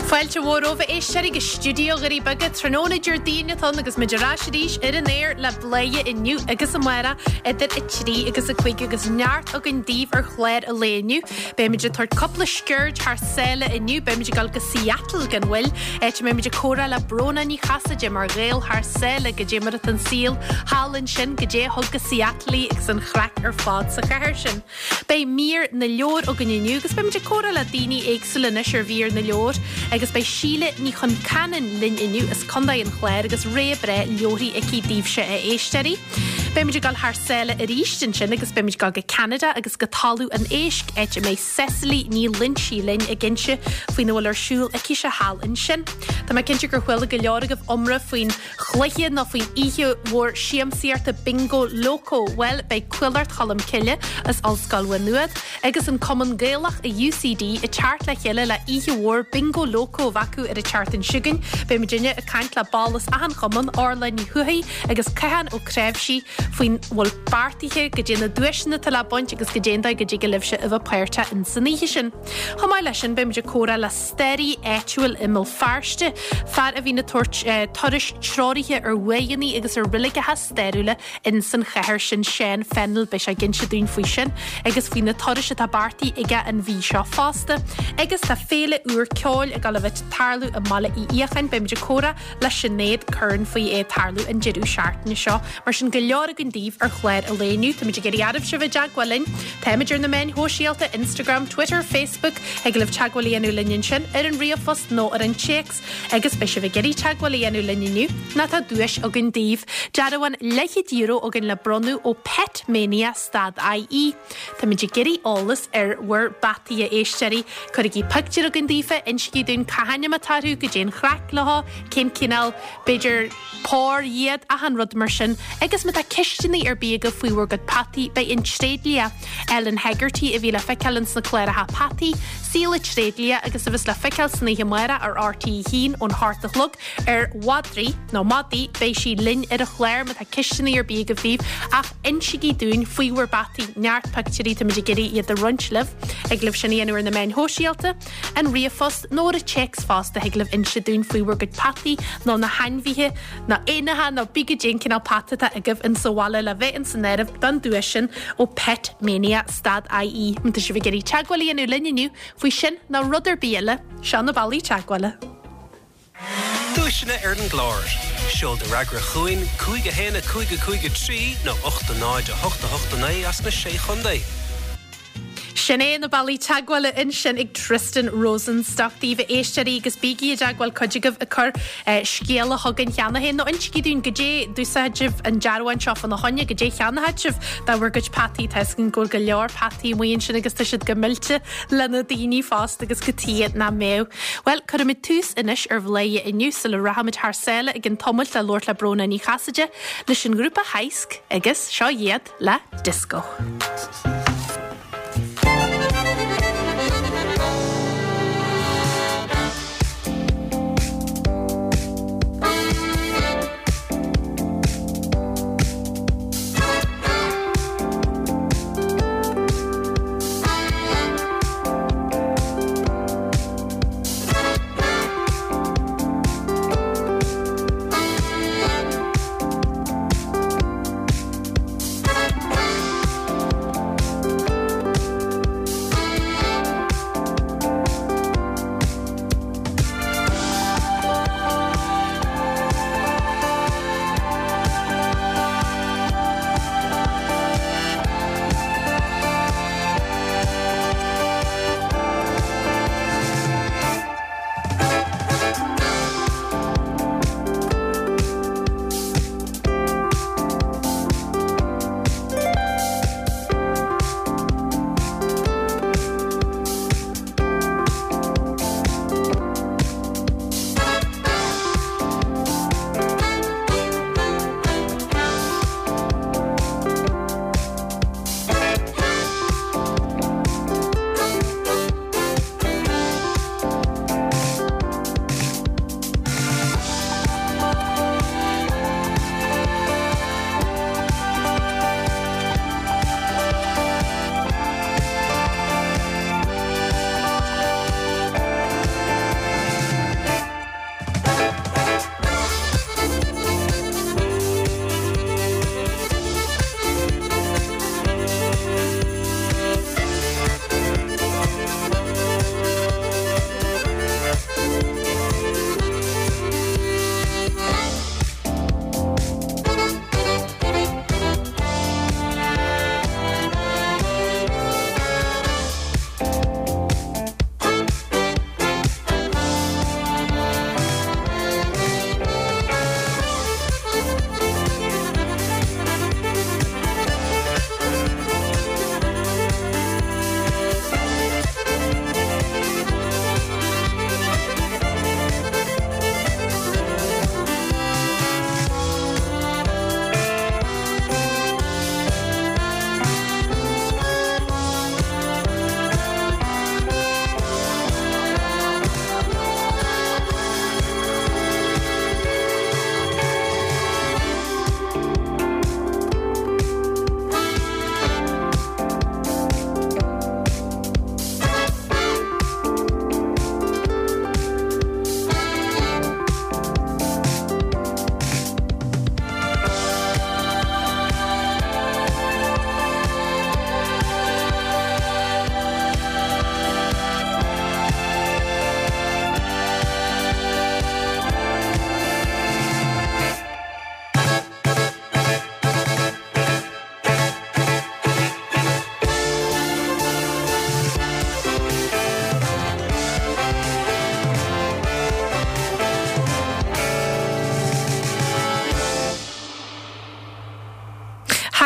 Fáilte mhór romhaibh a éisteoirí go stiúideo Dhoirí Beaga tráthnóna Déardaoin atá ann agus muid ar ais arís ar an aer le Bladhaire inniu agus amárach idir 3 agus 5 agus neart againn daoibh ar chlár an lae inniu. Beimid ag tabhairt cúpla sciuird thar sáile inniu, beimid ag dul go Seattle gan mhoill, áit a mbeimid ag comhrá le Bróna Ní Chasaide mar Ghael thar sáile, goidé mar atá an saol thall ansin, goidé a thug go Seattle í agus an chraic ar fad sa chathair sin. Beidh mír na leabhar againn inniu agus beimid ag comhrá le daoine éagsúla anois ar mhír na leabhar agus beidh Síle Ní Chonceanainn linn inniu as Contae an Chláir agus rogha breá leabharthaí aici daoibhse a éisteoirí. Beimid ag dul thar sáile arís ansin agus beimid ag dul go Ceanada agus go Talamh an Éisc áit a mbeidh Cecily Ní Loinsigh linn ag inse faoina bhfuil ar siúl aicise thall ansin. Tá mé cinnte gur chuala go leor agaibh iomrá faoin chluiche nó faoin oíche mhór siamsaíochta Bingo Loco? Bhuel, beidh Cuallacht Cholm Cille as Ollscoil Mhaigh Nuad agus an Cumann Gaelach i UCD ag teacht le chéile le oíche mhór Bingo Loco a bheith acu ar an tseachtain seo chugainn. Beidh muidinne ag caint le ball as achan chumann, Orla Ní Thuathaigh agus Cathán Ó Cnáimhsí faoin bhfuil beartaithe, goidé na duaiseanna atá le baint agus goidé an dóigh go dtig libhse a bheith páirteach in san oíche sin. Chomh maith leis sin, beimid ag comhrá le staraí áitiúil i mBéal Feirste, fear a bhíonn ag tabhairt turais treoraithe ar uaigheanna agus ar reiligeacha stairiúla in san chathair sin, Seán Fennell. Beidh sé ag inse dúinn faoi sin agus faoi na turais atá beartaithe aige an mhí seo fosta. Agus tá féile úr ceoil ag dul a bheith ag tarlú i mBaile Uí Fhiacháin. Beimid ag comhrá le Sinéad Curran faoi é ag tarlú an deireadh seachtaine seo. Mar sin, go leor againn daoibh ar chlár an lae inniu. Táimid ag iarraidh oraibhse a bheith i dteagmháil linn. Táimid ar na meáin shóisialta, Instagram, Twitter, Facebook. Thig libh teagmháil a dhéanamh linn ansin, ar an ríomhphost nó ar an téacs. Agus beidh sibh ag iarraidh teagmháil a dhéanamh linn inniu, nó tá duais againn daoibh. Dearbhán leathchéad euro againn le bronnadh ó Pet Mania stad IE. Táimid ag iarraidh eolas ar bhur bpeataí, a éisteoirí. Cuirigí pictiúr chugainn daofa, insígí dúinn cá hainm atá orthu, goidé an chraic leo, cén cineál, b'fhéidir, pór iad, achan rud mar sin. Agus má tá ceisteanna ar bith agaibh faoi bhur gcuid peataí, beidh an tréidlia, Ellen Hegarty, a bhí le feiceáil ins na cláracha Peataí, Saol an Tréidlia agus a bheas le feiceáil san oíche amárach ar RTÉ 1 ón hocht a chlog ar mhadraí, nó madaí, beidh sí linn ar an chlár má tá ceisteanna ar bith agaibh daoibh ach insígí dúinn faoi bhur bpeataí, neart pictiúirí, táimid ag iarraidh iad a roinnt libh. Thig libh sin a dhéanamh ar na meáin shóisialta, an ríomhphost nó ar an téacs fosta thig libh inse dúinn faoi bhur gcuid peataí nó na hainmhithe nó éanacha nó bí goidé an cineál peata atá agaibh in sa bhaile le bheith in san áireamh don duais sin ó Pet Mania stad IE. Má tá sibh ag iarraidh teagmháil a dhéanamh linn inniu faoi sin nó rud ar bith eile, seo na bealaí teagmhála. Duaiseanna ar an gclár. Seol do fhreagra chugainn, 5 1 5 5 3 nó 8 0 8 8 9 as na Sé Chontae. Sin é na bealaí teagmhála ansin ag Tristan Rosenstock daoibh a éisteoirí agus bígí i dteagmháil cuid agaibh ag cur scéala chugainn cheana féin nó insígí dúinn goidé d'úsáid sibh an dearbhán seo fána choinne, goidé cheannaigh sibh do bhur gcuid peataí. Tá 'fhios againn go bhfuil go leor peataí amuigh ansin agus tá siad go millte le na daoine fosta agus cad chuige nach mbeadh. Bhuel, cuirfimid tús anois ar Bhladhaire inniu sula rachaimid thar sáile ag an tamalt le labhairt le Bróna Ní Chasaide leis an ngrúpa Heisc agus seo iad le Disco.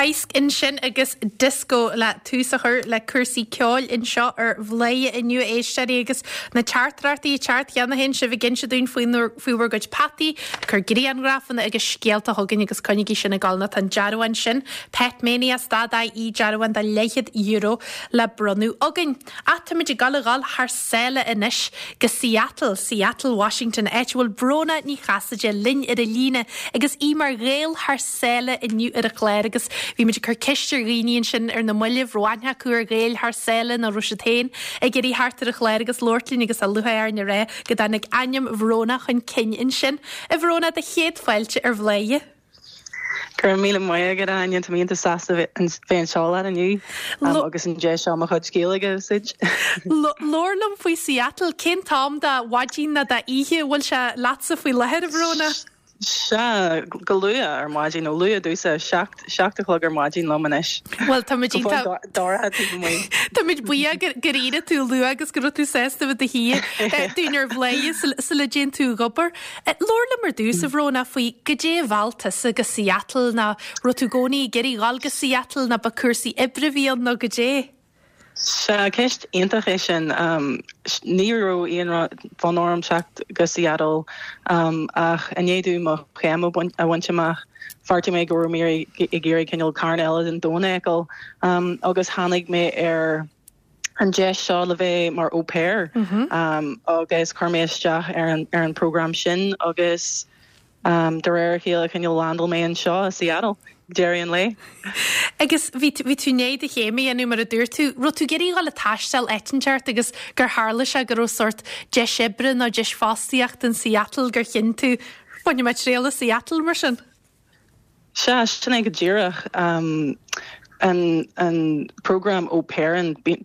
Toisc ansin agus Disco le tús a chur le cúrsaí ceoil anseo ar Bhladhaire inniu a éisteoirí agus na teachtaireachtaí ag teacht cheana féin, sibh ag inse dúinn faoi bhur gcuid peataí, ag cur grianghrafanna agus scéalta chugainn agus coinnigí sin ag dul nó tá an dearbhán sin, Petmanias dot ie, dearbhán de leathchéad euro le bronnadh againn. Ach táimid ag dul a dhul thar sáile anois go Seattle, Seattle, Washington, áit a bhfuil Bróna Ní Chasaide linn ar an líne agus í mar Ghael thar sáile inniu ar an chlár agus bhí muid ag cur ceist ar dhaoine ansin ar na mallaibh, raibh aithne acu ar Ghaeil thar sáile nó raibh siad féin ag iarraidh theacht ar an chlár agus labhairt linn agus tá lúcháir orainn a rá go dtáinig ainm Bhróna chun cinn ansin. A Bhróna, do chéad fáilte ar Bhladhaire. Go raibh míle maith agat, a Áine. Tá mé iontach sásta bheith anseo leat inniu agus an deis seo mo chuid Gaeilge a úsáid. Labhair liom faoi Seattle. Cén t-am de mhaidin nó d'oíche a bhfuil sé leatsa faoi láthair, a Bhróna? Sea, go luath ar maidin, nó luath domhsa, 7 a chlog ar maidin liom anois. Bhuel, táimid Go fóill dorcha taobh amuigh. Táimid buíoch gur éirigh tú luath agus go raibh tú sásta bheith i do shuí dúinn ar Bhladhaire sula dtéann tú ag obair. Labhair liom ar dtús, a Bhróna, faoi goidé a mheall tusa go Seattle, nó raibh tú i gcónaí ag iarraidh dhul go Seattle, nó ba cúrsaí oibre a bhí ann, nó goidé? Sea, ceist iontach é sin. Ní raibh aon fhonn orm teacht go Seattle ach i ndiaidh domh mo chéim a bhaint amach, bheartaigh mé go raibh mé ag iarraidh cineál cearn eile den domhan a fheiceáil agus tháinig mé ar an deis seo le bheith mar au pair agus chuir mé isteach ar an ar an program sin agus de réir a chéile cineál landáil mé anseo i Seattle ag deireadh an lae. Agus bhí bhí tú i ndiaidh do chéim a dhéanamh mar a dúirt tú, raibh tú ag iarraidh dhul ag taisteal áit inteacht agus gur tharla sé go raibh sórt deis oibre nó deis fostaíochta in Seattle gur chinn tú, bainfidh mé triail as Seattle mar sin? Sea, sin é go díreach. An an program au pair,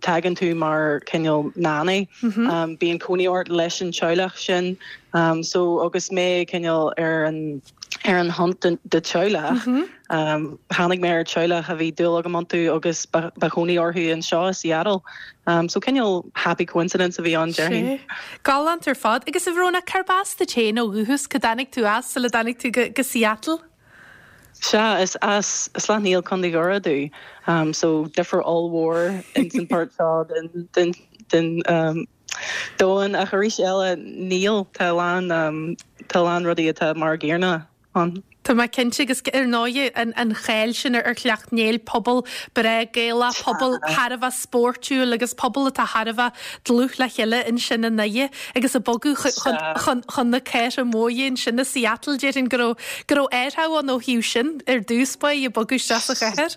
tagann tú mar cineál nanny. Bíonn cónaí ort leis an teaghlach sin. So agus mé cineál ar an ar an hunt do teaghlach, tháinig mé ar teaghlach a bhí dúil agam iontu agus ba chónaí orthu anseo i Seattle. So cineál happy coincidence a bhí ann, déarfainn. Sea. Galánta ar fad. Agus a Bhróna, cárb as duit féin ó dhúchas? Cá dtáinig tú as sula dtáinig tú go Seattle? Sea, is as Sleacht Néill, Contae Dhoire domh. So difear ollmhór ins an pháirt seo den den den domhan. Ach arís eile, níl. Tá a lán tá a lán rudaí atá mar an gcéanna ann. Tá mé cinnte agus ar ndóigh an cháil sin ar Shleacht Néill, pobal breá Gaelach, pobal thar a bheith spóirtiúil agus pobal atá thar a bheith dlúth le chéile ansin i nDoire agus ag bogadh chun na cathrach móire ansin i Seattle, déarfainn go raibh go raibh athrú ann ó thaobh sin ar dtús báire ag bogadh isteach sa chathair.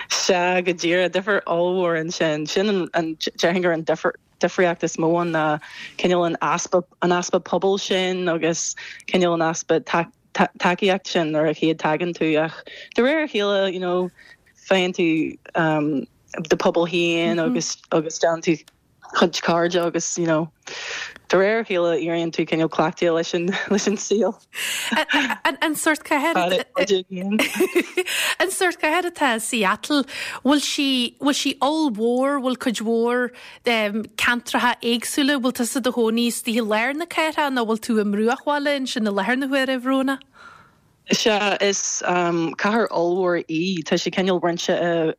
Sea, go díreach, difear ollmhór ansin. Sin an, déarfainn gur an difear difríocht is mó ann ná cineál an easpa, an easpa pobail sin agus cineál an easpa tacaíocht sin nuair a chéad tagann tú ach de réir a chéile you know faigheann tú do pobal féin agus agus déanann tú cuid cairde agus you know de réir a chéile éiríonn tú cineál cleachtaithe leis an leis an saol. An sórt cathair An sórt cathair atá i Seattle, bhfuil sí bhfuil sí ollmhór, bhfuil cuid mhór ceantracha éagsúla, bhfuil tusa i do chónaí istigh i lár na cathrach nó bhfuil tú i mbruachbhaile ansin i láthair na huaire, a Bhróna? Sea, is cathair ollmhór í. Tá sí cineál roinnte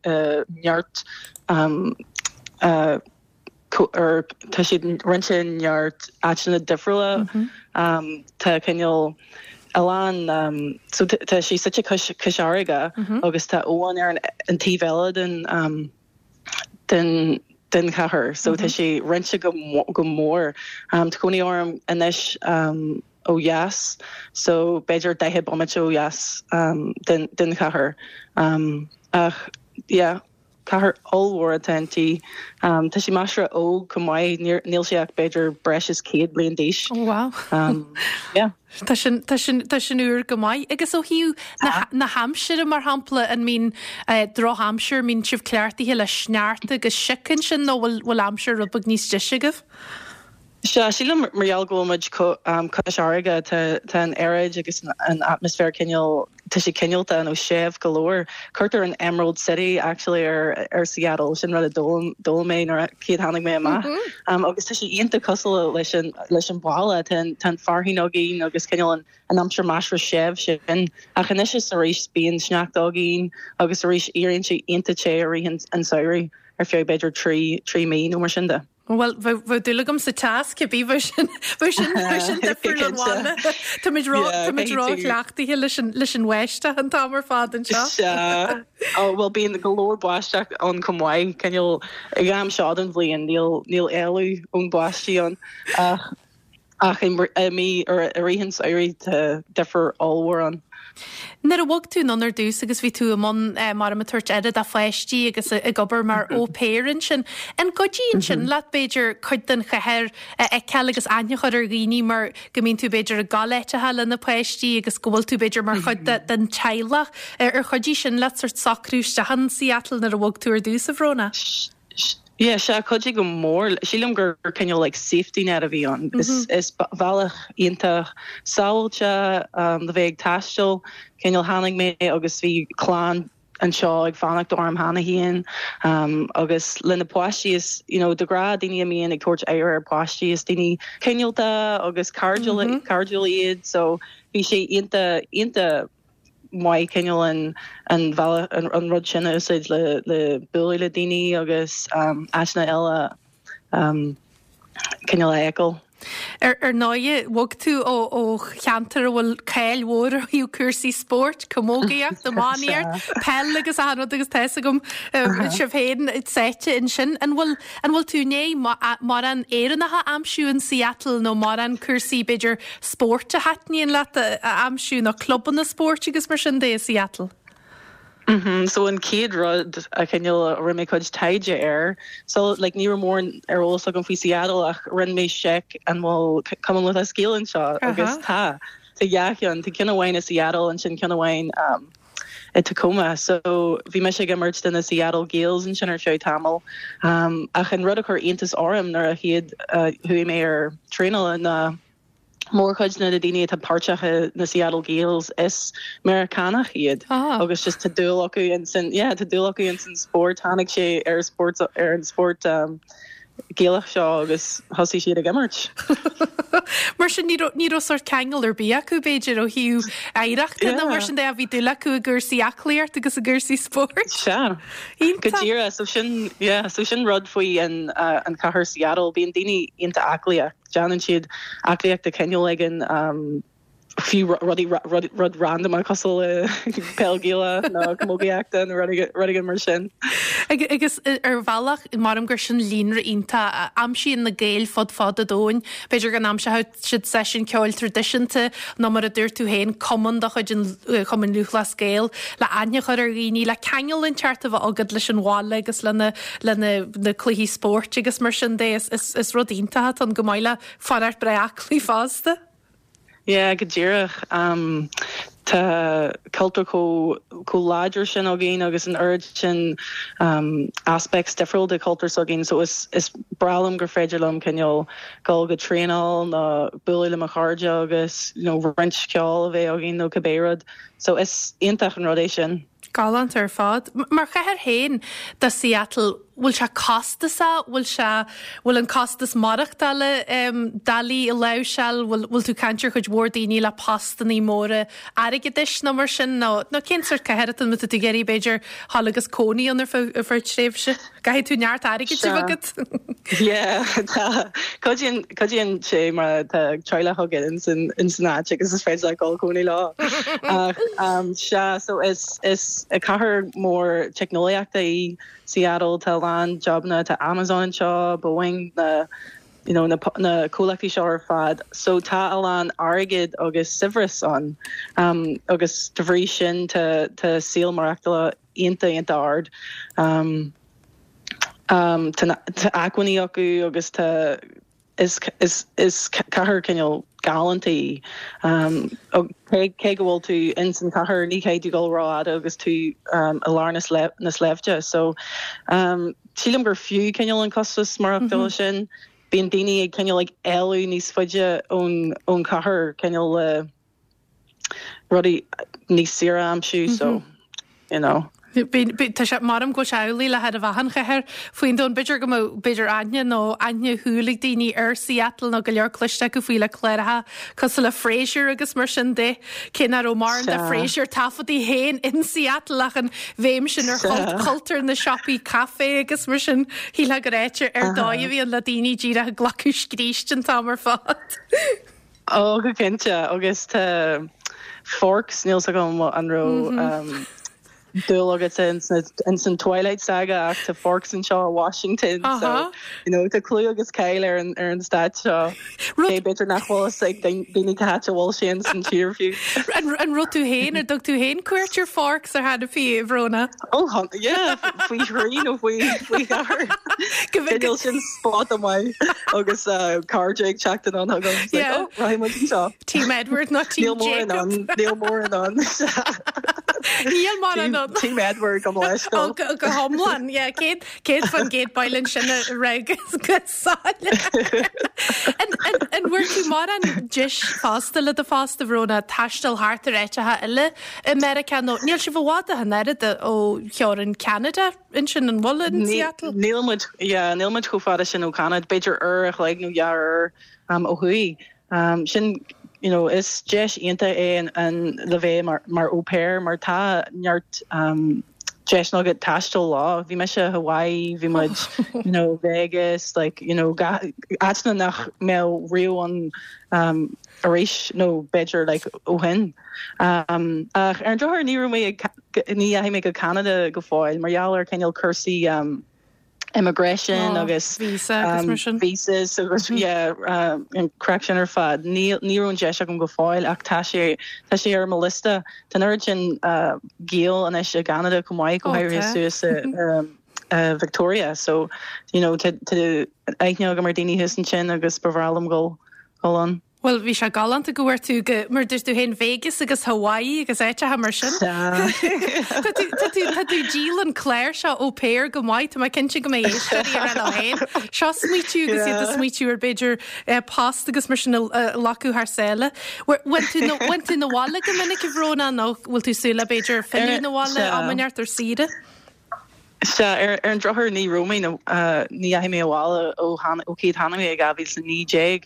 i neart or tá siad roinnte i neart áiteanna difriúla. Tá cineál a lán so tá sí suite cois cois fharraige agus tá abhainn ar an taobh eile den den den chathair so tá sé roinnte go go mór. Tá cónaí orm anois ó dheas so b'fhéidir 40 bomaite ó dheas den den chathair ach yeah cathair ollmhór atá inti. Tá sí measartha óg chomh maith, níl sí ach b'fhéidir breis is 100 bliain d'aois. Oh wow. Yeah. Tá sin, tá sin, tá sin úr go maith. Agus ó thaobh na, na haimsire, mar shampla, an mbíonn drochaimsir, mbíonn sibh cleachtaithe le sneachta agus sioc ansin nó bhfuil, bhfuil aimsir rud beag níos deise agaibh? Sea, sílim mar gheall go bhfuil muid cois fharraige, tá, tá an aeráid agus an atmaisféar cineál. tá sé cineálta nó séimh go leor. Cuirtear an Emerald City actually ar ar Seattle, sin rud a d'fhoghlaim d'fhoghlaim mé nuair a chéad tháinig mé amach. Agus tá sé iontach cosúil leis an leis an bhaile, tá an tá an fearthainn againn agus cineál an an aimsir measartha séimh sin. Ach anois is arís bíonn sneachta againn agus arís éiríonn sé iontach te i rith an an samhraidh ar feadh b'fhéidir 3 3 mí nó mar sin de. Bhuel, bheadh dúil agam sa teas, cibé, bheadh sin, bheadh sin, bheadh sin difriúil ón bhaile. Táimid ró, táimid ró-chleachtaithe leis an, leis an bháisteach an t-am ar fad anseo. Sea. Ó, bhuel, bíonn go leor báisteach ann chomh maith, cineál, ag am seo den bhliain, níl, níl éalú ón báistí ann. Ach. Ach i mí, i rith an tsamhraidh, tá difear ollmhór ann. Nuair a bhog tú anonn ar dtús agus bhí tú i mbun mar ag tabhairt aire do pháistí agus ag obair mar au pair ansin, an gcuidíonn sin leat, b'fhéidir, cuid den chathair a fheiceáil agus aithne a chur ar dhaoine mar go mbíonn tú b'fhéidir ag gabháil áiteacha le na páistí agus go bhfuil tú b'fhéidir mar chuid den teaghlach. Ar chuidigh sin leat sort socrú isteach in Seattle nuair a bhog tú ar dtús, a Bhróna? Yeah, sea, chuidigh go mór. Sílim gur cineál like safety net a bhí ann. Is is bealach iontach sábháilte le bheith ag taisteal. Cineál tháinig mé agus bhí clann anseo ag fanacht orm cheana féin agus le na páistí is you know de ghnáth daoine a mbíonn ag tabhairt aire ar páistí is daoine cineálta agus cairdiúil cairdiúil iad so bhí sé iontach iontach maith cineál an an bhealach an rud sin a úsáid le le bualadh le daoine agus áiteanna eile cineál a fheiceáil. Ar ar ndóighe, bhog tú ó ó cheantar a bhfuil cáil mhór ó thaobh cúrsaí spóirt, camógaíocht, iománaíocht, peil agus achan rud agus tá fhios agam sibh féin sáite ansin. An bhfuil an bhfuil tú i ndiaidh mórán Éireannach a aimsiú in Seattle nó mórán cúrsaí b'fhéidir spóirt a thaitníonn leat a aimsiú nó clubanna spóirt agus mar sin de i Seattle? Mhm, so an chéad rud a chineál a rinne mé cuid taighde air, so like ní raibh mórán ar eolas agam faoi Seattle ach rinne mé seic an bhfuil Cumann Lúthchleas Gael anseo agus tá, tá dhá cheann, tá ceann amháin i Seattle ansin ceann amháin um, i Tacoma. So bhí mise ag imirt do na Seattle Gaels ansin ar feadh tamaill. Um, ach an rud a chuir iontas orm nuair a chéad uh, chuaigh mé ar traenáil ná mórchuid de na daoine atá páirteach i na Seattle Gaels is Meiriceánach iad ah. agus just tá dúil acu in san yeah, tá dúil acu in san spórt tháinig sé ar spórt ar an spórt um, Gaelach seo agus thosaigh siad ag imirt. Mar sin ní raibh ní raibh sórt ceangal ar bith acu b'fhéidir ó thaobh oidhreachta nó mar sin de bhí dúil acu i gcúrsaí aclaíocht agus i gcúrsaí spóirt. Sea. Go díreach so sin yeah, so sin rud faoi an uh, an chathair Seattle bíonn daoine iontach aclaíoch. Déanann siad aclaíocht de chineál éigin, fiú rudaí rud random cosúil le peil Ghaelach nó camógaíochta nó rud éigin mar sin. Agus ar bhealach, maram gur sin líonra iontach a aimsíonn na Gaeil fud fad an domhain. B'fhéidir go n-aimseoidh siad seisiún ceoil traidisiúnta nó mar a dúirt tú féin, cumann de chuid an Chumainn Lúthchleas Gael le aithne a chur ar dhaoine, le ceangal inteacht a bheith agat leis an bhaile agus lena le na cluichí spóirt agus mar sin de. Is rud iontach atá ann chomh maith le fanacht breá aclaí fosta. Yeah, go díreach. Tá cultúr chomh chomh láidir sin againn agus an oiread sin aspects difriúil de chultúr s'againn so is is breá liom gur féidir liom cineál dul go traenáil nó bualadh le mo chairde agus you know roinnt ceoil a bheith againn nó cibé rud. So is iontach an rud é sin. Galánta ar fad. Mar chathair féin do Seattle, bhfuil sé costasach? Bhfuil sé, bhfuil an costas maireachtála doiligh a láimhseáil? Bhfuil, bhfuil tú ag caint ar chuid mhór daoine le postannaí móra airgeadais nó mar sin? Nó, nó cén sórt cathair atá ann má tá tú ag iarraidh b'fhéidir dhul agus cónaí ann ar feadh, ar feadh tréimhse? Caithfidh tú neart airgid a bheith agat. Yeah, tá. Cuidíonn, cuidíonn sé má tá teaghlach agat ins an, ins an áit agus is féidir leat dul cónaí leo. Ach, um, sea, so is, is cathair mór teicneolaíochta í Seattle, tá a lán jobanna, tá Amazon anseo, Boeing, na, you know, na, na comhlachtaí seo ar fad. So tá a lán airgead agus saibhreas ann. Um, agus de bhrí sin tá, tá saol maireachtála iontach iontach ard. Tá acmhainní acu agus tá is is is cathair cineál galánta í. Cé go bhfuil tú ins an chathair ní chaithfidh tú dul rófhada agus tú i lár na sléibhte. So sílim gur fiú cineál an costas maireachtála sin. Bíonn daoine ag cineál ag éalú níos faide ón ón chathair cineál le. rudaí níos saoire a aimsiú so you know. Tá sé, measaim go bhfuil sé amhlaidh le chóir a bheith achan chathair faoin domhan. B'fhéidir go mbeadh, b'fhéidir aithne nó aithne shúil ag daoine ar Seattle nó go leor cloiste acu faoi le cláracha cosúil le Frasier agus mar sin de. Cé nach raibh mórán de Frasier taifeadta féin in Seattle ach an bhéim sin ar chultúr na siopaí caife agus mar sin, shílfeá gur áit ar dóigh a bhí ann le daoine díreach ag glacadh scríste an t-am ar fad. Ó, go cinnte, agus tá Forks, níl 's agam an raibh dúil agat ins an Twilight Saga ach tá Forks anseo i Washington so you know tá clú agus cáil ar an ar an stát seo. Cé b'fhéidir nach bhfuil fhios ag daoine cá háit a bhfuil sé ins an tír fiú. An raibh tú féin, ar dtug tú féin cuairt ar Forks ar chor ar bith, a Bhróna? Ó, yeah, faoi thrí nó faoi faoi cheathair. Cineál sin spot maith agus cairde ag teacht anonn chugam. It's like, oh, rachaidh muid anseo. Team Edward nó Team Jacob. Níl mórán ann. Níl mórán ann. Team Edward go leisciúil. Go hiomlán, yeah. 100% bail ansin a rá go soiléir. An bhfuair tú mórán deis fosta le do phost, a Bhróna, taisteal thart ar áiteacha eile i Meiriceá nó níl sibh i bhfad ach an oiread ó theorainn Ceanada ansin, an bhfuil, in Seattle? Níl muid, yeah, níl muid chomh fada sin ó Cheanada, b'fhéidir uair a chloig nó dhá uair ó thuaidh. Sin, you know, is deis iontach é an le bheith mar mar au pair mar tá neart deiseanna agat taisteal leo. Bhí mise i Hawaii, bhí muid, you know, Vegas, like, you know, áiteanna nach mbeadh riamh ann arís nó b'fhéidir like ó shin. Ach ar an drochuair ní raibh mé ag, ní dheachaigh mé go Ceanada go fóill mar gheall ar cineál cúrsaí immigration agus visa agus mar sin. Visas agus yeah an craic sin ar fad. Ní ní raibh an deis agam go fóill ach tá sé tá sé ar mo liosta. Tá an oiread sin Gael anois i gCeanada chomh maith go háirithe suas i Victoria so you know tá aithne agam ar daoine thuas ansin agus ba bhreá liom dhul dhul ann. Bhuel, bhí sé galánta go bhfuair tú go, mar dúirt tú féin, Vegas agus Hawaii agus áiteacha mar sin. Tá tú, tá tú, tá tú ag díol an clár seo au pair go maith, tá mé cinnte go mbeidh éisteoirí ag rá leo féin. Seo smaoitiú agus iad ag smaoitiú ar b'fhéidir eh, post agus mar sin a a ghlacadh thar sáile. Bhfuil tú na, bhfuil tú 'na bhaile go minic a Bhróna nó bhfuil tú súil le b'fhéidir filleadh 'na bhaile am inteacht ar saoire? Sea, ar an drochuair ní raibh mé, ní dheachaigh mé abhaile ó ó chéad tháinig mé i 2019.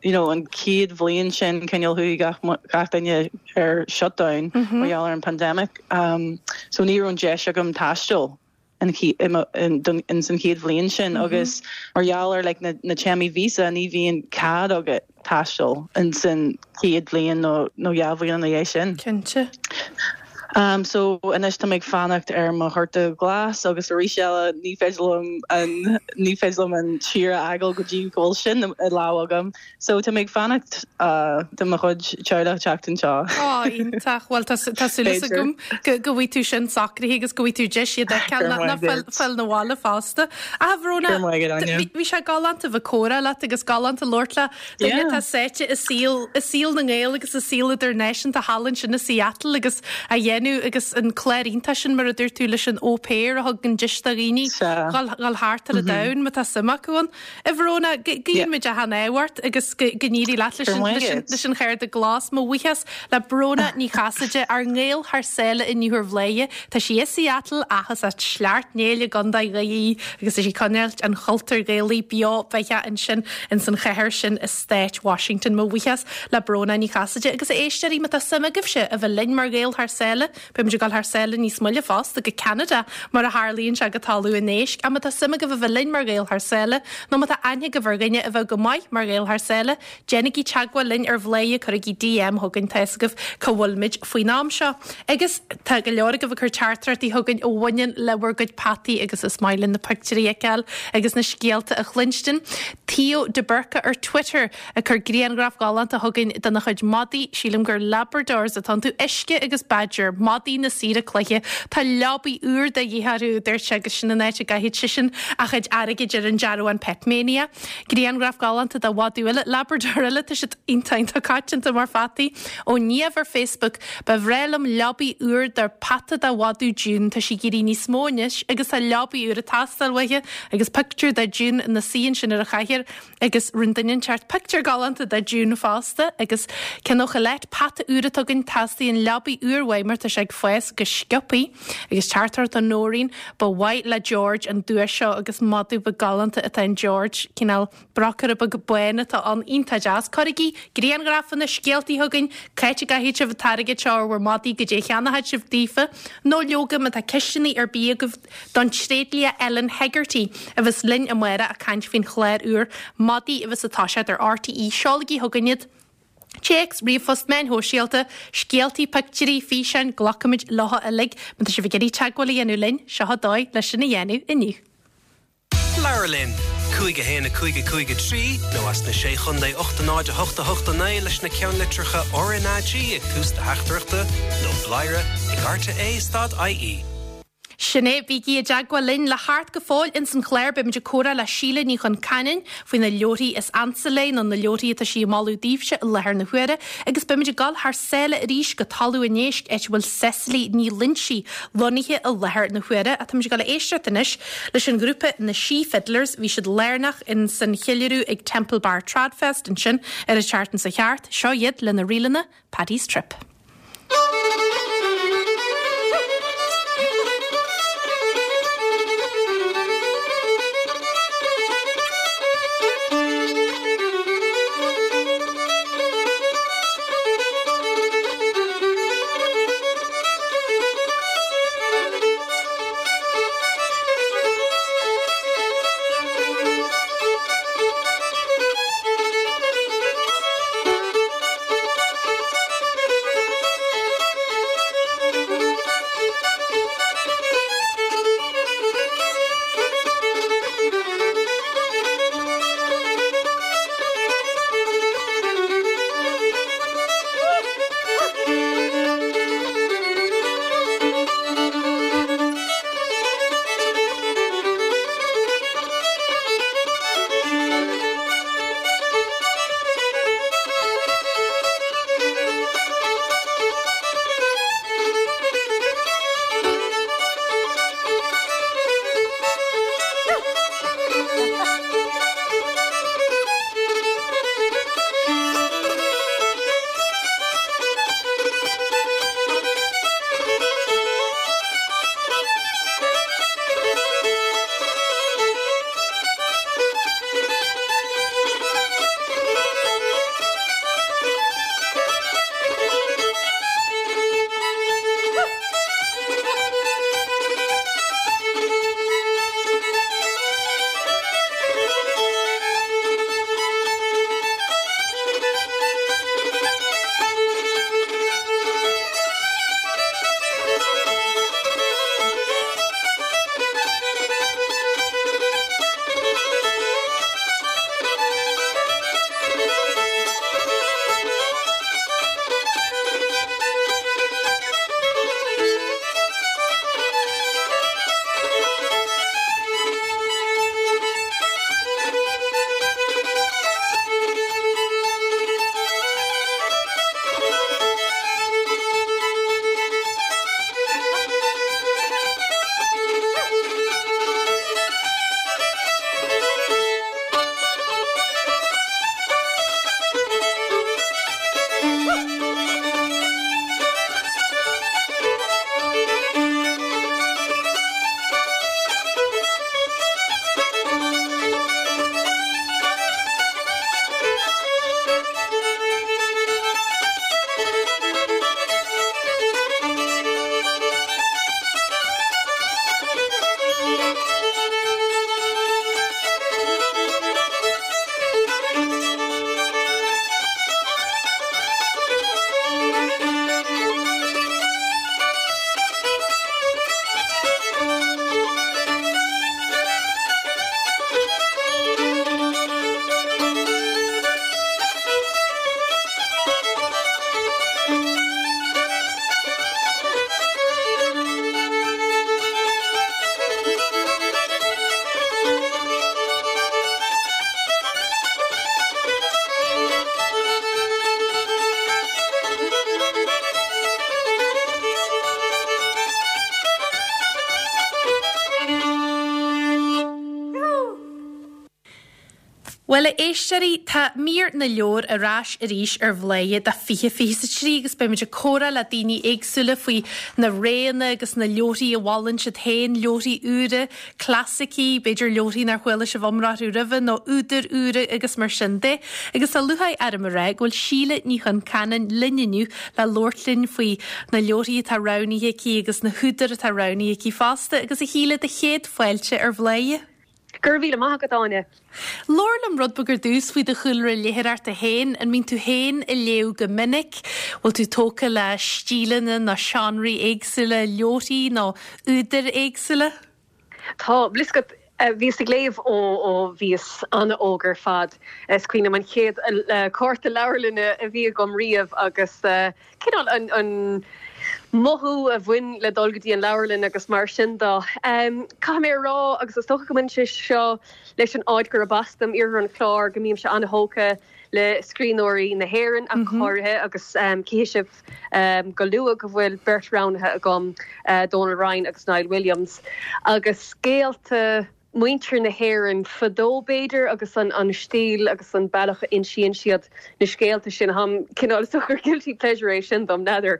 You know, an chéad bhliain sin cineál chuaigh gach gach duine ar shutdown mar gheall ar an pandemic. So ní raibh an deis agam taisteal in in san chéad bhliain sin agus mar gheall ar like na na téarmaí visa ní bhíonn cead agat taisteal in san chéad bhliain nó nó 2 bhliain ina dhiaidh sin. Cinnte. Um so anois tá mé ag fanacht ar mo chárta glas agus arís eile ní féidir liom an ní féidir liom an tír a fhágáil go dtí go bhfuil sin i lámh agam. So tá mé ag fanacht uh do mo chuid teaghlach teacht anseo. Ó, iontach. Bhuel tá tá súil agam go go bhfaighidh tú sin socraithe agus go bhfaighidh tú deis iad a fheiceáil ná ná fáil fáil 'na bhaile fosta. A Bhróna, bhí sé galánta bheith ag comhrá leat agus galánta labhairt le duine atá sáite i saol, i saol na nGael agus i saol idirnáisiúnta thall ansin i Seattle agus a dhéanamh agus an clár iontach sin mar a dúirt tú leis an au pair a thugann deis do dhaoine dhul thart ar an domhan má tá suim acu ann. A Bhróna, guíonn muid achan ádh ort agus go n-éirí leat leis an chárta glas. Mo bhuíochas le Bróna Ní Chasaide, ár nGael thar sáile inniu ar Bhladhaire. Tá sí i Seattle ach is as Sleacht Néill i gContae Dhoire í agus tá sí ag coinneáilt an chultúir Ghaelaigh beo beathach ansin ins an chathair sin i Stát Washington. Mo bhuíochas le Bróna Ní Chasaide agus a éisteoirí má tá suim agaibhse a bheith linn mar Ghaeil thar sáile, Beidh muid ag dul thar sáile níos moille fosta, go Ceanada, mar a tharlaíonn sé, go talamh an éisc. Ach má tá suim agaibh a bheith linn mar Ghaeil thar sáile, nó má tá aithne agaibh ar dhuine a bheadh go maith mar Ghael thar sáile, déanaigí teagmháil linn ar Bhladhaire, cuirigí DM chugainn, tá fhios agaibh cá bhfuil muid faoin am seo. Agus tá go leor agaibh ag cur teachtaireachtaí chugainn a bhaineann le bhur gcuid peataí agus is maith linn na pictiúirí a fheiceáil agus na scéalta a chluinstin. Theo de Burca ar Twitter. Ag cur grianghraf galánta chugainn dena chuid madaí, sílim gur Labradors atá iontu, Uisce agus Badger. madaí na saoire cloiche. Tá leabaidh úr de dhíth orthu, a dúirt sé, agus sin an áit a gcaithfidh seisean a chuid airgid ar an dearbhán Petmania. Grianghraf galánta de mhadadh eile, Labrador eile, tá siad iontach iontach coitianta mar pheataí. Ó Niamh ar Facebook, Ba bhreá liom leabaidh úr do peata de mhadadh June, tá sí ag éirí níos mó anois agus tá leabaidh úr ag teastáil uaithi agus pictiúr de June ina suí ansin ar an chathaoir agus rinne duine inteacht pictiúr galánta de June fosta agus ceann ó Colette, peata úr atá againn, teastaíonn leabaidh úr uaidh mar tá sé ag fás go sciobthaí agus teachtaireacht ó Nóirín, ba mhaith le George an duais seo agus madadh beag galánta atá in George, cineál. Brocaire beag bán atá ann, iontach deas. Cuirigí grianghrafanna, scéaltaí chugainn, c'áit a gcaithfidh sibh an t-airgead seo ar bhur madaí, goidé a cheannóidh sibh daofa, nó leoga má tá ceisteanna ar bith agaibh don tréidlia Ellen Hegarty a bheas linn amárach ag caint faoin chlár úr Madaí a bheas ag toiseacht ar RTÉ. Seolaigí chugainn iad. Téacs, ríomhphost, meáin shóisialta, scéaltaí, pictiúirí, físeáin, glacfaimid leo uilig. Má tá sibh ag iarraidh teagmháil a dhéanamh linn, seo an dóigh leis sin a dhéanamh inniu. Labhair linn! 5 1 5 5 3 nó as na Sé Chontae 8 0 8 8 9 leis na ceannlitreacha RnaG ag tús do theachtaireachta nó bladhaire ag rte stad ie. Sin é, bígí i dteagmháil linn le thart go fóill ins an chlár. Beimid ag comhrá le Síle Ní Chonceanainn faoi na leabharthaí is ansa léi nó na leabharthaí atá sí ag moladh daoibhse i láthair na huaire agus beimid ag dul thar sáile arís go Talamh an Éisc áit a bhfuil Cecily Ní Loinsigh lonnaithe i láthair na huaire. Ach táimid ag dul a éisteacht anois leis an ghrúpa Na Sí Fiddlers. Bhí siad lárnach in san cheiliúradh ag Temple Bar Tradfest ansin ar an tseachtain seo thart. Seo iad lena ríleanna Paddy's Trip. Bhuel, a éisteoirí, tá mír na leabhar ar ais arís ar Bhladhaire do 2023 agus beimid ag comhrá le daoine éagsúla faoi na roghanna agus na leabharthaí a mholann siad féin, leabharthaí úra, clasaicí, b'fhéidir leabharthaí nár chuala sibh iomrá orthu roimhe nó údair úra agus mar sin de. Agus tá lúcháir orm a rá go bhfuil Síle Ní Chonceanainn linn inniu le labhairt linn faoi na leabharthaí atá roghnaithe aici agus na húdair atá roghnaithe aici fosta. Agus a Shíle, do chéad fáilte ar Bhladhaire. Go raibh míle maith agat, Áine. Labhair liom rud beag ar dtús faoi do chúlra léitheoireachta féin. An mbíonn tú féin ag léamh go minic? Bhfuil tú tógtha le stíleanna nó seánraí éagsúla leabharthaí nó údair éagsúla? Tá, bhfuil fhios agat, bhíos ag léamh ó ó bhíos an-óg ar fad. Is cuimhin liom an chéad cárta leabharlainne a bhí agam riamh agus cineál an an mothú a bhain le dul go dtí an leabharlann agus mar sin de. Caithfidh mé a rá, agus is dócha go mbaineann sé seo leis an áit gurb as dom, Iarthar an Chláir, go mbímse an-thógtha le scríbhneoirí na hÉireann ach go háirithe agus cífidh sibh go luath go bhfuil beirt roghnaithe agam, Dónal Ryan agus Niall Williams, agus scéalta. muintir na hÉireann fadó b'fhéidir agus an stíl agus an bealach a insíonn siad na scéalta sin. Táim cineál, is dócha gur guilty pleasure é sin dom, n'fheadar.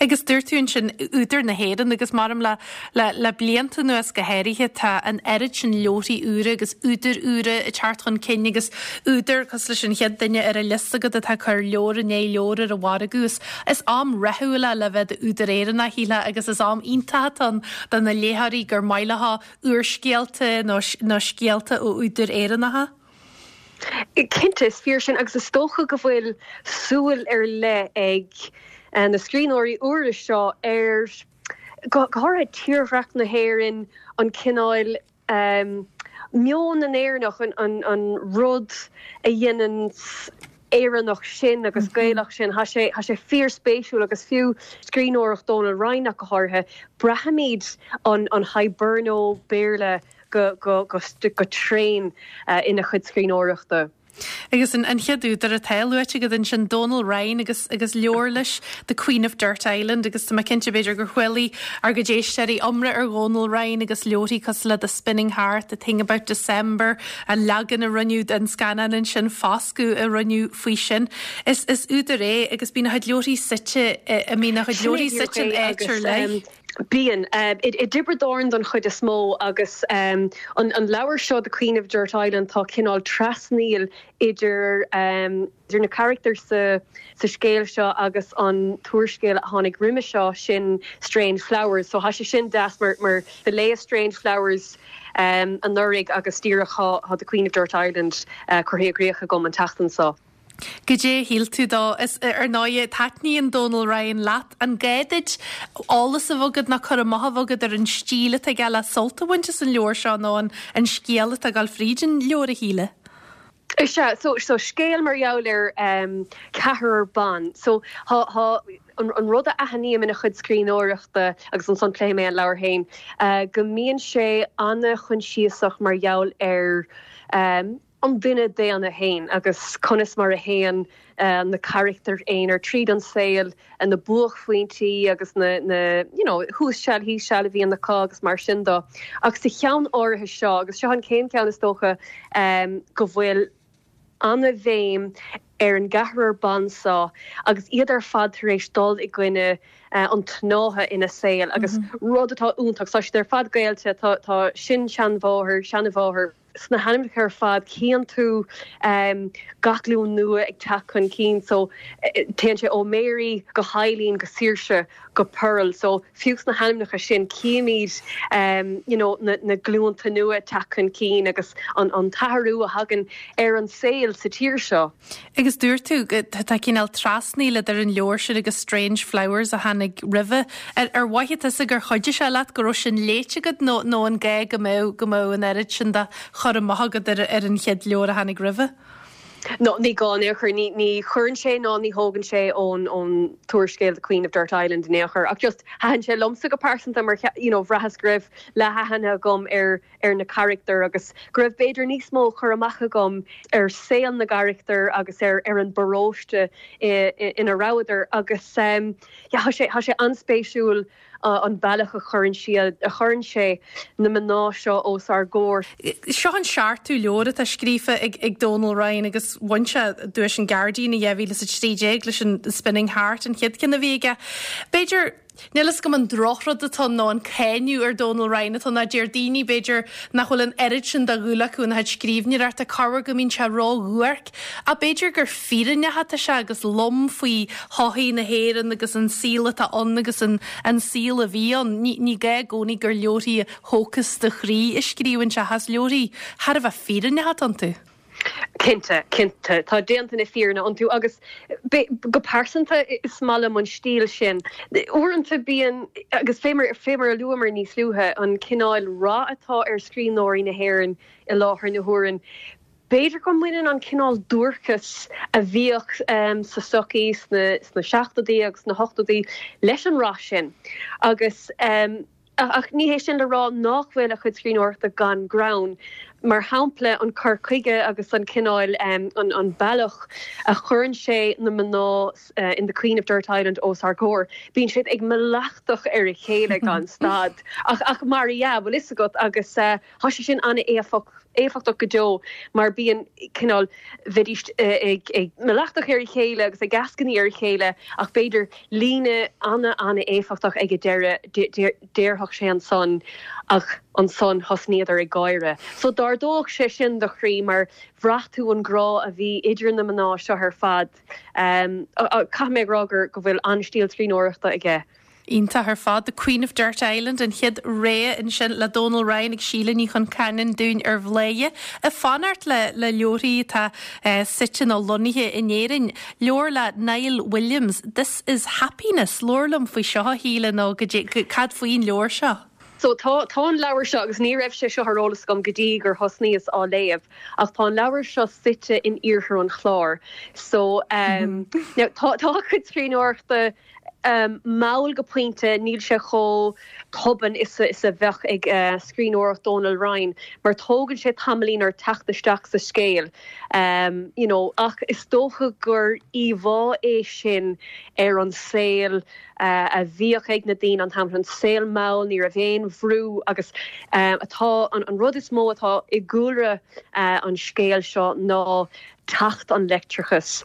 Agus dúirt tú ansin údair na hÉireann agus maram le le le blianta anuas go háirithe tá an oiread sin leabharthaí úra agus údair úra ag teacht chun cinn agus údair cosúil leis an chéad duine ar an liosta agat atá ag cur leabhar i ndiaidh leabhair ar an mhargadh. Is is am rathúil é le bheith i d'údar Éireannach, shílfeá, agus is am iontach atá ann do na léitheoirí gur maith leo úrscéalta nó nó scéalta ó údair Éireannacha. Cinnte, is fíor sin agus is dócha go bhfuil súil ar leith ag na scríbhneoirí úra seo ar, go háirithe tírdhreach na hÉireann, an cineál meon na nÉireannach, an rud a dhéanann Éireannach sinn agus Gaelach sinn. Tá sé, tá sé fíorspéisiúil agus fiú scríbhneoireacht Dónal Ryan ach go háirithe, braithimid an an Hiberno Béarla go, go, go, go tréan ina chuid scríbhneoireachta. Agus an chéad údar atá luaite agat ansin, Dónal Ryan agus agus leabhar leis, The Queen of Dirt Island agus tá mé cinnte b'fhéidir gur chualaidh ár gcuid éisteoirí iomrá ar Dhónal Ryan agus leabharthaí cosúil le The Spinning Heart, The Thing About December, an leagan a rinneadh den scannán ansin, Foscadh a rinneadh faoi sin. Is is údar é agus bíonn a chuid leabharthaí suite i mbíonn a chuid leabharthaí suite in áit ar leith. Bíonn. I dTiobraid Árann don chuid is mó agus an leabhar seo The Queen of Dirt Island tá cineál trasnaíl idir idir na carachtair sa sa scéal seo agus an t-úrscéal a tháinig roimhe seo sin Strange Flowers. So tá sé sin deas mar mar do léas Strange Flowers anuraidh agus díreach tá The Queen of Dirt Island curtha i gcrích agam an tseachtain seo. Goidé a shíl tú dó? Is, ar ndóighe, taitníonn Dónal Ryan leat. An gá duit eolas a bheith agat nó cur amach a bheith agat ar an stíl atá aige le sult a bhaint as an leabhar seo nó an an scéal atá ag dul fríd an leabhar, a Shíle? Is ea, so, so scéal mar gheall ar ceathrar ban. So thá, thá an, an rud a aithním ina chuid scríbhneoireachta, agus ansan pléifidh mé an leabhar féin, go mbíonn sé ana-choinsiasach mar gheall ar, an duine daonna féin agus conas mar a théann na carachtair aonair tríd an saol, na buaicphointí agus na, na, you know, thuas seal thíos seal a bhíonn acu agus mar sin de. Ach sa cheann áirithe seo, agus seo an chéad cheann is dócha, go bhfuil ana-bhéim ar an gceathrar ban seo agus iad ar fad tar éis dul i gcoinne an tsnátha ina saol agus rud atá iontach, tá siad ar fad gaolta, tá, tá sin-seanmháthair, seanmháthair, Sna hainmneacha ar fad cíonn tú gach glúin nua ag teacht chun cinn so téann sé ó Mary go hEileen go Saoirse go Pearl so fiú sna hainmneacha sin címid you know na na glúnta nua ag teacht chun cinn agus an an t-athrú a thagann ar an saol sa tír seo. Agus dúirt tú go tá cineál trasnaíl idir an leabhar sin agus Strange Flowers a tháinig roimhe. Ar ar mhothaigh tusa gur chuidigh sé leat go raibh sin léite agat nó nó an gá go mbeadh go mbeadh an oiread sin de chur amach agat ar ar an chéad leabhar a tháinig roimhe? No, ní gá in aon chor. Ní ní chuireann sé ná ní thógann sé ón ón t-úrscéal The Queen of Dirt Island in aon chor. Ach just thaitin sé liomsa go pearsanta mar you know bhraitheas go raibh leathaithne agam ar ar na carachtair agus go raibh b'fhéidir níos mó cur amach agam ar saol na gcarachtar agus ar ar an bparóiste ina rabhadar agus yeah tá sé tá sé an-spéisiúil. an bealach a chuireann siad, a chuireann sé na mná seo os ár gcomhair. Seo an seachtú leabhar atá scríofa ag Donal Ryan agus bhain sé duais an Guardian i 2013 leis an Spinning Heart, an chéad cheann a bhí aige. B'fhéidir, níl fhios agam an drochrud atá ann nó an cáineadh ar Donal Ryan atá ann, ná deir daoine, b'fhéidir, nach bhfuil an oiread sin de dhúil acu ina chuid scríbhneoireachta, corruair go mbíonn sé ró-dhuairc. Ach b'fhéidir gur fírinneach atá sé agus lom faoi shochaí na hÉireann agus an saol atá ann agus an saol a bhí ann. Ní gá i gcónaí gur leabharthaí a thógfas do chroí a scríobhann sé ach is leabharthaí thar a bheith fírinneach atá iontu. Cinnte, cinnte. Tá déanta na fírinne iontu agus go pearsanta is maith liom an stíl sin. Uaireanta bíonn, agus fé mar a luamar níos luaithe, an cineál rath atá ar scríbhneoirí na hÉireann i láthair na huaire, B'fhéidir go mbaineann an cineál duairceas a bhíodh sa tsochaí sna seachtóidí agus sna hochtóidí leis an rath sin agus ach ní hé sin le rá nach bhfuil a chuid scríbhneoireachta gan greann. Mar shampla, an cur chuige agus an cineál, an bealach a chuireann sé na mná in The Queen of Dirt Island os ár gcomhair, bíonn siad ag malartach ar a chéile gan stad ach mar dhea, bhfuil fhios agat, agus tá sé sin an-éifeachtach. éifeachtach go deo mar bíonn cineál, bheidís ag malartach ar a chéile agus ag eascainí ar a chéile ach b'fhéidir líne ana-ana-éifeachtach ag an deireadh, déarfadh sé ansan ach ansan thosnaíodar ag gáire. So d'ardódh sé sin do chroí mar bhraith tú an grá a bhí idir na mná seo ar fad. Caithfidh mé a rá gur go bhfuil an-stíl scríbhneoireachta aige. Iontach ar fad. The Queen of Dirt Island, an chéad rogha ansin le Dónal Ryan ag Síle Ní Chonceanainn dúinn ar Bhladhaire. Ag fanacht le le leabharthaí atá suite nó lonnaithe in Éirinn. Leabhar le Niall Williams, This is Happiness. Labhair liom faoi seo a Shíle nó cad faoin leabhar seo? So tá tá an leabhar seo, agus ní raibh sé seo ar eolas agam go dtí gur thosnaíos á léamh, ach tá an leabhar seo suite in iarthar an Chláir. So now tá tá a chuid scríbhneoireachta mall go pointe, níl sé chomh tobann is a bheadh ag scríbhneoireacht Dónal Ryan, mar tógann sé tamaillín ort teacht isteach sa scéal, you know, ach is dócha gur íomhá é sin ar an saol a bhíodh ag na daoine an t-am sin, an saol mall, ní raibh aon bhrú agus atá, an rud is mó atá i gcúlra an scéil seo ná teacht an leictreachais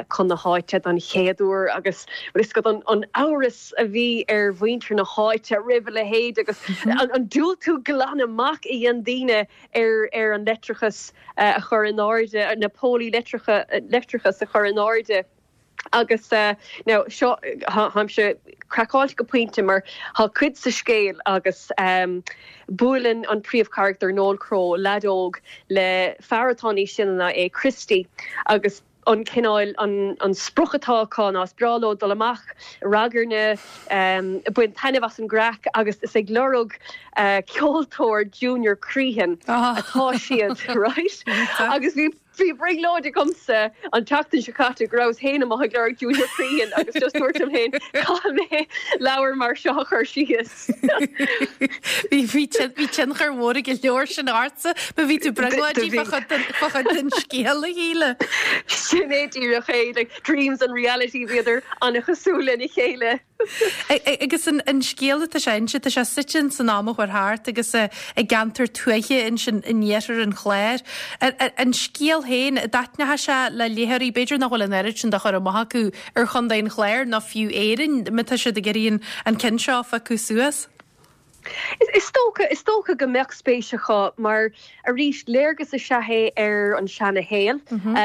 chun na háite don chéad uair agus bhfuil fhios agat an amhras a bhí ar mhuintir na háite roimh a leithéid agus an diúltú glan amach a dhein daoine ar ar an leictreachas a chur in airde, na pólaí leictreachais a chur in airde. Agus now seo, táimse craiceáilte go pointe mar tá cuid sa scéal agus buaileann an príomhcharachtar Noel Crowe, leaid óg, le fear atá níos sine ná é, Christy, agus an cineál, an sprioc atá acu ná is breá leo dul amach, ragairne, baint taitneamh as an gcraic agus is ag lorg ceoltóir Junior Crehan atá siad, right? Agus bhí. Bhí brionglóid agamsa an tseachtain seo caite go rabhas féin amuigh ag lorg Junior Crehan agus just dúirt liom féin caithfidh mé leabhar mar seo a chur síos. Bhí bhí tionchar mhór ag an leabhar sin ortsa, má bhí tú brionglóidí fá chuid den scéal a Shíle. Sin é díreach é, like dreams and reality bhíodar an-chosúil lena chéile. Agus an scéal atá sé a inse, tá sé suite in san am a chuaigh thart agus i gceantar tuaithe ansin in iarthar an Chláir. An scéal féin, an dtaitneoidh sé le léitheoirí, b'fhéidir nach bhfuil an oiread sin de chur amach acu ar Chontae an Chláir nó fiú Éirinn, má tá siad ag iarraidh an ceann seo a phiocadh suas? Is dócha, is dócha go mbeadh spéis acu mar, arís, léargas is ea é ar an seana-shaol,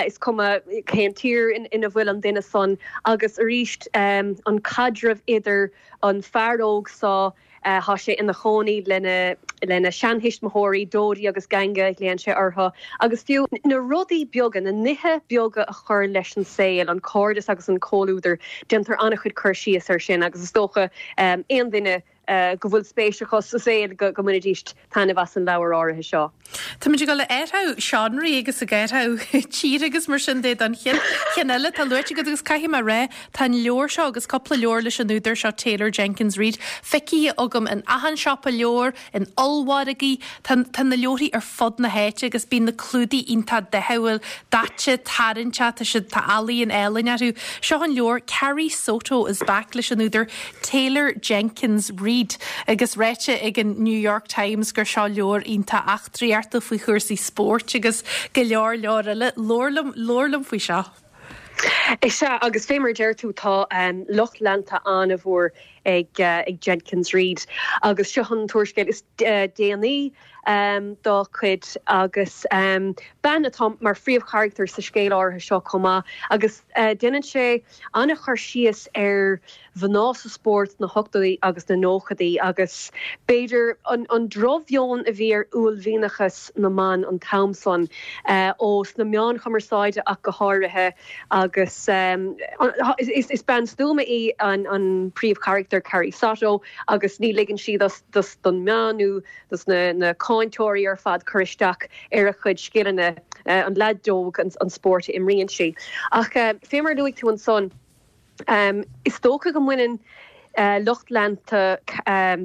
is cuma cén tír ina bhfuil an duine san, agus arís, an caidreamh idir an fear óg so, tá sé ina chónaí lena, lena sheanthuismitheoirí, Dodi agus Ganga a ghlaonn sé orthu, agus fiú na rudaí beaga, na nithe beaga a chuir leis an saol, an cairdeas agus an comhluadar, déantar an-chuid cur síos air sin agus is dócha aon duine, go bhfuil spéis acu sa saol go mbainfidís taitneamh as an leabhar áirithe seo. Táimid ag dul ag athrú seánraí agus ag athrú tíre agus mar sin de don chéad cheann eile atá luaite agat agus caithfidh mé a rá, tá an leabhar seo agus cúpla leabhar leis an údar seo Taylor Jenkins Reid feicthe agam in achan siopa leabhar, in ollmhargaí, tá tá na leabharthaí ar fud na háite agus bíonn na clúdaigh iontach dathúil, daite, tarraingteach, tá siad, tá ealaíon álainn orthu. Seo an leabhar Carrie Soto is Back leis an údar Taylor Jenkins Reid. Jenkins-Reid agus ráite ag an New York Times gur seo leabhar iontach eachtraíochta faoi chúrsaí spóirt agus go leor leor eile. Labhair liom, labhair liom faoi seo. Is ea, agus fé mar a deir tú, tá lucht leanta an-mhór ag Jenkins-Reid agus seo an t-úrscéal is déanaí dá cuid agus bean atá mar phríomhcharachtar sa scéal áirithe seo chomh maith agus déanann sé an-chur síos ar mhná sa spórt sna hochtóidí agus na nóchaidí agus b'fhéidir an drochmheon a bhí ar uaillmhianachas na mban an t-am san, ó sna meáin chumarsáide ach go háirithe agus is bean stuama í an príomhcharachtar Carrie Soto agus ní ligeann sí dos don meán nó dos na cáinteoirí ar fad cur isteach ar a cuid scileanna, an leaid óg an spórt a imríonn sí. Ach fé mar a luaigh tú ansan, Is dócha go mbaineann lucht leanta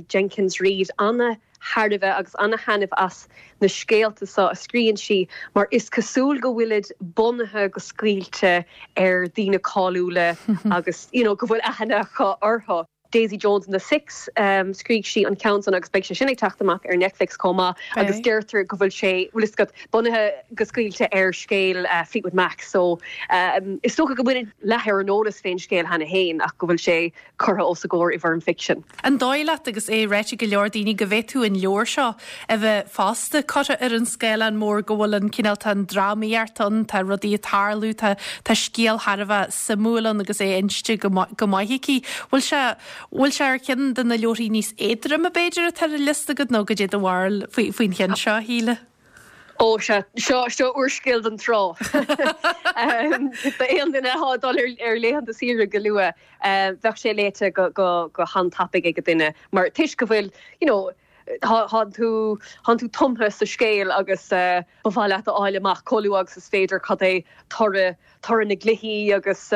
Jenkins-Reid ana-thairbhe agus ana-thaitneamh as na scéalta seo a scríonn sí mar is cosúil go bhfuilid bunaithe go scaoilte ar daoine cáiliúla agus you know go bhfuil aithne acu orthu. Daisy Jones and the Six, scrígh sí an ceann san agus beidh sé sin ag teacht amach ar Netflix chomh maith agus deirtear go bhfuil sé, bhfuil fhios agat, bunaithe go scaoilte ar scéal Fleetwood Mac so is dócha go bhfuil leath ar an eolas fén scéal cheana féin ach go bhfuil sé curtha os a gcomhair i bhfoirm ficsin. An dóigh leat, agus é ráite ag go leor daoine, go bhféadfadh an leabhar seo a bheith fosta curtha ar an scáileán mór, go bhfuil an cineál, tá an drámaíocht ann, tá rudaí ag tarlú, tá, tá scéal thar a bheith suimiúil ann agus é inste go, go maith aici. Bhfuil sé, bhfuil sé ar cheann de na leabharthaí níos éadroime b'fhéidir atá ar an liosta agat nó goidé do bharúil faoi, faoin cheann seo, a Shíle? Ó sea, seo, seo úrscéal don trá. D'aon duine atá ag dul ar, ar laethanta saoire go luath, bheadh sé léite go, go, go han-tapaidh ag duine mar toisc go bhfuil, you know, Tá tú, tánn tú tumtha sa scéal agus ba mhaith leat a fháil amach chomh luath agus is féidir cad é toradh, toradh na gcluichí agus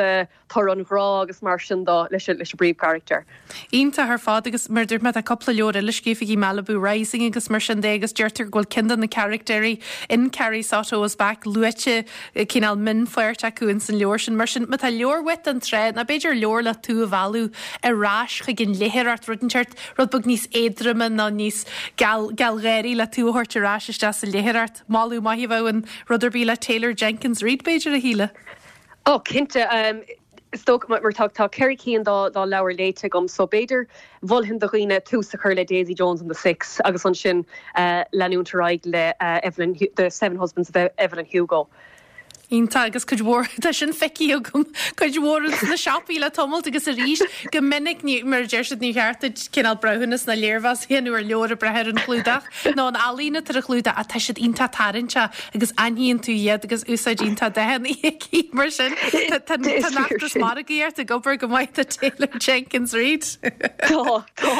toradh an ghrá agus mar sin de leis an bpríomhcharachtar. Iontach ar fad agus mar a dúirt mé tá cúpla leabhar eile scríofa aici, Malibu Rising agus mar sin de agus deirtear go bhfuil ceann de na carachtéirí in Carrie Soto is Back luaite cineál mionpháirt acu ins an leabhar sin. Mar sin má tá leabhar uait don trá nó b'fhéidir leabhar le tú a mhealladh ar ais chuig an léitheoireacht, rud inteacht Rud beag níos éadroime nó níos gealgháirí le tú a thabhairt ar ais isteach sa léitheoireacht. Moladh maith a bheadh in rud ar bith le Taylor Jenkins Reid, b'fhéidir, a Shíle? Ó, cinnte. Is dócha, mar tá 4 cinn dá leabhair léite agam, so b'fhéidir mholfainn do dhaoine tús a chur le Daisy Jones and the Six agus ansin leanúint ar aghaidh le Evelyn, The Seven Husbands of Evelyn Hugo. Iontach agus cuid mhór, tá sin feicthe agam, cuid mhór ins na siopaí le tamalt agus arís go minic ní, mar a deir siad ní cheart duit cineál breithiúnas ná léirmheas a dhéanamh ar leabhar ag brath ar an chlúdach nó an ealaín atá ar an chlúdach ach tá siad iontach tarraingteach agus aithníonn tú iad agus úsáid iontach dathanna aici mar sin tá tá an feachtas margaíocht ag obair go maith do Taylor Jenkins Reid. Tá, tá.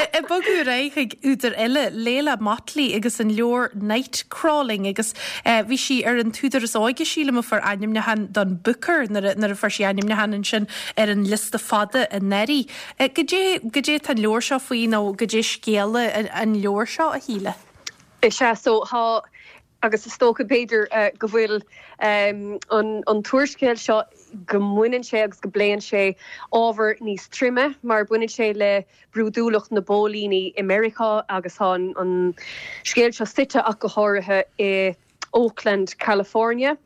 Ag bogadh ar aghaidh chuig údar eile, Leila Mottley agus an leabhar Night Crawling agus Bhí sí ar an t-údar is óige, sílim, a fuair ainmniúchán don Booker nuair a fuair sí ainmniúchán ansin ar an liosta fada anuraidh. Goidé, goidé atá an leabhar seo faoi nó goidé scéal an leabhair seo, a Shíle? Is ea, so tá, agus is dócha b'fhéidir go bhfuil an t-úrscéal seo, go mbaineann sé agus go bpléann sé ábhar níos troime mar baineann sé le brúidiúlacht na bpóilíní i Meiriceá agus tá an scéal seo suite ach go háirithe i Oakland, California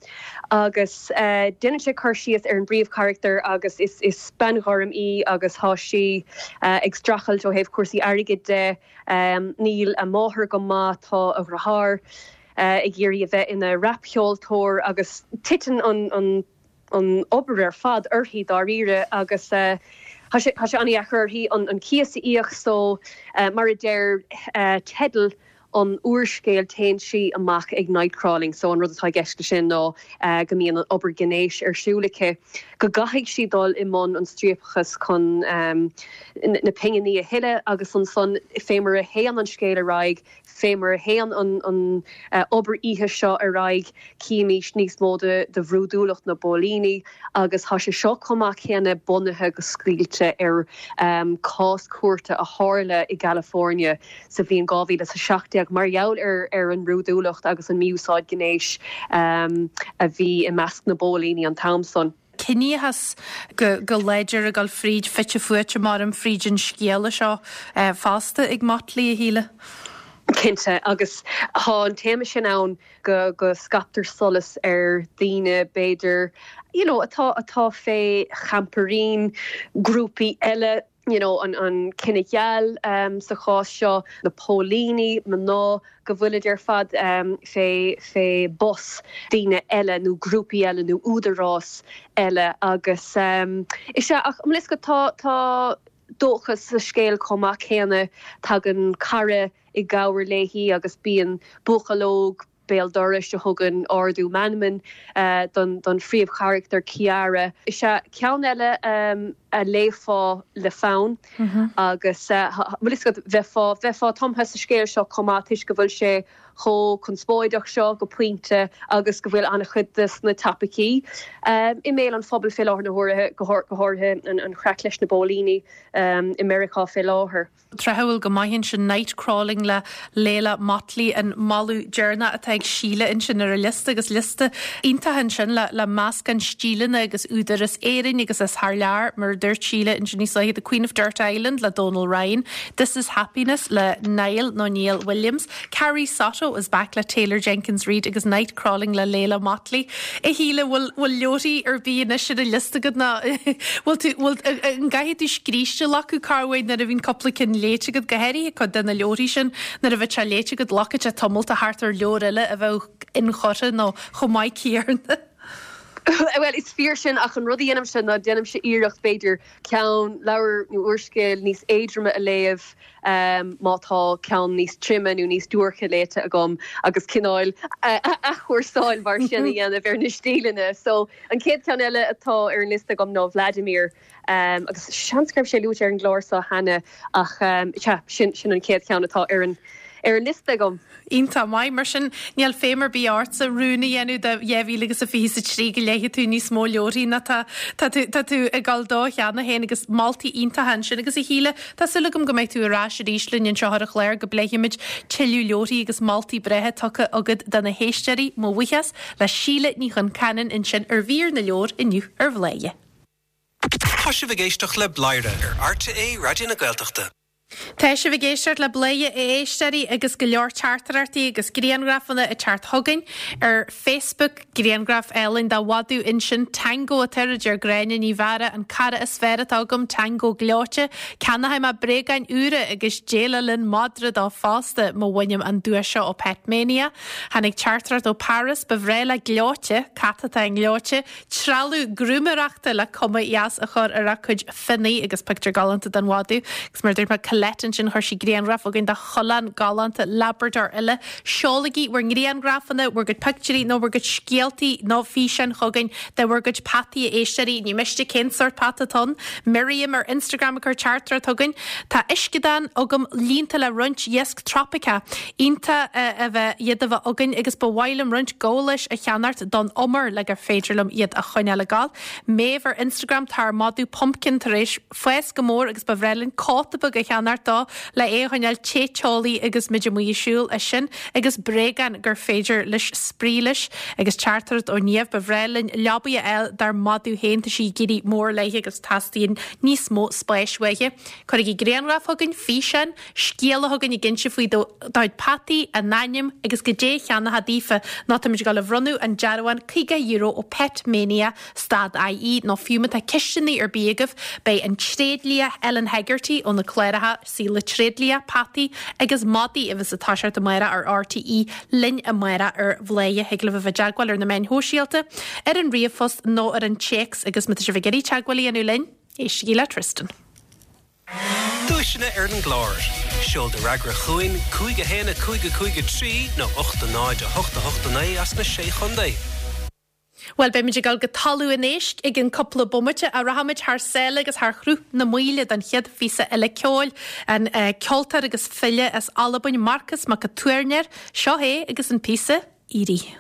agus déanann sé cur síos ar an bpríomhcharachtar agus is bean ghorm í agus tá sí ag streachailt ó thaobh cúrsaí airgid de, níl a máthair go maith, tá a dheartháir ag iarraidh a bheith ina rapcheoltóir agus titeann an an obair ar fad uirthi dáiríre agus tá sé tá sé an-dheacair uirthi an cíos a íoc so mar a deir teideal an úrscéil téann sí amach ag night crawling so an rud atá i gceist leis sin ná go mbíonn an obair gnéis ar siúl aici go gcaithfidh sí dul i mbun an striapachas chun na pinginí a thuilleadh agus ansan fé mar a théann an scéal ar aghaidh Fé mar a théann an obair oíche seo ar aghaidh, címís níos mó de bhrúidiúlacht na bpóilíní agus tá sé seo chomh maith céanna bunaithe go scaoilte ar chás cúirte a tharla i gCalifornia sa bhliain 2017 mar gheall ar an mbrúidiúlacht agus an mí-úsáid gnéis a bhí i measc na bpóilíní an t-am san. ciníochas go go láidir ag dul fríd, fite fuaite maram fríd an scéala seo fosta ag Motley, a Shíle. Cinnte, agus tá an téama sin ann go go scaiptear solas ar daoine b'fhéidir you know atá atá fé champairín grúpaí eile, you know an an cine geal sa chás seo, na póilíní, mná, go bhfuilid ar fad fé fé bos daoine eile nó grúpaí eile nó údarás eile agus is ea ach an bhfuil fhios agat tá tá dóchas sa scéal chomh maith céanna. Tagann cara i gcabhair léi agus bíonn buachaill óg béal dorais a thugann ardú meanman don don phríomhcharachtar Ciara. Is ea ceann eile a léifeá le fonn agus bhfuil fhios agat bheifeá bheifeá tumtha sa scéal seo chomh maith toisc go bhfuil sé chomh conspóideach seo go pointe agus go bhfuil an-chuid de na topaicí i mbéal an phobail fé láthair na huaire, go háirithe an chraic leis na bpóilíní i Meiriceá fé láthair. Tráthúil go maith ansin Night Crawling le Leila Mottley an moladh deireanach atá ag Síle ansin ar a liosta agus liosta iontach ansin le le meascán stíleanna agus údair as Éirinn agus as thar lear mar a dúirt Síle ansin níos luaithe The Queen of Dirt Island le Donal Ryan, This is Happiness le Niall nó Niall Williams, Carrie Soto is back le Taylor Jenkins Reid agus Night Crawling le Leila Mottley. A Shíle, bhfuil, bhfuil leabharthaí ar bith anois ar an liosta agat nó bhfuil tú, bhfuil, an gcaithfidh tú scríste a ghlacadh corruair nuair a bhíonn cúpla cinn léite agat, go háirithe cuid de na leabharthaí sin, nuair a bheadh sé léite agat, glacfaidh sé tamall a theacht ar leabhar eile a bheadh inchurtha nó chomh maith céanna. Bhuel, is fíor sin ach an rud a dhéanaimse ná déanaimse iarracht b'fhéidir ceann, leabhar nó úrscéal níos éadroime a léamh má tá ceann níos troime nó níos duairce léite agam agus cineál athchúrsáil mar sin a dhéanamh ar na stíleanna. So, an chéad cheann eile atá ar an liosta agam ná Vladimir agus seans go raibh sé luaite ar an gclár seo cheana ach sea, sin sin an chéad cheann atá ar an ar an liosta agam. Iontach maith. Mar sin, níl feidhm ar bith ortsa rún a dhéanamh do 2023 go léifidh tú níos mó leabharthaí ná tá tá tú tá tú ag dul dó cheana féin agus moltaí iontacha ansin. Agus a Shíle, tá súil agam go mbeidh tú ar ais arís linn anseo ar an chlár go bpléifimid tuilleadh leabharthaí agus moltaí breátha tugtha agat do na héisteoirí. Mo bhuíochas le Síle Ní Chonceanainn ansin ar mhír na leabhar inniu ar Bhladhaire. Tá sibh ag éisteacht le Bladhaire ar RTÉ Raidió na Gaeltachta. Tá sibh ag éisteacht le Bladhaire a éisteoirí agus go leor teachtaireachtaí agus grianghrafanna ag teacht chugainn ar Facebook, grianghraf álainn de mhadadh ansin, Tango atá air, a deir Gráinne Ní Mheára, an cara is fearr atá agam, Tango gleoite. Ceannóidh mé bréagáin úra agus déileáil linn madra dó fosta má bhainim an duais seo ó Pet Mania. Tháinig teachtaireacht ó Paris, ba bhreá le Gleoite, cat atá i nGleoite, trealamh grúmaeireachta le cuma dheas a chur ar a cuid fionnaidh agus pictiúr galánta den mhadadh. Agus mar a dúirt mé, Colette ansin, chuir sí grianghraf chugainn de choileán galánta Labrador eile. Seolaigí bhur ngrianghrafanna, bhur gcuid pictiúirí nó bhur gcuid scéaltaí nó físeáin chugainn de bhur gcuid peataí a éisteoirí. Ní miste cén sórt peata atá ann. Miriam ar Instagram ag cur teachtaireacht chugainn. Tá uisceadán agam líonta le roinnt iasc tropaiceach. Iontach a bheith iad a bheith againn agus ba mhaith liom roinnt gabhálais a cheannacht don umar le gur féidir liom iad a choinneáil ag gabháil. Méabh ar Instagram Tá ár madadh Pumpkin tar éis fás go mór agus ba bhreá linn cóta beag a cheannacht dó le é a choinneáil te teolaí agus muid amuigh ag siúl. É sin agus bréagáin gur féidir leis spraoi leis. Agus teachtaireacht ó Niamh Ba bhreá linn leabaidh a fháil dár madadh féin, tá sí ag éirí mór léi agus teastaíonn níos mó spáis uaithi. Cuirigí grianghraf chugainn, físeán, scéala chugainn ag inse faoi do chuid peataí, a n-ainm agus goidé a cheannófá daofa nó táimid ag dul a bhronnadh an dearbhán €50 ó Pet Mania stad IE nó fiú má tá ceisteanna ar bith agaibh beidh an tréidlia Ellen Hegarty ó na cláracha Saol na Tréidlia, Peataí agus Madaí a bheas ag toiseacht amárach ar RTÉ linn amárach ar Bhladhaire. Thig libh a bheith i dteagmháil ar na meáin shóisialta, ar an ríomhphost nó ar an téacs agus má tá sibh ag iarraidh teagmháil a dhéanamh linn, éistigí le Tristan. Duaiseanna ar an gclár. Seol do fhreagra chugainn, 5 1 5 5 3 nó 8 0 8 8 9 as na Sé Chontae. Bhuel, beimid ag dul go Talamh an Éisc i gcionn cúpla bomaite, ach rachaimid thar sáile agus thar Shruth na Maoile don chéad phíosa eile ceoil. An ceoltóir agus file as Albain, Marcas Mac a' Tuairneir, seo é agus an píosa Eerie.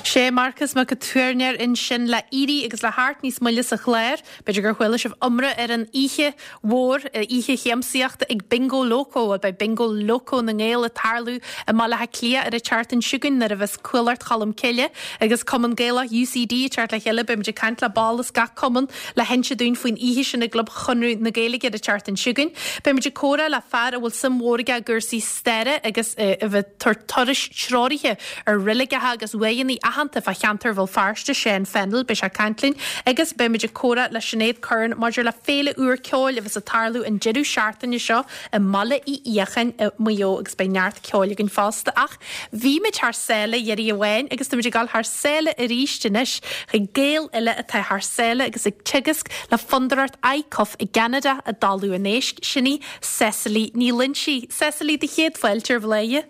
Sé Marcas Mac an Tuairneir ansin le éirí agus le theacht níos moille sa chlár. B'fhéidir gur chuala sibh iomrá ar an oíche mhór, oíche shiamsaíochta ag Bingo Loco. Bhuel, beidh Bingo Loco na nGael ag tarlú i mBaile Átha Cliath ar an tseachtain seo chugainn nuair a bheas Cuallacht Cholm Cille agus Cumann Gaelach UCD ag teacht le chéile. Beimid ag caint le ball as gach cumann le hinse dúinn faoin oíche sin i gClub Chonradh na Gaeilge ar an tseachtain seo chugainn. Beimid ag comhrá le fear a bhfuil suim mhór aige i gcúrsaí staire agus a bheith ag tabhairt turais treoraithe ar reiligeacha agus uaigheanna aitheanta fá cheantar Bhéal Feirste, Seán Fennell, beidh sé ag caint linn agus beimid ag comhrá le Sinéad Curran maidir le féile úr ceoil a bheas ag tarlú an deireadh seachtaine seo i mBaile Uí Fhiacháin i Maigh Eo agus beidh neart ceoil againn fosta. Ach bhí muid thar sáile iarraidh amháin agus táimid ag dul thar sáile arís anois chuig Gael eile atá thar sáile agus ag teagasc le Fondúireacht ICUF i gCeanada i dTalamh an Éisc, sin í Cecily Ní Loinsigh. Cecily, do chéad fáilte ar Bhladhaire.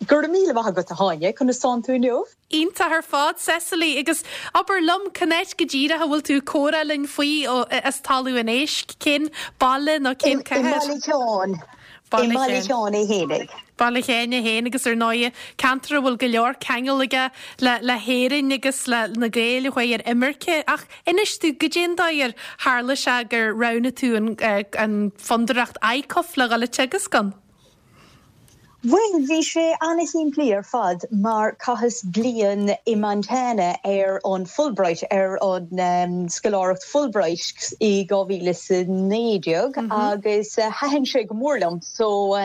Go raibh míle maith agat, a Shláine. Conas tánn tú inniu? Iontach ar fad, Cecily. Agus abair liom, cén áit go díreach a bhfuil tú ag comhrá linn faoi as Talamh an Éisc? Cén baile nó cén cathair? I mBaile Sheáin. I mBaile Sheáin é fhéinig. Baile Sheáin é féin agus ar ndóighe ceantar a bhfuil go leor ceangal aige le le hÉirinn agus le na Gaeil a chuaigh ar imirce. Ach inis dúinn, goidé an dóigh ar tharla sé gur roghnaigh tú an an Fondúireacht ICUF le dhul ag teagasc ann? Bhuel, bhí sé ana-shimplí ar fad mar chaitheas bliain i Montana ar an Fulbright, ar an scoláireacht Fulbright i 2019 agus thaitin sé go mór liom. So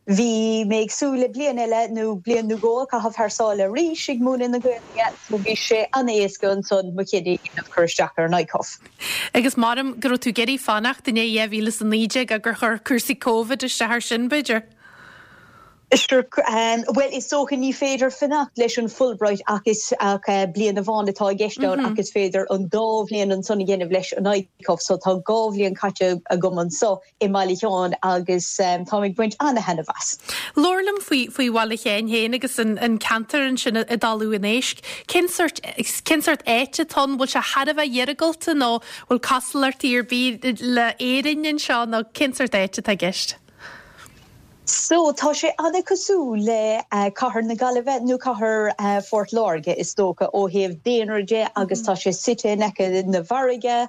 bhí mé ag súil le bliain eile nó bliain nó dhó a chaitheamh thar sáile arís ag múineadh na Gaeilge so bhí sé ana-éasca ansan mo chinneadh a dhéanamh cur isteach ar an ICUF. Agus maram go raibh tú ag iarraidh fanacht i ndiaidh 2019 ach gur chuir cúrsaí Covid isteach air sin, b'fhéidir? Sure, bhuel is dócha ní féidir fanacht leis an Fulbright ach is ach bliain amháin atá i gceist ann ach is féidir an dá bhliain ansan a dhéanamh leis an ICUF so tá dhá bhliain caite agam anso i mBaile Sheáin agus táim ag baint ana-thaitneamh as. Labhair liom faoi faoi Bhaile Sheáin féin agus an an ceantar ansin i dTalamh an Éisc. Cén sórt cén sórt áit atá ann? Bhfuil sé thar a bheith iargúlta nó bhfuil cosúlachtaí ar bith le Éirinn anseo nó cén sórt áit atá i gceist? So, tá sé ana-chosúil le cathair na Gaillimhe nó cathair Phort Láirge is dócha ó thaobh daonra de agus tá sé suite in aice na farraige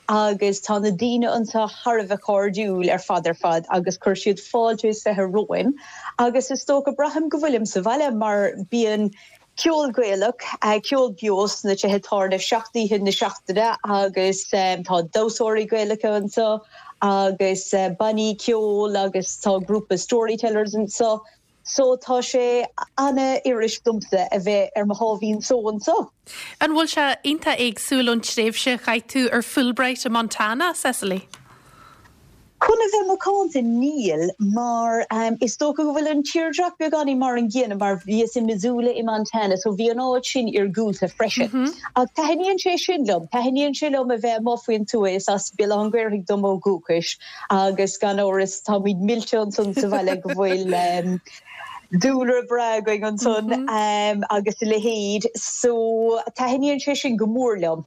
agus tá na daoine anseo thar a bheith cairdiúil ar fad ar fad agus chuir siad fáilte is fiche romhainn agus is dócha braithim go bhfuilim sa bhaile mar bíonn ceol Gaelach, ceol beo sna tithe tábhairne seacht oíche na seachtaine agus tá damhsóirí Gaelacha anseo agus bannaí ceoil agus tá grúpa storytellers anseo. So tá sé ana-fhuirist domsa a bheith ar mo sháimhín só anseo. An bhfuil sé iontach éagsúil ón tréimhse a chaith tú ar Fulbright i Montana, Cecily? Chun a bheith macánta, níl, mar is dócha go bhfuil an tírdhreach beagáinín mar an gcéanna, mar bhíos i Missoula i Montana, so bhí an áit sin iargúlta freisin. Ach taitníonn sé sin liom, taitníonn sé liom a bheith amuigh faoin tuath, is as Béal Átha an Ghaorthaidh dom ó dhúchais, Agus gan amhras táimid millte ansan sa bhaile go bhfuil dúlra breá againn ansan agus a leithéid. So taitníonn sé sin go mór liom.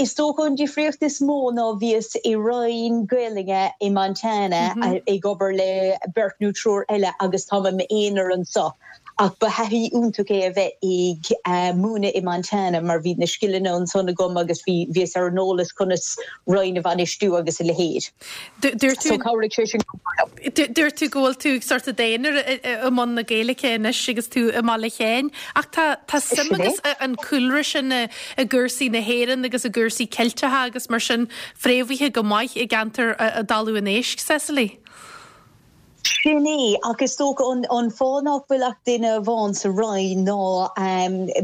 Is dócha an difríocht is mó ná bhíos i roinn Gaelainne i Montana ag obair le beirt nó triúr eile agus táim i m'aonar anso. Ach ba thaithí iontach é a bheith ag múineadh i Montana mar bhí na scileanna ansan agam agus bhí, bhíos ar an eolas conas roinn a bhainistiú agus a leithéid. Dúirt tú, So chabhraigh sé sin go mór liom. Dúirt tú go bhfuil tú sort i d'aonar i mbun na Gaeilge anois agus tú i mBaile Sheáin ach tá, tá suim agus an cúlra sin i gcúrsaí na hÉireann agus i gcúrsaí Ceilteacha agus mar sin fréamhaithe go maith i gceantar i dTalamh an Éisc, Cecily. Sin é, ach is dócha an fáth nach bhfuil ach duine amháin sa roinn ná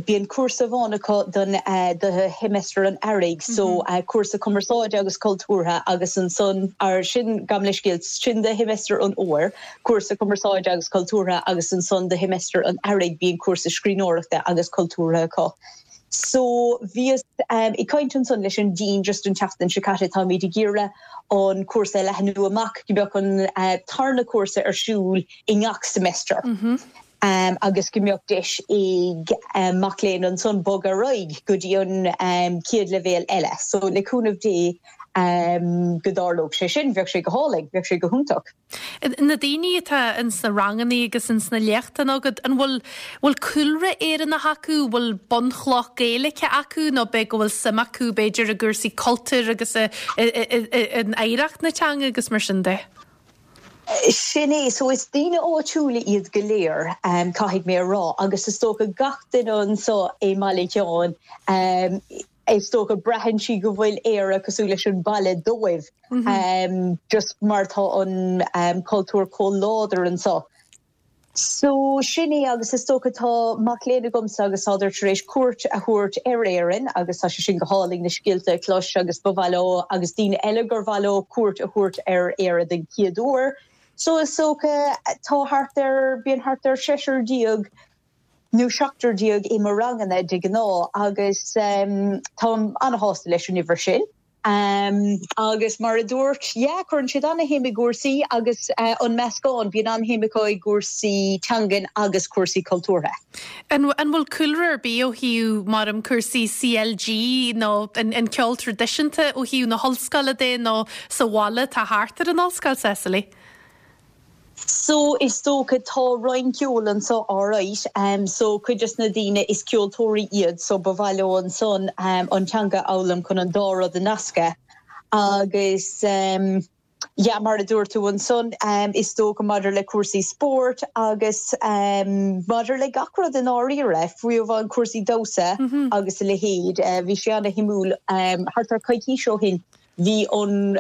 bíonn cúrsa amháin acu don do sheimeastar an earraigh, so cúrsa cumarsáide agus cultúrtha agus ansan, ar sin, gabh mo leithscéal, sin do sheimeastar an fhómhair, cúrsa cumarsáide agus cultúrtha agus ansan do sheimeastar an earraigh bíonn cúrsa scríbhneoireachta agus cultúrtha acu. So bhíos ag caint ansan leis an Dean just an tseachtain seo caite, táimid ag iarraidh an cúrsa a leathnú amach go mbeadh an tarna cúrsa ar siúl i ngach semester agus go mbeadh deis ag mac léinn ansan bogadh ar aghaidh go dtí an chéad leibhéal eile. So le cúnamh Dé. Go dtarlódh sé sin, bheadh sé go hálainn, bheadh sé go hiontach. Na daoine atá ins na rangannaí agus ins na léachtanna agat, an bhfuil, bhfuil cúlra Éireannach acu, bhfuil bunchloch Gaeilge acu nó b'é go bhfuil suim acu b'fhéidir i gcúrsaí cultúir agus i, i, i, i, in oidhreacht na teanga agus mar sin de? Sin é, so is daoine áitiúla iad go léir, caithfidh mé a rá, agus is dócha gach duine anseo i mBaile Sheáin, is dócha braitheann siad go bhfuil Éire cosúil leis an baile dóibh, just mar tá an cultúr chomh láidir anseo. So sin é agus is dócha tá mac léinn agamsa agus tádar tar éis cuairt a thabhairt ar Éirinn agus tá sé sin go hálainn na scéalta a chlos agus ba mhaith leo agus daoine eile gur mhaith leo cuairt a thabhairt ar Éire den chéad uair. So is dócha tá thart ar, bíonn thart ar seisear déag nó seachtar déag i mo ranganna de ghnáth agus táim an-shásta leis an uimhir sin. Agus mar a dúirt, yeah, cuireann siad an-shuim i gcúrsaí agus an meascán, bíonn an-shuim acu i gcúrsaí teangan agus cúrsaí cultúrtha. An bhfuil cúlra ar bith ó thaobh, mar em, cúrsaí CLG nó an ceol traidisiúnta ó thaobh na hollscoile de nó sa bhaile atá thart ar an ollscoil, Cecily? So is dócha tá roinn ceoil anseo alright so cuid des na daoine is ceoltóirí iad so ba mhaith leo ansan an teanga a fhoghlaim chun an dá rud a nascadh agus yeah mar a dúirt tú ansan is dócha maidir le cúrsaí spóirt agus maidir le gach rud i ndáiríre fiú amháin cúrsaí damhsa agus a leithéid bhí sé ana-shuimiúil thart ar coicís ó shin Bhí an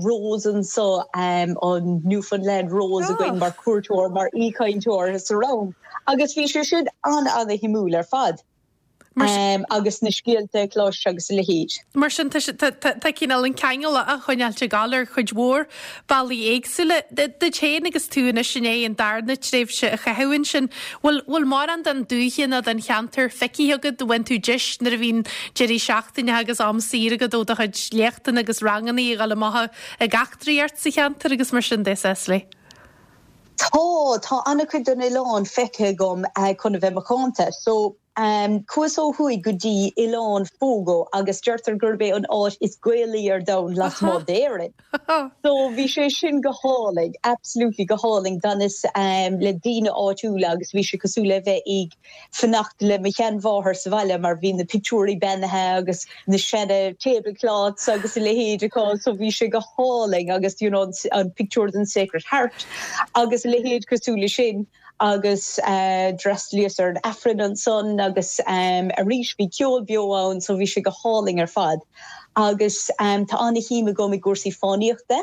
Rose anseo, an Newfoundland Rose againn mar cuairteoir, mar aoichainteoir sa rang agus bhí sé sin an-an-shuimiúil ar fad. Agus na scéalta a chlos agus a leithéid. Mar sin, tá cineál an ceangal á choinneáilt ag gabháil ar chuid mhór bealaí éagsúla. Duit féin agus tú anois i ndiaidh an darna tréimhse a chaitheamh ansin, bhfuil bhfuil mórán den dúiche nó den cheantar feicthe agat? Bhain tú deis nuair a bhíonn deirí seachtaine agus am saor agat ó do chuid léachtanna agus ranganna a dhul amach ag eachtraíocht sa cheantar agus mar sin de, Cecily? Tá, tá an-chuid den oileán feicthe agam chun a bheith macánta. So, Chuas ó thuaidh go dtí Oileán Fogo agus deirtear gurb é an áit is Gaelaí ar domhan lasmuigh d'Éirinn. So bhí sé sin go hálainn, absolutely go hálainn. D'fhanas le daoine áitiúla agus bhí sé cosúil le bheith ag fanacht le mo sheanmháthair sa bhaile mar bhí na pictiúirí beannaithe agus na seana tablecloths agus a leithéid acu so bhí sé go hálainn agus you know an pictiúr den Sacred Heart agus a leithéid cosúil le sin. agus d'fhreastalaíos ar an Aifreann ansan agus arís bhí ceol beo ann so bhí sé go hálainn ar fad. Agus tá ana-shuim agam i gcúrsaí fánaíochta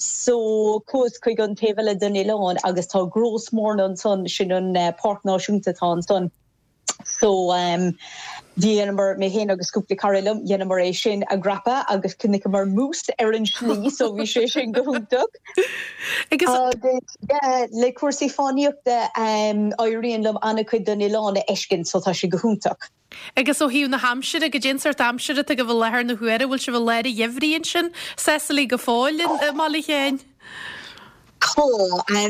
so chuas chuig an taobh eile den oileán agus tá Gros Morne ansan, sin an páirc náisiúnta atá ansan. So dheineamar, mé féin agus cúpla cara liom, dheineamar é sin a dhreapadh agus chonaiceamar mús ar an slí so bhí sé sin go hiontach. Agus yeah, le cúrsaí fánaíochta éiríonn liom an-chuid den oileán a fheiscint so tá sé go hiontach. Agus ó thaobh na haimsire, goidé an sórt aimsire atá agaibh i láthair na huaire, bhfuil sibh i lár an gheimhridh ansin, Cecily, go fóill i mBaile Sheáin? Tá.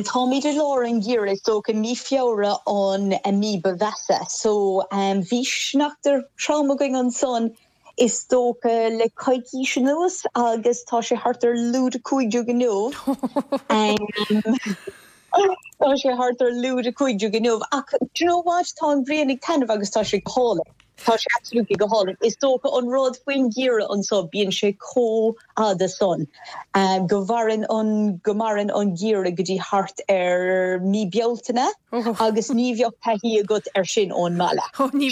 Táimid i lár an gheimhridh, is dócha mí Feabhra an mí ba mheasa. So bhí sneachta trom againn ansan is dócha le coicís anuas agus tá sé thart ar lúide 15 inniu. Tá sé thart ar lúide 15 inniu ach do you know what, tá an ghrian ag taitneamh agus tá sé go hálainn. Tá sé absolutely go hálainn. Is dócha an rud faoin gheimhreadh anso, bíonn sé chomh fhada san go mhaireann an, go maireann an geimhreadh go dtí thart ar mí Bealtaine agus ní bheadh taithí agat ar sin ón mbaile.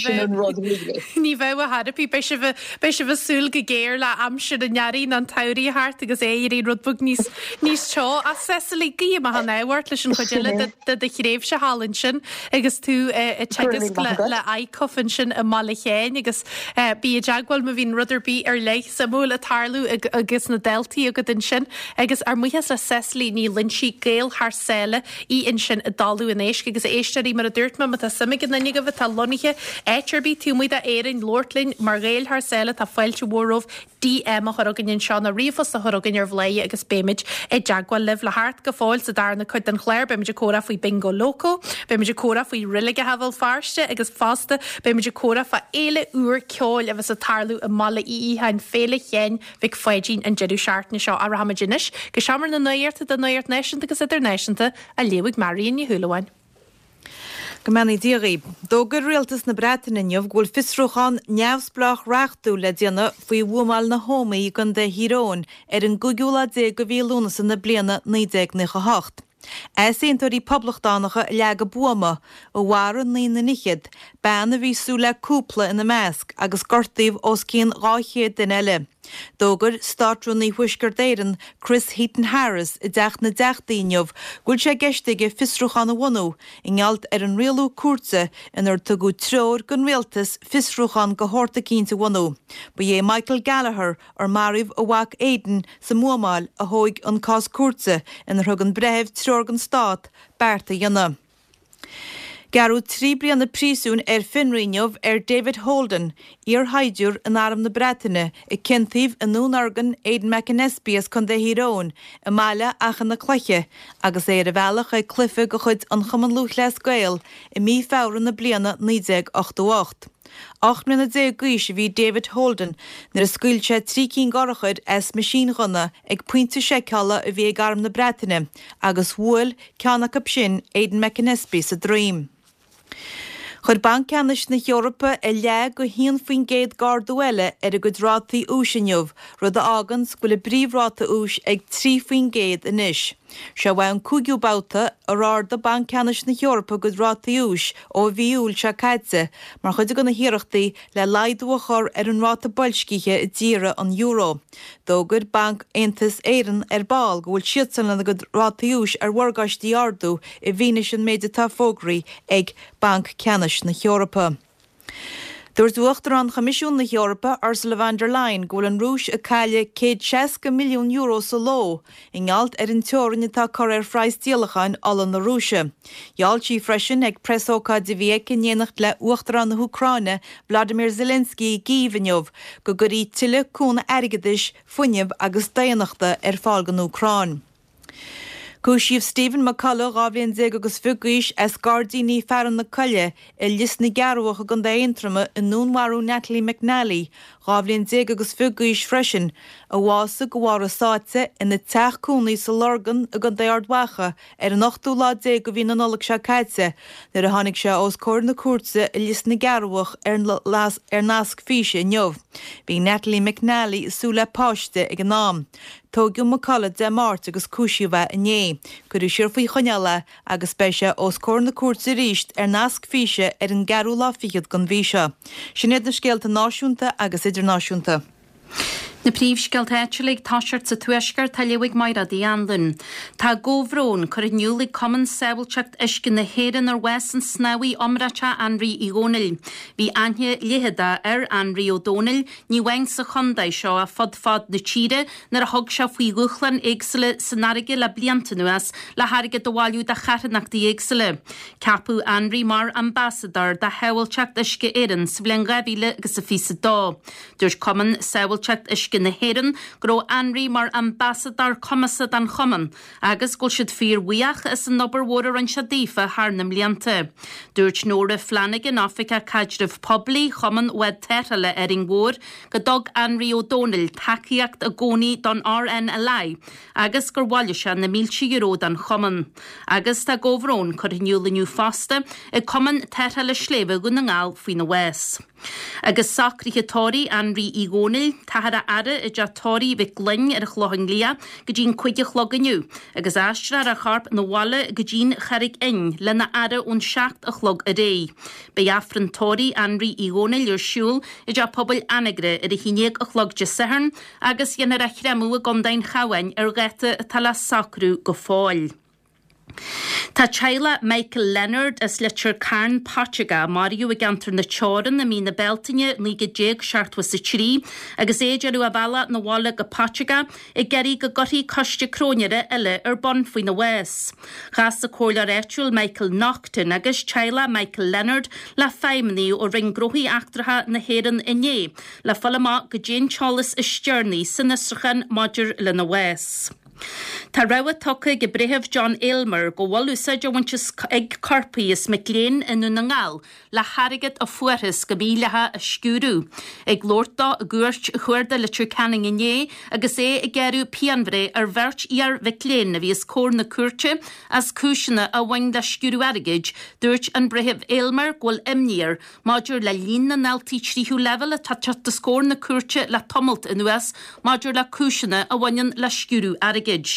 Sin an rud really. Ní bheadh a dhath ar bith. Beidh sibh, beidh sibh ag súil go géar le aimsir an earraigh nó an tsamhraidh a theacht agus é ag éirí rud beag níos, níos teo. Ach Cecily, guím maith an ádh ort leis an chuid eile de, de do thréimhse thall ansin agus tú ag teagasc le ICUF ansin i mBaile Sheáin agus bí i dteagmháil má bhíonn rud ar bith ar leith suimiúil ag tarlú agus na daltaí agat ansin. Agus ár mbuíochas le Cecily Ní Loinsigh, Gael thar sáile í ansin i dTalamh an Éisc. Agus a éisteoirí, mar a dúirt mé, má tá suim ag aon duine agaibh atá lonnaithe áit ar bith taobh amuigh d'Éirinn labhairt linn mar Ghaeil thar sáile, tá fáilte mhór romhaibh DM a chur chugainn anseo nó ríomhphost a chur chugainn ar Bhladhaire agus beimid i dteagmháil libh. Le theacht go fóill sa darna cuid den chlár beimid ag comhrá faoi Bingo Loco, beimid ag comhrá faoi reiligeacha Bhéal Feirste agus fosta beimid ag comhrá fá. fhéile úr ceoil a bheas ag tarlú i mBaile Uí Fhiacháin, Féile Sheáin Mhic Pháidín an deireadh seachtaine seo. Ach rachaimid anois go seomra na nuachta don nuacht náisiúnta agus idirnáisiúnta á léamh ag Marion Ní Shúilleabháin. Go mbeannaí Dia dhaoib. D'fhógair Rialtas na Breataine inniu go bhfuil fiosrúchán neamhspleách reachtúil le déanamh faoi bhuamáil na hÓmaí i gContae Thír Eoghain ar an gcúigiú lá déag de mhí Lúnasa na bliana 1998. Easaontóirí poblachtánacha a leag an buama, a mharaigh naoi nduine fhichead, bean a bhí ag súil le cúpla ina measc, agus gortaíodh os cionn 200 duine eile. D'fhógair Státrúnaí Thuaisceart Éireann, Chris Heaton-Harris, i dTeach na dTeachtaí inniu go bhfuil sé i gceist aige fiosrúchán a bhunú i ngeall ar an rialú cúirte inar tugadh treoir don rialtas fiosrúchán de shórt eicínt a bhunú. Ba é Michael Gallagher, ar maraíodh a mhac Aidan sa mbuamáil, a thóig an cás cúirte inar thug an breitheamh treoir don stát beart a dhéanamh. Gearradh 3 bliana príosúin ar fionraí inniu ar David Holden, iarshaighdiúir in Arm na Breataine, a ciontaíodh i ndúnorgain Aidan McAnespie as Contae Thír Eoghain i mbaile Achadh na Cloiche agus é ar a bhealach chuig cluiche de chuid an Chumann Lúthchleas Gael i mí Feabhra na bliana 1988. 18 mbliana d'aois a bhí David Holden nuair a scaoil sé 3 cinn d'urchair as meaisínghunna ag pointe seiceála a bhí ag Arm na Breataine agus bhuail ceann acu sin Aidan McAnespie sa droim. Chuir Banc Ceannais na hEorpa a leath go haon faoin gcéad d'ardú eile ar a gcuid rátaí úis inniu, rud a fháganns go bhfuil a bpríomhráta úis ag 3% anois. Seo é an cúigiú babhta ar ardaigh Banc Ceannais na hEorpa a gcuid rátaí úis ó mhí Iúil seo caite mar chuid de na hiarrachtaí le laghdú a chur ar an ráta boilscithe i dtíortha an euro. D'fhógair Banc Aontas Éireann ar ball go bhfuil siadsan lena gcuid rátaí úis ar mhorgáistí a ardú i bhfianaise an méid atá fógraithe ag Banc Ceannais na hEorpa. Dúirt Uachtarán Choimisiún na hEorpa, Ursula von der Leyen, go bhfuil an Rúis ag cailleadh €160 milliún sa ló i ngeall ar an teorainn atá curtha ar phraghas díolacháin ola na Rúise. Gheall sí freisin ag preasócáid a bhí aici in éineacht le Uachtarán na hÚcráine, Vladimir Zelensky i gCív inniu, go gcuirfí tuilleadh cúnamh airgeadais, fuinnimh agus daonnachta ar fáil don Úcráin. Cúisíodh Stephen McCullough, 12 bhliain agus fiche d'aois, as Gairdíní Fearann na Coille i Lios na gCearrbhach i gContae Aontroma i ndúnmharú Natalie McNally, 12 bhliain agus fiche d'aois freisin, a bhásaigh de bharr a sáite ina teach cónaí sa Lorgain i gContae Ard Mhacha ar an ochtú lá déag de mhí na Nollag seo caite nuair a tháinig sé os comhair na cúirte i Lios na gCearrbhach ar nasc físe inniu. Bhí Natalie McNally ag súil le páiste ag an am. Tóigeadh McCullough Dé Máirt agus cúisíodh é inné. Cuireadh siar faoi choinneáil é agus beidh sé os comhair na cúirte arís ar nasc físe ar an gceathrú lá fichead den mhí seo. Sin iad na scéalta náisiúnta agus idirnáisiúnta. Na príomhscéalta áitiúla ag toiseacht sa Tuaisceart á léamh ag Mairéad Uí Anluain. Tá comhbhrón curtha in iúl ag Cumann Sábháilteacht Uisce na hÉireann ar bhás an snámhaí iomráiteach Anraí Uí Dhónaill. Bhí aithne leitheadach ar Anraí Ó Dónaill ní amháin sa chontae seo ach fud fad na tíre nuair a thug sé faoi dhúshláin éagsúla san fharraige le blianta anuas le hairgead a bhailiú do charthanachtaí éagsúla. Ceapadh Anraí mar Ambasadóir do Shábháilteacht Uisce Éireann sa bhliain 2022. Dúirt Cumann Sábháilteacht Uisce na hÉireann go raibh Anraí mar ambasadóir cumasach don chumann agus go bhfuil siad fíorbhuíoch as an obair mhór a rinne sé daofa thar na mblianta. Dúirt Nóra Flanagan, Oifigeach Caidrimh Poiblí Chumann Bhád Tarrthála Árainn Mhór, go dtug Anraí Ó Dónaill tacaíocht i gcónaí don RNLI agus gur bhailigh sé na mílte euro don chumann. Agus tá comhbhrón curtha in iúl inniu fosta ag Cumann Tarrthála Sléibhe Dhún na nGall faoina bhás. Agus socruithe tórraimh Anraí Uí Dhónaill, táthar á fhaire i dteach tórraimh Mhic Gloinn ar an Chlochán Liath go dtí'n 5 a chlog inniu, agus aistreofar a chorp 'na bhaile go dtí'n Charraig Fhinn lena fhaire ón 7 a chlog aréir. Beidh Aifreann tórraimh Anraí Uí Dhónaill ar siúl i dteach pobail Anagaire ar a haon déag a chlog Dé Sathairn agus dhéanfar a chréamadh i gContae an Chabháin ar dháta atá le socrú go fóill. Tá teaghlach Michael Leonard as Leitir Cairn, Portugal, a maraíodh i gceantar na Teorann i mí na Bealtaine 1973 agus é ag déanamh a bhealach 'na bhaile go Portugal ag iarraidh go gcuirfí coiste cróinéara eile ar bun faoina bhás. Chas an comhairleoir áitiúil Michael Naughton agus teaghlach Michael Leonard le feidhmeannaigh ó Roinn Gnóthaí Eachtracha na hÉireann inné le fáil amach goidé an t-eolas is deireanaí san fhiosrúchán maidir lena bhás. Tá rabhadh tugtha ag an Breitheamh John Aylmer go bhfuil úsáid á bhaint ag coirpigh as mic léinn i nDún na nGall le hairgead a fuarthas go mídhleathach a sciúradh. Ag labhairt dó i gCúirt Chuarda Leitir Ceanainn inné agus é ag gearradh pianbhreith ar bheirt iar-mhic léinn a bhí os comhair na cúirte as cúiseanna a bhain le sciúradh airgid, dúirt an Breitheamh Aylmer go bhfuil imní air maidir le líon na ndaltaí tríú leibhéal atá ag teacht os comhair na cúirte le tamalt anuas maidir le cúiseanna a bhaineann le sciúradh airgid.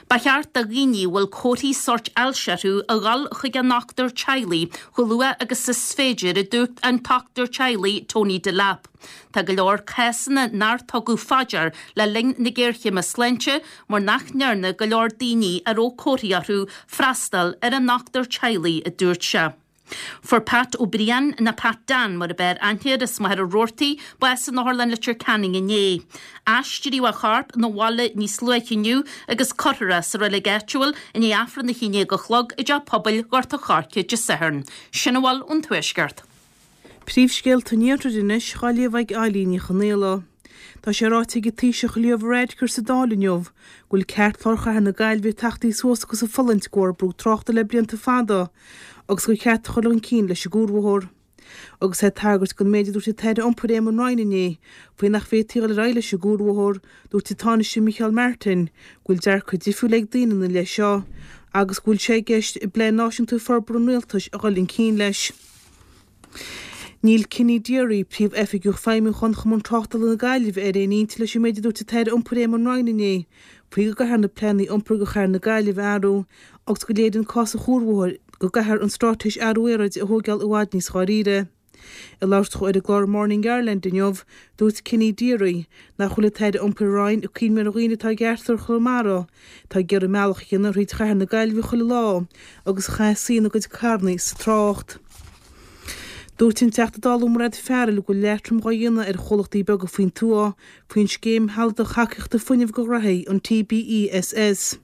Ba cheart do dhaoine a bhfuil comharthaí sóirt ailse orthu a dhul chuig a ndochtúir teaghlaigh chomh luath agus is féidir, a dúirt an dochtúir teaghlaigh Tony Delap. Tá go leor cásanna nár tugadh fá dear le linn na géarchéime sláinte mar nach ndearna go leor daoine a raibh comharthaí orthu freastal ar a ndochtúir teaghlaigh, a dúirt sé. Fuair Pat Ó Briain, nó Pat Dan mar a b'fhearr aithne air, as Machaire Rabhartaigh, bás in Otharlann Leitir Ceanainn inné. Aistríodh a chorp 'na bhaile níos luaithe inniu agus cuirfear é sa reilig áitiúil i ndiaidh Aifreann a 11 a chlog i dTeach Pobail Ghort a' Choirce Dé Sathairn. Sin a bhfuil ón Tuaisceart. Príomhscéalta an Iarthair anois dhá léamh ag Eilín Ní Chonaola. Tá sé ráite ag an Taoiseach Leo Varadkar sa Dáil inniu go bhfuil ceartlár chathair na Gaillimhe ag tachtaí suas agus ag fulaingt de bharr brú tráchta le blianta fada agus gur cheart a chur chun cinn leis an gcuarbhóthar. Agus é ag tagairt don méid a dúirt an tAire Iompair Éamon Ryan inné faoi nach bhféadfaí dul ar aghaidh leis an gcuarbhóthar, dúirt an Tánaiste Micheál Martin go bhfuil dearcadh difriúil ag daoine ina leith seo agus go bhfuil sé i gceist i bPlean Náisiúnta Forbartha an Rialtais a dhul chun cinn leis. Níl Kenny Deery, Príomh-Oifigeach Feidhmiúcháin Chumann Tráchtála na Gaillimhe, ar aon intinn leis an méid a dúirt an tAire Iompair Éamon Ryan inné faoi go gcaithfear na pleananna iompair do chathair na Gaillimhe a athrú agus go léiríonn cás an chuarbhóthair go gcaithfear an straitéis athrú aeráide a thóigeáil i bhfad níos dháiríre. Ag labhairt dó ar an gclár Morning Ireland inniu, dúirt Kenny Deery nach bhfuil an tAire Iompair Ryan ag cuimhneamh ar dhaoine atá i gceartlár Chonamara atá ag iarraidh a mbealach a dhéanamh thríd chathair na Gaillimhe chuile lá agus a chaithfidh suí ina gcuid carrannaí sa trácht. Dúirt an Teachta Dála Mairéad Farrell go bhfuil leatrom dhá dhéanamh ar chomhlachtaí beaga faoin tuath faoin scéim shealadach thacaíochta fuinnimh do ghnoithí, an TBESS.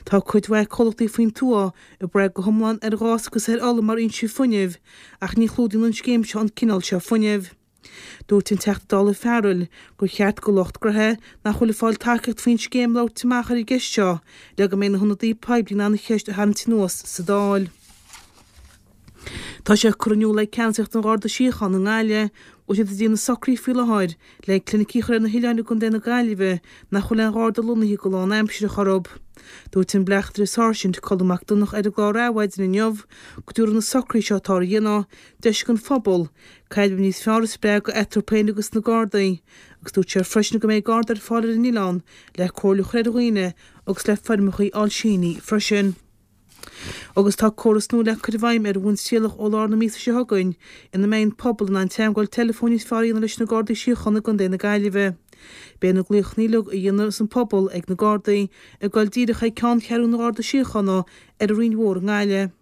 Tá cuid mhaith comhlachtaí faoin tuath ag brath go hiomlán ar ghás agus ar ola mar fhoinsí fuinnimh ach ní chlúdaíonn an scéim seo an cineál seo fuinnimh. Dúirt an Teachta Dála Farrell gur cheart do lucht gnoithe nach bhfuil ag fáil tacaíocht faoin scéim labhairt amach ar an gceist seo le go mbeidh na hionadaithe poiblí in ann an cheist a tharraingt anuas sa Dáil. Tá sé curtha in iúl ag ceannasaíocht an Gharda Síochána i nGaillimh go bhfuil siad ag déanamh socruithe faoi láthair le clinicí a chur ar na hoileáin i gContae na Gaillimhe nach bhfuil aon Gharda lonnaithe go lánaimseartha orthu. Dúirt an Bleachtaire Sáirsint Colm Mac Donncha ar an gclár Adhmhaidin inniu go dtabharfaidh na socruithe seo atáthar a dhéanamh deis don phobal caidreamh níos fearr a spreagadh eatarthu féin agus na Gardaí agus dúirt sé freisin go mbeidh Garda ar fáil ar an oileán le comhairle a chur ar dhaoine agus le foirmeacha a fháil sínithe freisin. Agus tá córas nua le cur i bhfeidhm ar bhonn trialach ó lár na míosa seo chugainn ina mbeidh an pobal in ann teagmháil teileafóin níos fearr a dhéanamh leis na Gardaí Síochána i gContae na Gaillimhe. Beidh na glaochanna uilig a dhéanfas an pobal ag na Gardaí ag dul díreach chuig ceanncheathrú na nGardaí Síochána ar an Rinn Mhór i nGaillimh.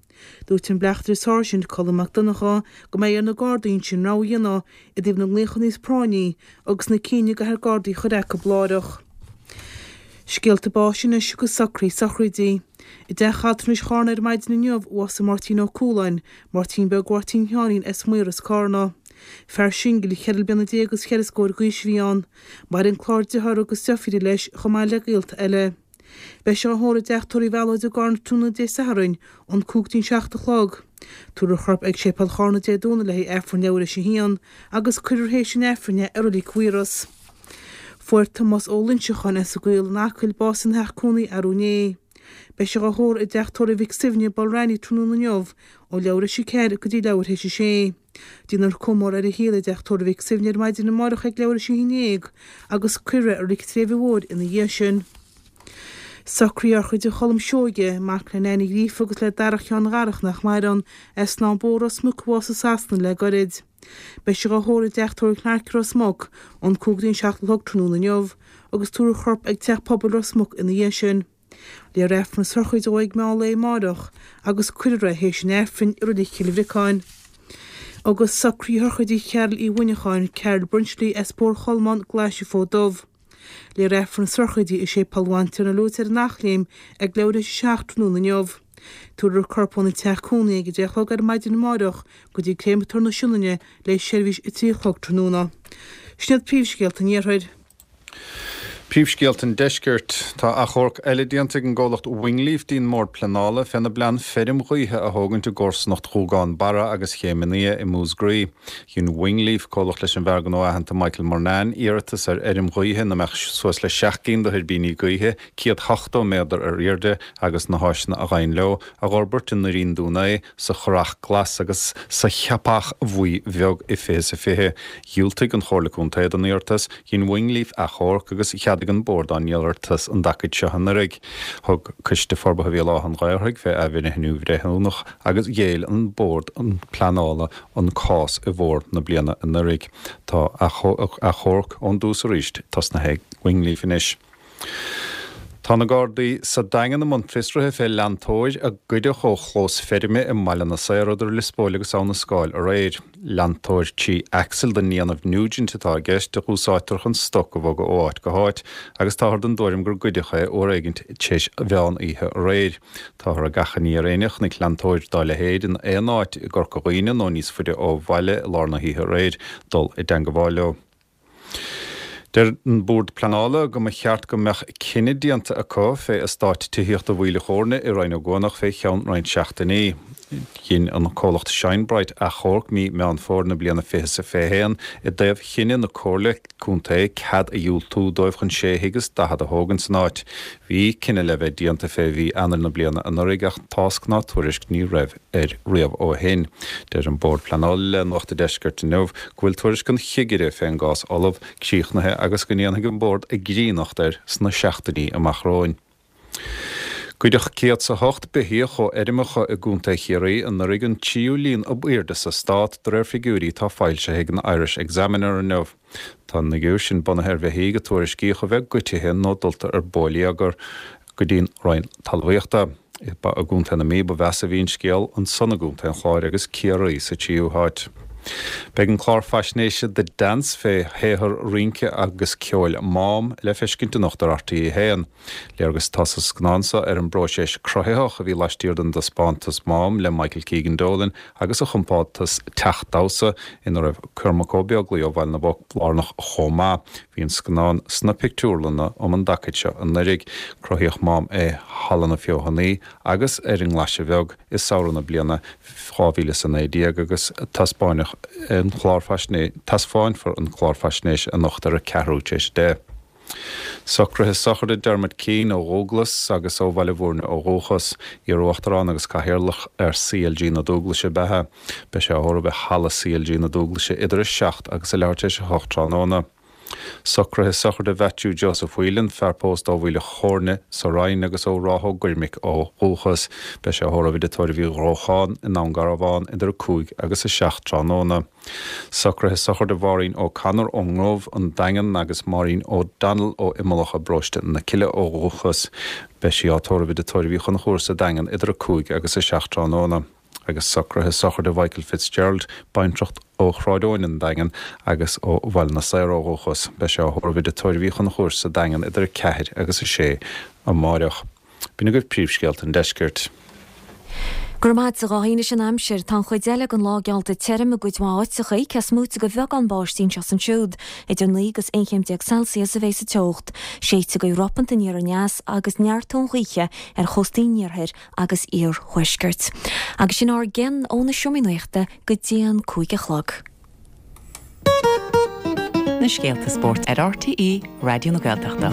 Dúirt an Bleachtaire Sáirsint Colm Mac Donncha go mbeidh ar na Gardaí ansin rogha a dhéanamh i dtaobh na nglaochanna níos práinní agus na cinn a gcaithfear Gardaí a chur acu láithreach. Scéalta báis anois agus socruithe sochraidí. I dTeach Altranais Charna ar maidin inniu a bhásaigh Máirtín Ó Cualáin, Máirtín Beag Mháirtín Sheáinín as Maoras, Cárna. Fear singil, cheithre bliana déag agus cheithre scór d'aois a bhí ann. Maireann clár dearthár agus deirfíre leis chomh maith le gaolta eile. Beidh sé á thórramh i dTeach Tórraimh Mhealóid i gCarna tráthnóna Dé Sathairn ón 5 go dtí'n 7 a chlog. Tabharfar a chorp ag Séipéal Charna Dé Domhnaigh le haghaidh Aifreann leathuair théis a haon agus cuirfear théis an Aifrinn é i Reilig Mhaorais. Fuair Tomás Ó Loinseacháin as an gCaol in Acaill bás ina theach cónaí arú inné. Beidh sé á thórramh i dTeach Tórraimh Mhic Suibhne, Balranney tráthnóna inniu ó leathuair théis a 4 go dtí leathuair théis a 6. Déanfar comóradh ar a shaol i dTeach Tórraimh Mhic Suibhne ar maidin amárach ag leathuair théis a 11 agus cuirfear é i Reilig an tSléibhe Mhóir ina dhiaidh sin. Socruithe shochraide Cholm Seoige, mac le Nain Uí Ghríofa agus le Darach Sheáin Dharach nach maireann, as Snáth Bó, Ros Muc a bhásaigh i Sasana le goirid. Beidh sé á thórramh i dTeach Tórraimh Clarke i Ros Muc ón 5 go dtí an 7 a chlog tráthnóna inniu agus tabharfar a chorp ag Teach Pobail Ros Muc ina dhiaidh sin. Léifear Aifreann na sochraide dó ag meán lae amáireach agus cuirfear é théis an Aifrinn i Reilig Chill Bhriocáin. Agus socruithe sochraide Chearl Uí Mhuineacháin, Carol Brenchley as Bóthar Cholmáin, Glaise Fód Dubh. Léifear Aifreann na sochraide i Séipéal Bhantiarna Lourdes ar an Eachléim ag leathuair théis a 7 tráthnóna inniu. Tabharfar a corp óna teach cónaí ag a 10 a chlog ar maidin amáireach go dtí Créamatóir na Sionainne le seirbhís a 3 a chlog tráthnóna. Sin iad príomhscéalta an Iarthair. Príomhscéalta an Deiscirt. Tá achomharc eile déanta ag an gcomhlacht Wingleaf dtí'n mBord Pleanála féna bplean feirm ghaoithe a thógaint i gcomharsanacht Ghúgán Barra agus Chéim an Fhia i Músgraí. Dhein Wingleaf, comhlacht leis an bhfear gnó aitheanta Michael Murnane, iarratas ar fheirm ghaoithe ina mbeadh suas le 7 gcinn de thuirbíní gaoithe, 170 méadar ar airde, agus na háiseanna a ghabhann leo, a dh'fhorbairt i nDoirín Dún Aodha, sa Churrach Glas agus sa Cheapach Bhuí Bheag i 2020. Dhiúltaigh an Chomhairle Contae don iarratas, dhein Wingleaf achomharc agus cheadaigh an Bord á n-iarratas an dtacaid seo anuraidh. Thug Coiste Forbartha Bhéal Átha an Ghaorthaidh fé athbhreithniú bhreithiúnach agus ghéill an Bord Pleanála an cás i bhfómhar na bliana anuraidh. Tá achomharc ón dtús arís tosnaithe ag Wingleaf anois. Tá na Gardaí sa Daingean i mbun fiosraithe fé leantóir a goideadh ó chlós feirme i mBaile na Saor idir Lios Póil agus Abha na Scáil aréir. Leantóir trí axle den ndéanamh Nugent atá i gceist, a dh'úsáidtear chun stoc a bhogadh ó áit go háit, agus táthar den dtuairim gur goideadh é uair éigint tar éis mheán oíche aréir. Táthar ag achainí ar éinne a chonaic leantóir dá leithéid in aon áit i gCorca Dhuibhne nó níos faide ó bhaile i lár na hoíche aréir dul i dteangabháil leo. Deir an Bord Pleanála go mba cheart go mbeadh cinneadh déanta acu fé eastát tithíochta Mhaoil a' Chóirne i Rinn Ó gCuanach fé cheann roinnt seachtainí. Dhein an comhlacht Shine Bright achomharc mí Meán Fómhair na bliana 2021 i dtaobh chinneadh na Comhairle Contae cead a dhiúltú dóibh chun sé thigh is 40 a thógaint san áit. Bhí cinneadh le bheith déanta fé mhí Eanáir na bliana anuraidh ach tásc ná tuairisc ní raibh air riamh ó shin. Deir an Bord Pleanála le Nuacht an Deiscirt inniu go bhfuil tuairisc an chigire fén gcás ullamh, críochnaithe agus go ndéanfaidh an Bord a gcríonnacht air sna seachtainí amach romhainn. Goideadh 108 beithíoch ó fheirmeacha i gContae Chiarraí anuraidh, an tríú líon ab aoirde sa stát, de réir figiúirí atá foilsithe ag an Irish Examiner inniu. Tá an fhigiúr sin bunaithe ar bheithígh a tuairiscíodh a bheith goitithe nó dulta ar bóilíogar go dtí'n Roinn Talmhaíochta. Ba i gContae na Mí ba mheasa a bhí an scéal, ansan i gContae an Chláir agus Ciarraí sa tríú háit. Beidh an clár faisnéise The Dance fé shaothar rince agus ceoil Mám le feiscint anocht ar RTÉ 1. Léargas atá sa scannán seo ar an bpróiseas cruthaitheach a bhí laistiar den dtaispeántas Mám le Michael Keegan Dolan agus a chompántas Teach Damhsa, ina raibh Cormac Ó Beaglaoi ó Bhaile na bPoc lárnach chomh maith. Bhí an scannán sna pictiúrlanna um an dtacaid seo anuraidh. Cruthaíodh Mám i Halla na Feothanaí agus ar an nGlaise Bheag i samhradh na bliana 2019 agus taispeáineadh an clár faisnéise, taispeánfar an clár faisnéise anocht ar a ceathrú tar éis a deich. Socruithe sochraide Dermot Keane ó Dhúglas agus ó Bhaile Bhúirne ó dhúchas. Iar-Uachtarán agus Cathaoirleach ar CLG na Dúglaise ab ea é. Beidh sé á thórramh i Halla CLG na Dúglaise idir 7 agus a leathuair tar éis 8 tráthnóna. Socruithe sochraide Mhaitiú Joseph Whelan, fear pósta ó Mhaoil a' Chóirne sa Rinn agus ó Ráth Ó gCoirmic ó dhúchas. Beidh sé á thórramh i dTigh Tórraimh Uí Ghrócháin i nDún Garbhán idir 5 agus 7 tráthnóna. Socruithe sochraide Mháirín O'Connor ón nGrove, An Daingean, agus Máirín O'Donnell ó Imeallach i bparóiste na Cille ó dhúchas. Beidh sí á tórramh i dTigh Tórraimh Uí Chonchúir sa Daingean idir 5 agus 7 tráthnóna. Agus socruithe sochraide Mhichael Fitzgerald, baintreach ó Shráid Eoin, An Daingean, agus ó Bhaile na Saor ó dhúchas. Beidh sé á thórramh i dTigh Tórraimh Uí Chonchúir sa Daingean idir 4 agus 6 amáireach. B'in agaibh príomhscéalta an deiscirt. Go raibh maith agat a Dháithí. Anois an aimsir. Tá an chuid eile den lá geallta tirim i gcuid mhaith áiteacha, cé is móite de bheagán báistí anseo is ansiúd. Idir 9 agus 11 chéim Celsius a bheidh sa teocht. Séidfidh gaoth ropanta aniar aneas agus neartóidh an ghaoth ar chóstaí an iarthair agus iarthuaiscirt. Agus sin ár gcionn ó na seomraí nuachta go dtí an 5 a chlog. Na scéalta spóirt ar RTÉ Raidió na Gaeltachta.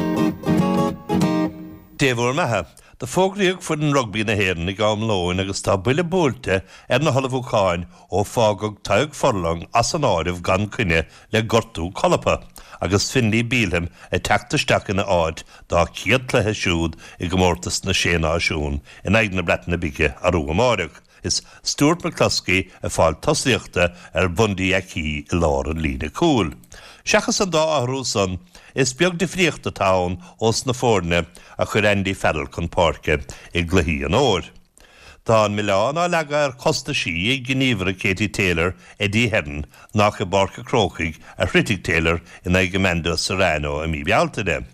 Dé bhur mbeatha. Do fógraíodh foireann rugbaí na hÉireann ag am lóin agus tá buille buailte ar na hullmhúcháin ó fágadh Tadhg Furlong as an áireamh gan coinne le gortú colpa agus Finlay Bealham ag teacht isteach ina áit dá chéad cluiche siúd i gcomórtas na Sé Náisiún in aghaidh na Breataine Bige arú amáireach. Is Stuart McCloskey ag fáil tosaíochta ar Bhundee Aki i lár an líne cúil. Seachas an dá athrú san, is beag difríocht atá ann ós na foirne a chuir Andy Farrell chun páirce i gcluichí an fhómhair. Tá an milleán á leagadh ar chostaisí ag gníomhaire Katie Taylor, Eddie Hearn, nach i bPáirc a' Chrócaigh a throidfidh Taylor in aghaidh Amanda Serrano i mí Bealtaine.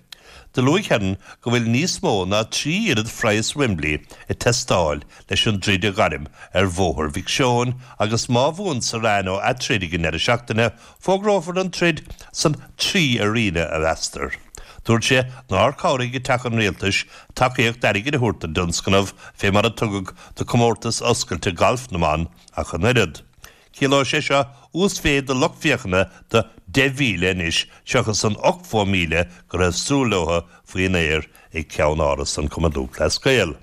Do luaigh Hearn go bhfuil níos mó ná 3 oiread phraghas Wembley ag teastáil leis an dtroid a ghairm ar Bhóthar Mhic Seoin agus má bhuann Serrano a troid ag an ndeireadh seachtaine, fógrófar an troid san 3 arena, a mheastar. Dúirt sé nár chabhraigh ag Teach an Rialtais tacaíocht airgid a thabhairt don dtionscnamh fé mar a tugadh do Comórtas Oscailte Gailf na mBan ach an oiread. Ciallóidh sé seo uasmhéid de lucht féachana de 10,000 anois seachas an 80,000 go raibh súil leo faoin aer ag ceann-áras an Chumann Lúthchleas Gael.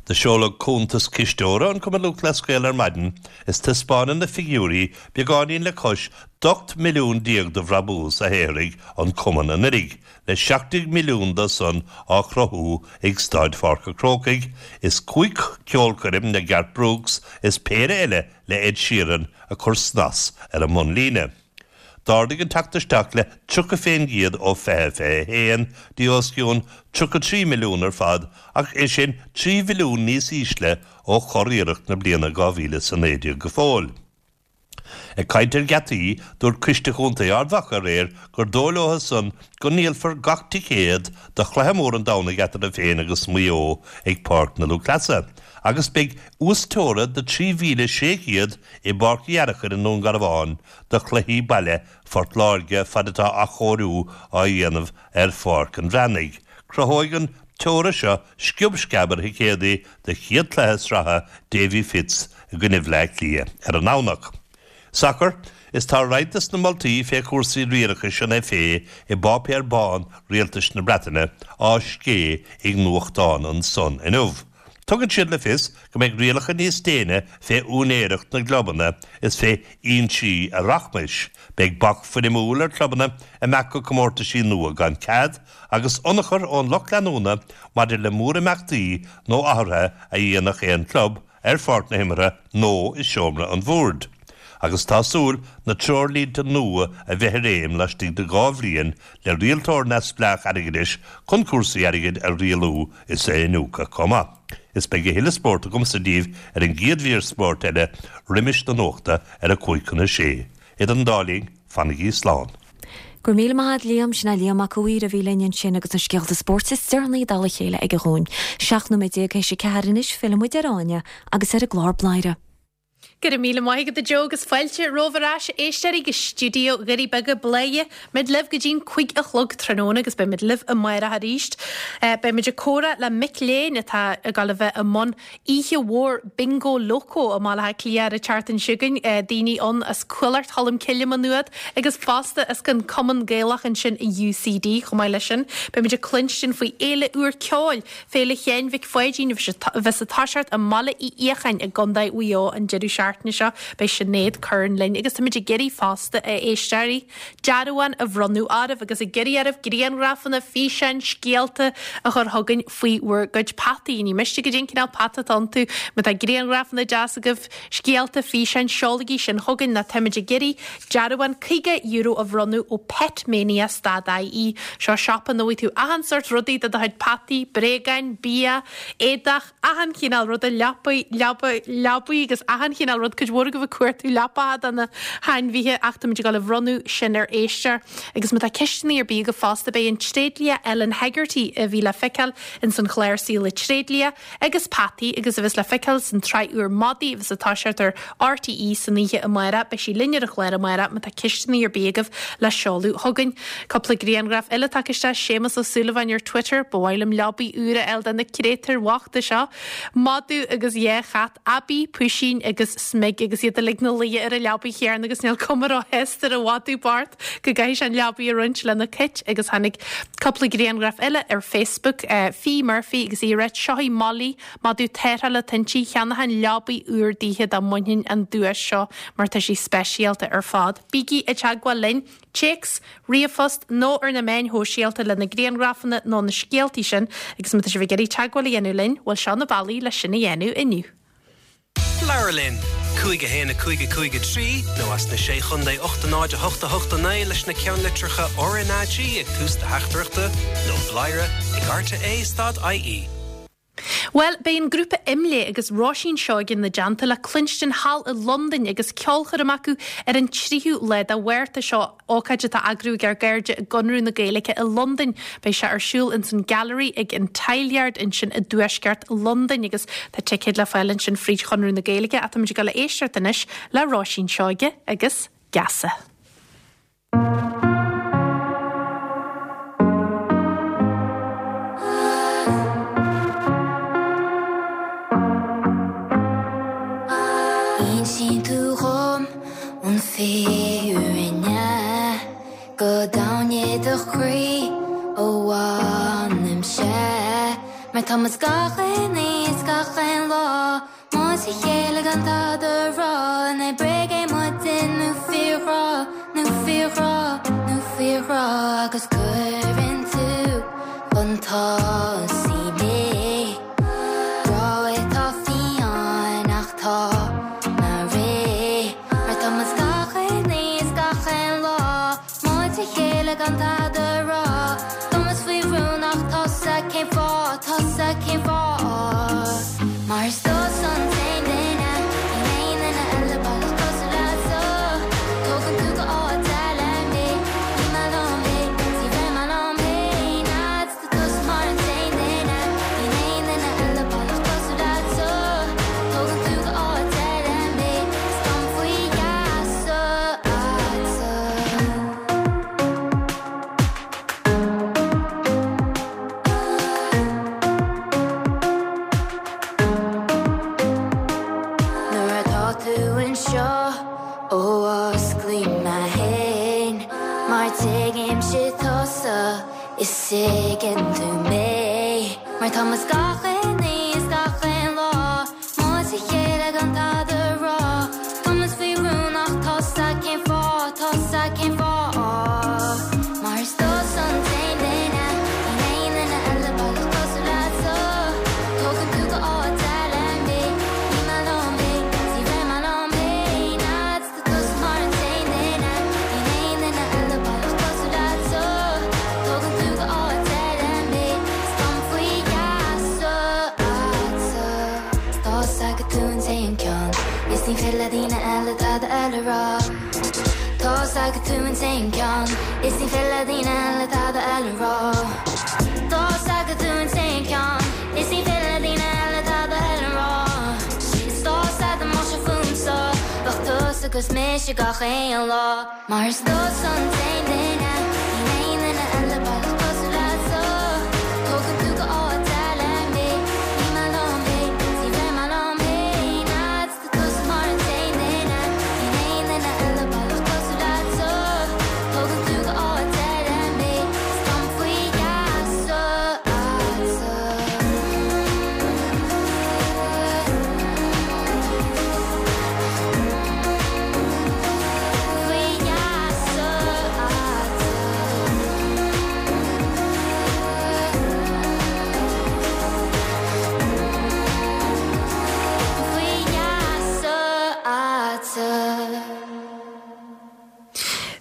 Do seoladh cuntas cisteora an Chumainn Lúthchleas Gael ar maidin is taispeánann na figiúirí beagáinín le cois d'18 milliún de bhrabús a shaothraigh an Cumann anuiridh, le 17 milliún dó san á chruthú ag Staid Pháirc a' Chrócaigh is 5 ceolchoirm le Garth Brooks is péire eile le Ed Sheeran ag cur snas ar an mbunlíne. D'ardaigh an teacht isteach le 30 fén gcéad ó 2021 dtí os cionn 33 milliún ar fad ach é sin 3 mhilliún níos ísle ó churiarracht na bliana 2019 go fóill. Ag caint ar gheataí, dúirt Coiste Chontae Ard Mhacha aréir gur dóigh leo san go ndíolfar gach ticéad do chluiche mór an Domhnaigh eatarthu féin agus Maigh Eo ag Páirc na Lúthchleasa agus beidh uasteora de 3,600 i bPáirc Uí Fhearachair i nDún Garbhán do chluichí baile Phort Láirge fad atá athchóiriú á dhéanamh ar Pháirc an Bhreathnaigh. Cruthóidh an teora seo sciob sceab ar thicéadaí do chéad chluiche sraithe Davy Fitz i gcoinne Bhleá Cliath ar an nDomhnach. Sacar, Is tá roinnt des na moltaí fé chúrsaí riarachais an FA i bpáipéar bán Rialtais na Breataine á scé ag nuachtán an Sun inniu. Tugann siad le fios go mbeidh rialacha níos déine fé úinéireacht na gclubanna is fé fhoinsí a rachmais, beidh bac foirmiúil ar chlubanna imeacht go comórtaisí nua gan cead, agus ionchur ón lucht leanúna maidir le mórimeachtaí nó athruithe a dhéanfadh aon chlub ar pháirc na himeartha nó i seomra an bhoird. Agus tá súil na treoirlínte nua a bheith i réim laistigh de 2 bhliain le rialtóir neamhspleách airgeadais chun cúrsaí airgid a rialú is a iniúchadh chomh maith. Is beidh a thuilleadh spóirt agamsa daoibh ar an gcéad mhír spóirt eile roimis na nuachta ar a 5 chun a 6. Idir an dá linn, fanaigí slán. Go raibh míle maith a't Liam, sin é Liam Mac a' Mhaoir a bhí linn ansin agus na scéalta spóirt is deireanaí i dtoll a chéile aige dhúinn. 17 nóiméad théis a 4 anois, filleann muid ar Áine agus ar an gclár Bladhaire. Go raibh míle maith agat a Joe agus fáilte romhaibh ar ais a éisteoirí go stiúideo Dhoirí Beaga Bladhaire. Beimid libh go dtí'n 5 a chlog tráthnóna agus beimid libh amárach arís. Beimid ag comhrá le mic léinn atá ag dul a bheith i mbun oíche mhór Bingo Loco i mBaile Átha Cliath ar an tseachtain seo chugainn. Daoine ann as Cuallacht Cholm Cille Maigh Nuad agus fosta as an Cumann Gaelach ansin i UCD chomh maith leis sin. Beimid ag cluinstin faoi fhéile úr ceoil Féile Sheáin Mhic Pháidín a bheas ag toiseacht i mBaile Uí Fhiacháin i gContae Mhaigh Eo an deireadh seachtaine seo. Beidh Sinéad Curran linn agus táimid ag iarraidh fosta, a éisteoirí, dearbhán a bhronnadh oraibh agus ag iarraidh oraibh grianghrafanna, físeáin, scéalta a chur chugainn faoi bhur gcuid peataí. Ní miste goidé an cineál peata atá iontu. Má tá grianghrafanna deas agaibh, scéalta, físeáin, seolaigí sin chugainn nó táimid ag iarraidh dearbhán €50 a bhronnadh ó Petmania stad IE. Seo siopa ina bhfaighidh tú achan sórt rudaí do do chuid peataí, bréagáin, bia, éadach, achan chineál ruda, leapaí, leaba, leabaí agus achan chineál rud. Cuid mhór agaibh ag cuartú leapacha do na hainmhithe ach táimid ag dul a bhronnadh sin ar éisteoir. Agus má tá ceisteanna ar bith agaibh fosta beidh an tréidlia Ellen Hegarty a bhí le feiceáil ins an chlár Saol an Tréidlia, agus Peataí agus a bheas le feiceáil san tsraith úr Madaí a bheas ag toiseacht ar RTÉ san oíche amárach. Beidh sí linn ar an chlár amárach má tá ceisteanna ar bith agaibh le seoladh chugainn. Cúpla grianghraf eile tagtha isteach, Séamus Ó Súilleabháin ar Twitter, Ba mhaith liom leabaidh úr a fháil do na créatúir bhochta seo. Madadh agus dhá chat, Aibí, Puisín agus Smig agus iad uilig 'na luí ar an leabaidh chéanna agus níl cuma róshásta ar an mhadadh bocht. go gcaithfidh sé an leabaidh a roinnt lena chait agus tháinig cúpla grianghraf eile ar Facebook. Fee Murphy agus í ag ráit, Seo í Molly, madadh tarrthála atá inti, cheannóchainn leabaidh úr daoithe dá mbainfinn an duais seo mar tá sí speisialta ar fad. Bígí i dteagmháil linn, téacs, ríomhphost nó ar na meáin shóisialta le na grianghrafanna nó na scéaltaí sin agus má tá sibh ag iarraidh teagmháil a dhéanamh linn, bhuel seo na bealaí le sin a dhéanamh inniu. Labhair linn! 5 1 5 5 3 nó as na Sé Chontae 8 0 8 8 9 leis na ceannlitreacha RnaG ag tús do theachtaireachta nó bladhaire ag rte stad ie. Bhuel, beidh an grúpa IMLÉ agus Róisín Seoige ina dteannta le cluinstin thall i Londain agus ceolchoirm acu ar an tríú lá de Mhárta seo. Ócáid atá á eagrú ag ár gcairde i gConradh na Gaeilge i Londain. Beidh sé ar siúl ins an Gallery ag an Tileyard ansin i dtuaisceart Londain agus tá ticéid le fáil ansin fríd Chonradh na Gaeilge ach táimid ag dul a éisteacht anois le Róisín Seoige agus Geasa. An fírinne go domhain i do chroí ó bhainim-se Mar tá muid gach aon oíche is gach aon lá Muid a chéile gan tada a rá An é bréag é muidne nó fíorghrá Nó fíorghrá, nó fíorghrá Agus cuireann tú chun tosaigh mé Grá atá fiáin ach tá mé réidh Mar tá muid gach aon oíche is gach aon lá Muid a chéile gan tada a rá Tá muid faoi rún ach tusa cén fáth Tusa cén fáth Mar is tusa an t-aon duine Níl aon duine eile baileach cosúil leatsa Tógann tú go áit eile mé Níl mé liom féin Ní bheidh mé liom féin Tá tusa mar an t-aon duine Níl aon duine eile baileach cosúil leatsa Tógann tú go áit eile mé Is táim faoi gheasa agatsa. Nuair atá tú anseo ó osclaím mé féin Mar tuigimse tusa Is tuigeann tú mé Mar tá muid gach aon oíche is gach aon lá Muid a chéile gan tada a rá Tá muid faoi rún ach tusa cén fáth Tusa cén fáth Mar is tusa an t-aon duine Níl aon duine eile baileach cosúil leatsa Tógann tú go áit eile mé Níl mé liom féin Ní bheidh mé liom féin Tá tusa mar an t-aon duine Níl aon duine eile baileach cosúil leatsa Tógann tú go áit eile mé Is táim faoi gheasa agatsa Tá's agat tú an t-aon ceann Is ní féidir le daoine eile tada eile a rá Tá's agat tú an t-aon ceann Is ní féidir le daoine eile tada eile a rá Tá's agat tú an t-aon ceann Is ní féidir le daoine eile tada eile a rá Is tá's agat dá mbeadh sé fúmsa Bheadh tusa agus mise gach aon lá Mar is tusa an t-aon duine Níl aon duine eile baileach cosúil leatsa Tógann tú go áit eile mé Níl mé liom féin Ní bheidh mé liom féin Tá tusa mar an t-aon duine Níl aon duine eile baileach cosúil leatsa Tógann tú go áit eile mé Is táim faoi gheasa agatsa. Faoi gheasa agatsa. Faoi gheasa agatsa.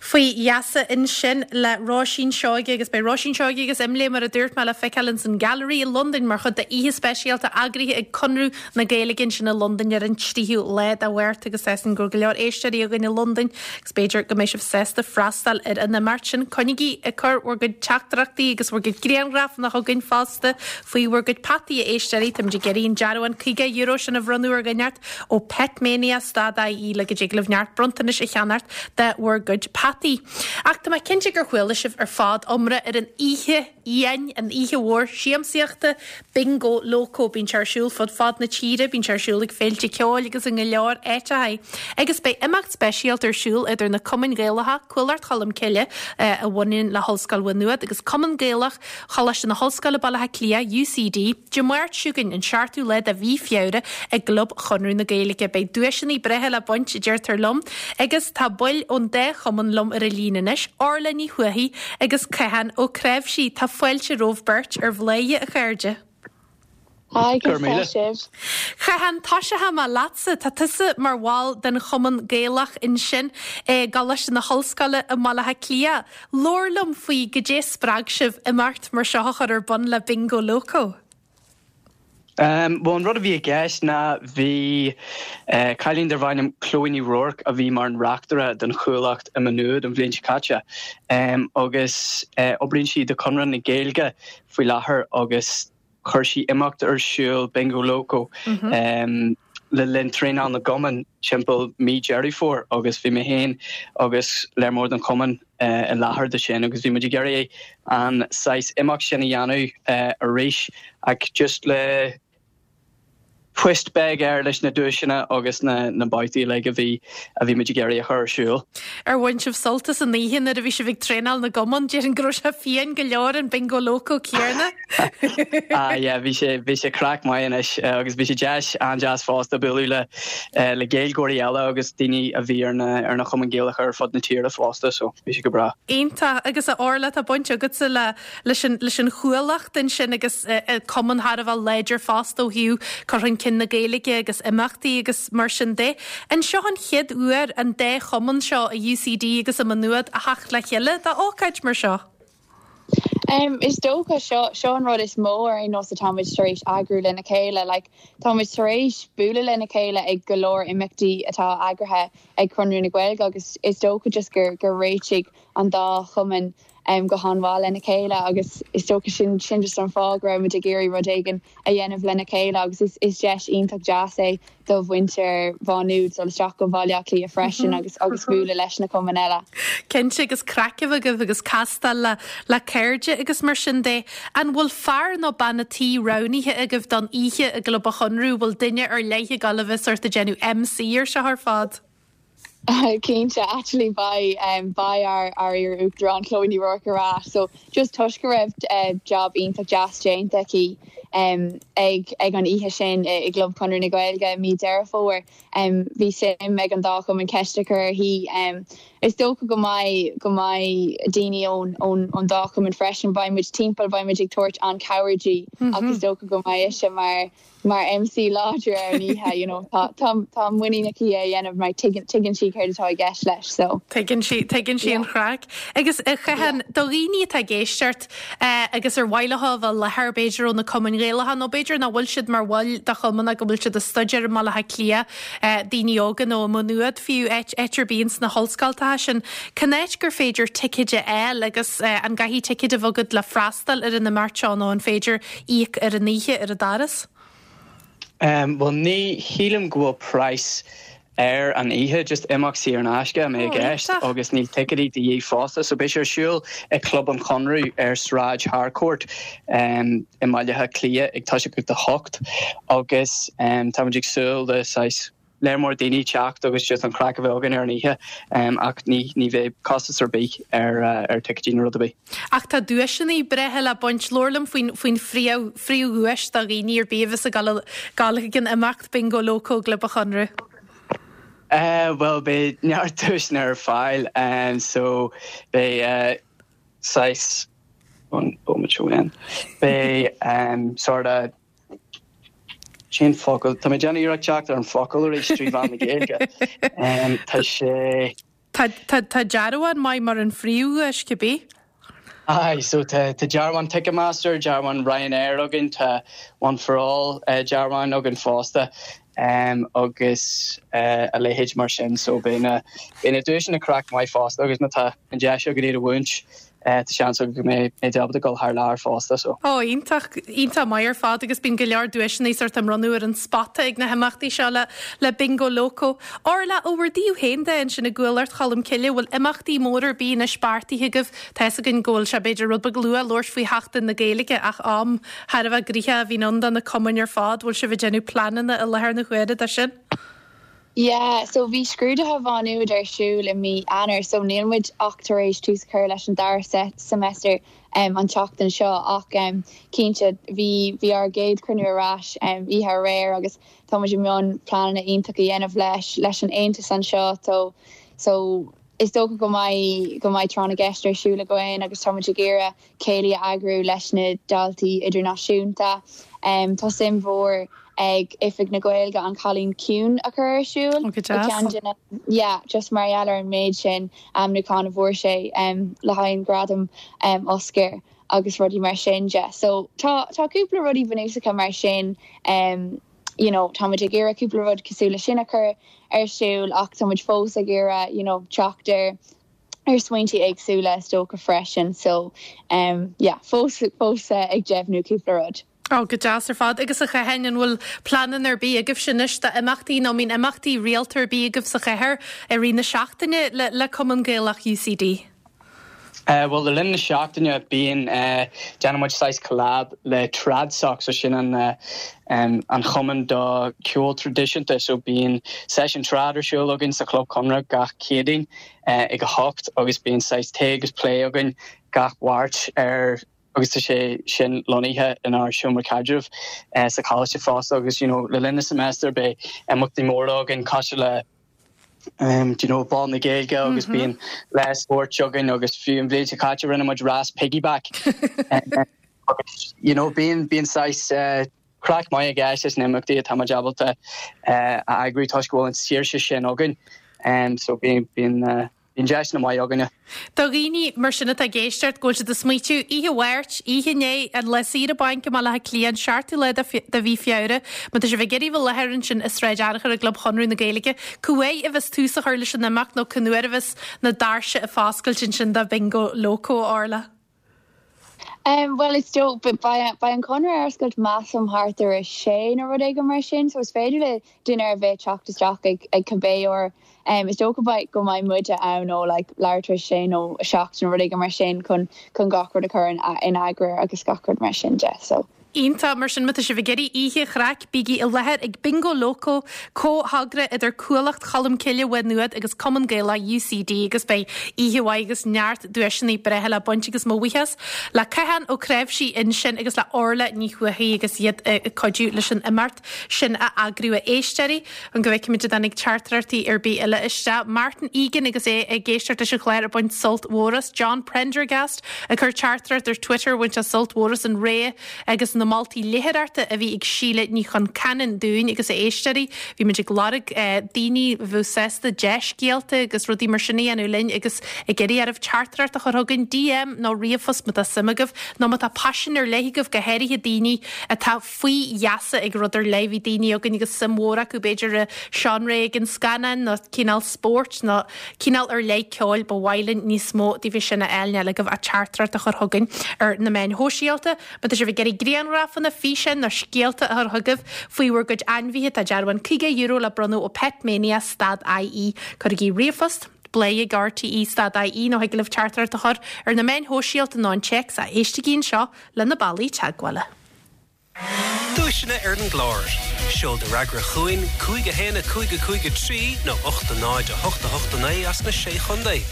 Faoi gheasa ansin le Róisín Seoige agus beidh Róisín Seoige agus Imlé mar a dúirt mé le feiceáil ins an Gallery i Londain mar chuid de oíche speisialta eagraithe ag Conradh na Gaeilge ansin i Londain ar an 3ú lá de Mhárta agus tá a fhios againn go bhfuil go leor éisteoirí againn i Londain agus b'fhéidir go mbeidh sibh sásta freastal ar an imeacht sin. Coinnigí ag cur bhur gcuid teachtaireachtaí agus bhur gcuid grianghrafanna chugainn fosta faoi bhur gcuid peataí, a éisteoirí. Táimid ag iarraidh an dearbhán €50 sin a bhronnadh ar dhuine inteacht ó Petmania stad IE le go dtig libh neart bronntanais a cheannacht de bhur gcuid peataí. Ach tá mé cinnte gur chuala sibh ar fad iomrá ar an oíche fhiáin, an oíche mhór siamsaíochta, Bingo Loco. Bíonn sé ar siúl fud fad na tíre, bíonn sé ar siúl ag féilte ceoil agus i go leor áiteacha. Agus beidh imeacht speisialta ar siúl idir na cumainn Ghaelacha, Cuallacht Cholm Cille, a bhaineann le hOllscoil Mhaigh Nuad, agus Cumann Gaelach Choláiste na hOllscoile Baile Átha Cliath, UCD, Dé Máirt seo chugainn, an seachtú lá de mhí Feabhra, i gClub Chonradh na Gaeilge. Beidh duaiseanna breátha le baint, a deirtear liom, agus tá baill ón dá chumann liom ar an líne anois, Orla Ní Thuathaigh agus Cathán Ó Cnáimhsí. Tá fáilte romhaibh beirt ar Bhladhaire, a chairde. Hi, conas tá sibh? Chathán, tosóidh mé leatsa. Tá tusa mar bhall den Chumann Gaelach ansin i gColáiste na hOllscoile i mBaile Átha Cliath. Labhair liom faoi goidé spreag sibh imeacht mar seo a chur ar bun le Bingo Loco. Bhuel, an rud a bhí i gceist ná bhí cailín darbh ainm Chloe Ní Ruairc a bhí mar an reachtaire don Chuallacht i Maigh Nuad an bhliain seo caite agus oibríonn sí do Chonradh na Gaeilge faoi láthair agus chuir sí imeacht ar siúl, Bingo Loco, le linn traenáil na gcumann timpeall mí Deireadh Fómhair agus bhí mé féin agus léar mór den chumann i láthair do sin agus bhí muid ag iarraidh an saghas imeacht sin a dhéanamh arís ach just le. Twist beag air leis na duaiseanna agus na na babhtaí uilig a bhí a bhí muid ag iarraidh a chur ar siúl. Ar bhain sibh sult as an oíche nuair a bhí sibh ag traenáil na gcumann? Déarfainn go raibh sé fiáin go leor an Bingo Loco céanna. Ah yeah, bhí sé bhí sé craic maith anois agus bhí sé deas an-deas fosta bualadh le le Gaeilgeoirí eile agus daoine a bhí ar na ar na chumainn Gaelacha ar fud na tíre fosta so bhí sé go breá. Iontach. Agus a Orla, tá baint agatsa le leis an leis an Chuallacht ansin agus cumann thar a bheith láidir fosta ó thaobh cur chun cinn na Gaeilge agus imeachtaí agus mar sin de. An seo an chéad uair an dá chumann seo i UCD agus i Maigh Nuad a theacht le chéile do ócáid mar seo? Is dócha, seo seo an rud is mó ar aon nós atá muid tar éis eagrú lena chéile. Like, tá muid tar éis bualadh lena chéile ag go leor imeachtaí atá eagraithe ag Conradh na Gaeilge agus is dócha just gur gur réitigh an dá chumann go han-mhaith lena chéile agus is dócha sin sin just an fáth go raibh muid ag iarraidh rud éigin a dhéanamh lena chéile agus is is deis iontach deas é do mhuintir Mhá Nuad dul isteach go Bhaile Átha Cliath freisin agus agus bualadh leis na cumainn eile. Cinnte agus craic a bheith agaibh agus castáil le le cairde agus mar sin de. An bhfuil fear nó bean a' tí roghnaithe agaibh don oíche i gClub an Chonradh? Bhfuil duine ar leith ag dul a bheith sórt ag déanamh MC ar seo ar fad? Cinnte, actually beidh beidh ár ár iar-uachtarán Chloe Ní Ruairc ar ais so just toisc go raibh job iontach deas déanta aici ag ag an oíche sin i gClub Chonradh na Gaeilge i mí Deireadh Fómhair bhí suim ag an dá chumann ceist a chur uirthi. Is dócha go mbeidh go mbeidh daoine ón ón ón dá chumann freisin beidh muid timpeall beidh muid ag tabhairt an-chabhair di ach is dócha go mbeidh ise mar mar MC láidir ar an oíche, you know, tá, tá, tá muinín aici é a dhéanamh mar tuigeann, tuigeann sí céard atá i gceist leis, so. Tuigeann sí, tuigeann sí an chraic. Agus a Chatháin, do dhaoine atá ag éisteacht agus ar mhaith leo a bheith i láthair, b'fhéidir ó na cumainn Ghaelacha nó b'fhéidir nach bhfuil siad mar bhaill de chumann ach go bhfuil siad ag staidéar i mBaile Átha Cliath, daoine óga nó i Maigh Nuad fiú, áit, áit ar bith ins na hollscoltacha sin, cén áit gur féidir ticéid a fháil agus an gcaithfidh ticéad a bheith agat le freastal ar an imeacht seo nó an féidir íoc ar an oíche ar an doras? Bhuel ní shílim go bhfuil praghas ar an oíche, just imeacht saor in aisce a mbeidh i gceist agus níl ticéidí de dhíth fosta. So beidh sé ar siúl i Club an Chonradh ar Sráid Harcourt i mBaile Átha Cliath ag toiseacht ag 8 agus táimid ag súil le saghas léar mór daoine teacht agus just an chraic a bheith againn ar an oíche ach ní ní bheidh costas ar bith ar ar ticéidí nó rud ar bith. Ach tá duaiseanna breátha le baint. Labhair liom faoin faoin phríomh phríomhdhuais do dhaoine ar bith a bheas ag dul dul chuig an imeacht Bingo Loco i gClub an Chonradh. Bhuel beidh neart duaiseanna ar fáil so beidh saghas an bomaite seo beidh sort of Cén focal? Tá mé ag déanamh iarracht teacht ar an focal arís trí mheán na Gaeilge. Tá sé. Tá, tá, tá dearbhán maith mar an phríomhdhuais, cibé. Aye, so tá, tá dearbhán Ticketmaster, dearbhán Ryanair againn, tá One for All dearbhán againn fosta agus a leithéid mar sin. So beidh na, beidh na duaiseanna craic maith fosta agus má tá an deis againn iad a bhuaint, Tá seans agam go mbeidh mé ábalta dul thar lear fosta so. Ó, iontach, iontach maith ar fad agus bíonn go leor duaiseanna sórt á mbronnadh ar an spota ag na himeachtaí seo le le Bingo Loco. Orla, ó bhur dtaobh féin de ansin i gCuallacht Cholm Cille, bhfuil imeachtaí móra ar bith anois beartaithe agaibh? Tá fhios againn go bhfuil sé b'fhéidir rud beag luath labhairt faoi Sheachtain na Gaeilge ach am thar a bheith gnoitheach a bhíonn ann do na cumainn ar fad. Bhfuil sibh ag déanamh pleananna i láthair na huaire dó sin? Yeah, so bhí scrúduithe Mhá Nuad ar siúl i mí Eanáir so níl muid ach tar éis tús a chur leis an dara semester an tseachtain seo ach cinnte bhí bhí ár gcéad chruinniú ar ais oíche aréir agus tá muid i mbun pleananna iontach a dhéanamh leis leis an aontas anseo so so is dócha go mbeidh go mbeidh tráth na gceist ar siúl againn agus tá muid ag iarraidh céilí a eagrú leis na daltaí idirnáisiúnta. Tá suim mhór ag Oifig na Gaeilge An Cailín Ciúin a chur ar siúl. Ó, go deas. Ceann de na, yeah, just mar gheall ar an méid sin ainmniúchán a bhfuair sé le haghaidh an Gradam Oscar agus rudaí mar sin de. So tá tá cúpla rudaí bunúsacha mar sin you know, tá muid ag iarraidh cúpla rud cosúil le sin a chur ar siúl ach tá muid fós ag iarraidh you know, teacht ar ar smaointe éagsúla is dócha freisin so yeah fós fós ag deimhniú cúpla rud. Ó, go deas ar fad. Agus a Chatháin, an bhfuil pleananna ar bith agaibhse anois d'imeachtaí nó an mbíonn imeachtaí rialta ar bith agaibh sa chathair i rith na seachtaine le le Cumann Gaelach UCD? Bhuel, le linn na seachtaine bíonn, déanann muid saghas collab le TradSoc, so sin an an chumann do ceol traidisiúnta, so bíonn seisiún trad ar siúl againn sa Chlub Chonradh gach Céadaoin ag a hocht agus bíonn saghas tae agus plé againn gach Mháirt ar agus tá sé sin lonnaithe inár seomra caidrimh sa choláiste fosta agus you know le linn na semester beidh imeachtaí móra againn cosúil le do you know, Bál na Gaeilge agus bíonn lá spóirt againn agus fiú an bhliain seo caite rinne muid rás piggyback. Agus you know, bíonn bíonn saghas eh, craic maith i gceist leis na himeachtaí atá muid ábalta eh, a eagrú toisc go bhfuil an saoirse sin againn. Um, so bíonn bíonn eh, Bíonn deiseanna maith againne. Do dhaoine mar sin atá ag éisteacht go bhfuil siad ag smaoitiú, oíche Mháirt, oíche inné, an lá saoire bainc i mBaile Átha Cliath, an seachtú lá de mhí Feabhra, má tá sibh ag iarraidh bheith i láthair ansin i Sráid Fhearchair i gClub Chonradh na Gaeilge, cá uair a bheas tús á chur leis an imeacht nó cén uair a bheas na doirse ag foscailt ansin do Bingo Loco, a Orla? Bhuel is dóigh, beidh an Conradh ar oscailt measaim thart ar a sé nó rud éigin mar sin so is féidir le duine ar bith teacht isteach ag ag cibé uair. Is dócha beidh go mbeidh muide ann ó like leathuair tar éis a sé nó a seacht nó rud éigin mar sin chun chun gach rud a chur in in eagar agus gach rud mar sin de so. Iontach, mar sin má tá sibh ag iarraidh oíche chraic, bígí i láthair ag Bingo Loco, comhthogra idir Cuallacht Cholmcille Mhaigh Nuad agus Cumann Gaelach UCD agus beidh oíche mhaith agus neart duaiseanna breátha le baint agus mo bhuíochas le Cathán Ó Cnáimhsí ansin agus le Orla Ní Thuathaigh agus iad ag cuidiú leis an imeacht sin a eagrú. A éisteoirí, chun go bhfeicfimid an dtáinig teachtaireachtaí ar bith eile isteach. Martin Egan agus é ag éisteacht leis an chlár ag baint sult mhór as. John Prendergast ag cur teachtaireacht ar Twitter bhain sé sult mhór as an rogha agus na moltaí léitheoireachta a bhí ag Síle Ní Chonceanainn dúinn agus a éisteoirí. Bhí muid ag lorg daoine a bheadh sásta dea-scéalta agus rudaí mar sin a dhéanamh linn agus ag iarraidh oraibh teachtaireacht a chur chugainn, DM nó ríomhphost má tá suim agaibh nó má tá paisean ar leith agaibh, go háirithe daoine atá faoi gheasa ag rud ar leith. Bhí daoine againn agus suim mhór acu b'fhéidir i seánra éigin scannáin nó cineál spóirt nó cineál ar leith ceoil. Ba mhaith linn níos mó daoibh sin a fháil. Níl agaibh ach teachtaireacht a chur chugainn ar na meáin shóisialta. Má tá sibh ag iarraidh grianghrafanna, físeáin nó scéalta a chur chugaibh faoi bhur gcuid ainmhithe tá dearbhán €50 le bronnadh ó Petmania stad IE. Cuirigí ríomhphost, bladhaire ag RTE stad IE nó thig libh teachtaireacht a chur ar na meáin shóisialta nó an téacs ach éistigí anseo le na bealaí teagmhála. Duaiseanna ar an gclár. Seol do fhreagra chugainn, 5 1 5 5 3 nó 8 0 8 8 9 as na Sé Chontae.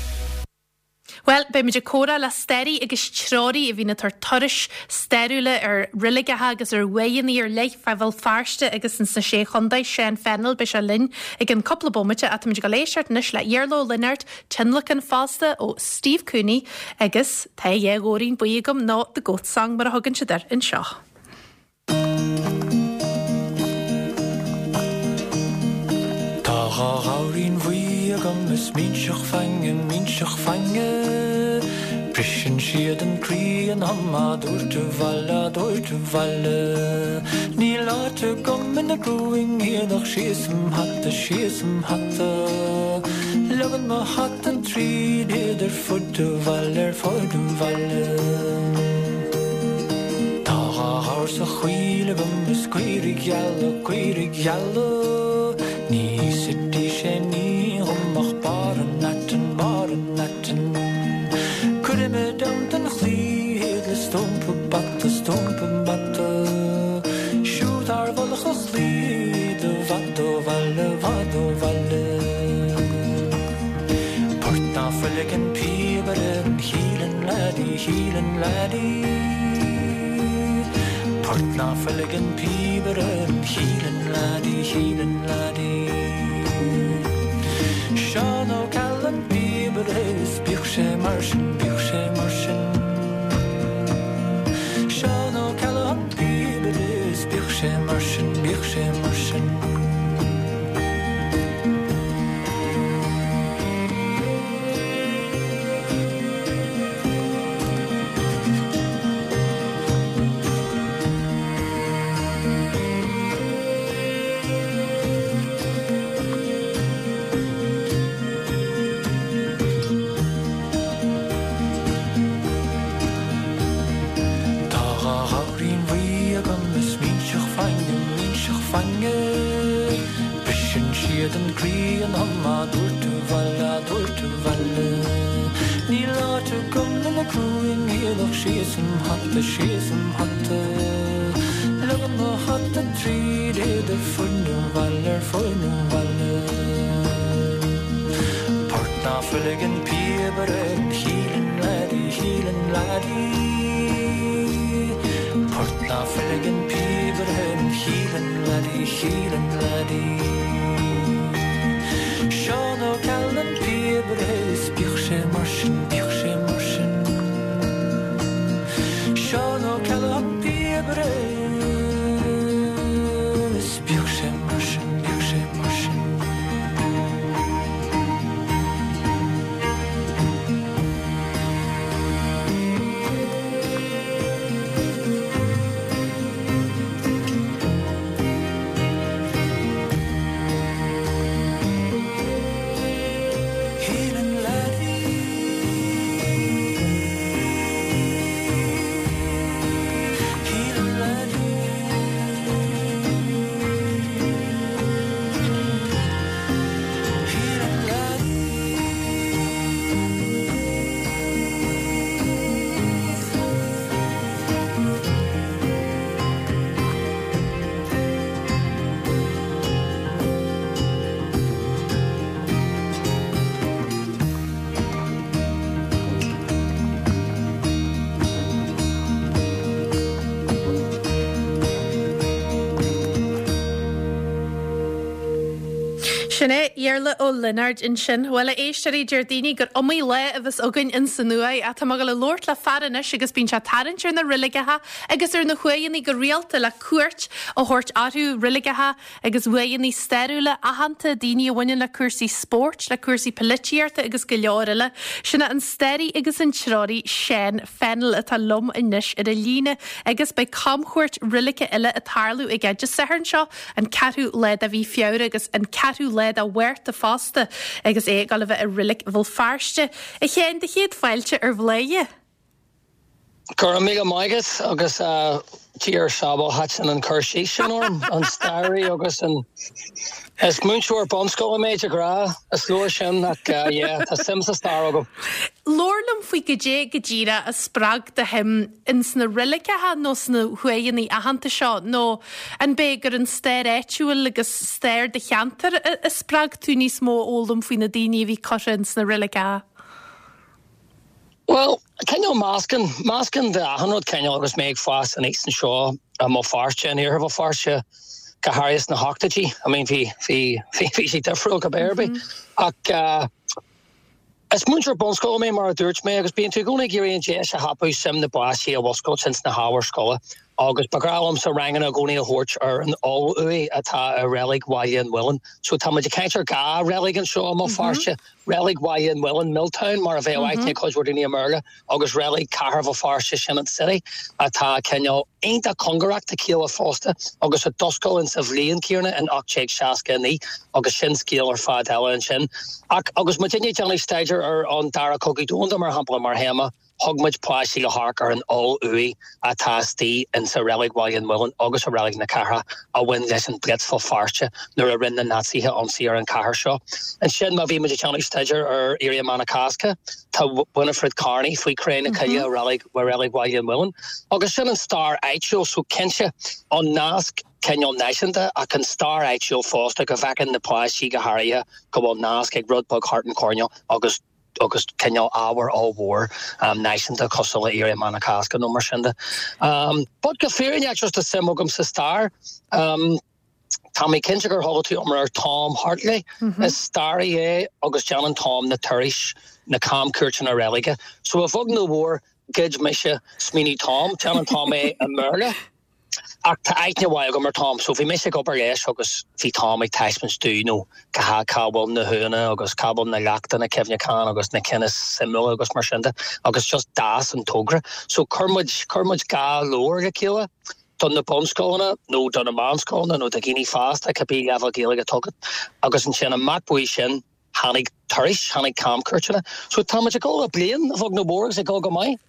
Bhuel, beidh muid ag comhrá le staraí agus treoraí a bhíonn ag tabhairt turais stairiúla ar reiligeacha agus ar uaigheanna ar leith fá Bhéal Feirste agus ins na Sé Chontae, Seán Fennell, beidh sé linn i gcionn cúpla bomaite ach táimid ag dul éisteacht anois le Iarla Ó Lionáird, tionlacan fosta ó Steve Cooney agus Tá a dhá ghamhairín buí agam nó The Goat Song mar a thugann siad air anseo. Tá dha ghamhairín bhuí agam is minseach fainge, minseach fainge. Briseann siad an croí ionam á dtabhairt abhaile, á dtabhairt abhaile. Níl áit agam ina gcrúing iad ach síos im hata, síos im hata. Leogann mo hata tríd iad ar fud an bhaile, ar fud an bhaile. Tá dha ghabhar sa choill agam is caoirigh gheala, caoirigh gheala. Ní íosfaidís aon ní dhom ach barr an aitinn, barr an aitinn. Cuirfidh mé i dteannta an chlaí iad le stumpa bata, stumpa bata. Siúd thar mhullach an chlaí iad i bhfad ó bhaile, i bhfad ó bhaile. Port ná fuil ag an píobaire an Hielan Laddie, Hielan Laddie. Port ná fuil ag an píobaire an Hielan Laddie, Hielan Laddie. Seán Ó Ceallaigh an píobaire is bíodh sé mar sin, bíodh sé mar sin. Seán Ó Ceallaigh an píobaire is bíodh sé mar sin, bíodh sé mar sin. Tá dha ghamhairín bhuí agam is minseach fainge, minseach fainge. Briseann siad an croí ionam á dtabhairt abhaile, á dtabhairt abhaile. Níl áit agam ina. síos im hata, síos im hata. Leagaim mo hata tríd iad ar fud an bhaile, ar fud an bhaile. Port ná fuil ag an píobaire, Hílean laddie, Hílean laddie. Port ná fuil ag an píobaire, Hílean laddie, Hílean laddie. Seán Ó Ceallaigh an píobaire is bíodh sé mar sin, bíodh sé mar sin. Seán Ó Ceallaigh an píobaire is bíodh sé mar sin, bíodh sé mar sin. Sin é Iarla Ó Lionáird ansin. Bhuel, a éisteoirí, deir daoine gur iomaí lá a bheas againn ins an uaigh. Ach tá mé ag dul a labhairt le fear anois agus bíonn sé ag tarraingt ar na reiligeacha agus ar na huaigheanna go rialta le cuairt a thabhairt orthu, reiligeacha agus uaigheanna stairiúla aitheanta, daoine a bhaineann le cúrsaí spóirt, le cúrsaí poilitíochta agus go leor eile. Sin é an staraí agus an treoraí Seán Fennell atá liom anois ar an líne agus beidh camchuairt reilice eile ag tarlú aige Dé Sathairn seo, an ceathrú lá de mhí Feabhra agus an ceathrú lá de Mhárta fosta agus é ag dul a bheith i Reilig Bhéal Feirste. A Sheáin, do chéad fáilte ar Bhladhaire. Go raibh míle maith agat agus Dia ár sábháil thaitin an cur síos sin orm, an staraí agus an. Is múinteoir bunscoile mé de ghnáth, is leor sin ach yeah, tá suim sa stair agam. Labhair liom faoi goidé go díreach a spreag do shuim ins na reiligeacha nó sna huaigheanna aitheanta seo nó an b'é gur an stair áitiúil agus stair do cheantair a spreag tú níos mó a fhoghlaim faoi na daoine a bhí curtha ins na reiligeacha? Bhuel, cineál meascán, meascán de achan rud cineál agus mé ag fás aníos anseo i mBéal Feirste, in iarthar Bhéal Feirste, go háirithe sna hochtóidí. I mean bhí, bhí, bhí, bhí sé difriúil cibé ar bith. Ach eh, is múinteoir bunscoile mé mar a dúirt mé agus bíonn tú i gcónaí ag iarraidh an deis a thapú suim na bpáistí a mhuscailt ins na hábhair scoile agus ba ghnách liomsa ranganna i gcónaí a thabhairt ar an oll-uaigh atá i Reilig Bhaile an Mhuilinn. So tá muid ag caint ar dhá reilig anseo i mBéal Feirste. Reilig Bhaile an Mhuilinn, Milltown, mar a bheadh aithne ag cuid mhór daoine i mBéarla, agus Reilig Cathair Bhéal Feirste, sin an City, atá cineál iontach cóngarach dá chéile fosta agus a d'oscail in sa bhliain céanna in 1869 agus sin scéal ar fad eile ansin. Ach agus muidinne ag déanamh staidéar ar an Dara Cogadh Domhanda, mar shampla, mar théama, Thug muid páistí le hamharc ar an oll-uaigh atá istigh insa Reilig Bhaile an Mhuilinn agus i Reilig na Cathrach a bhain leis an Blitz Bhéal Feirste nuair a rinne na Naitsithe ionsaí ar an chathair seo. Ansin má bhí muid ag déanamh staidéar ar Éirí Amach na Cásca, tá Winifred Carney faoi chré na cille i Reilig Reilig Bhaile an Mhuilinn. Agus sin an stair áitiúil so cinnte an nasc cineál náisiúnta ach an stair áitiúil fosta go bhfeiceann na páistí go háirithe go bhfuil nasc ag rud beag thart an choirnéal agus agus cineál ábhar ollmhór náisiúnta cosúil le Éirí Amach na Cásca nó mar sin de. But go fírinneach just tá suim agam sa stair. Tá mé cinnte gur chuala tú iomrá ar Tom Hartley. Is staraí é agus déanann Tom na turais, na camchuairteanna reilige. So a bheag nó a mhór, ghoid mise smaoineamh Tom. Déanann Tom é i mBéarla. Ach tá aithne mhaith agam ar Tom, so bhí mise ag obair leis agus bhí Tom ag taispeáint domh, you know, cá cá bhfuil na huaigheanna agus cá bhfuil na leachtanna cuimhneacháin agus na cinn is suimiúla agus mar sin de agus just d'fhás an togra. So chuir muid, chuir muid dhá leabhar le chéile do na bunscoileanna nó do na meánscoileanna nó do dhaoine fásta, cibé leibhéal Gaeilge atá agat agus ansin amach uaidh sin, Tháinig turais, tháinig camchuairteanna. So tá muid ag dul le bliain, a bheag nó a mhór, agus ag dul go maith.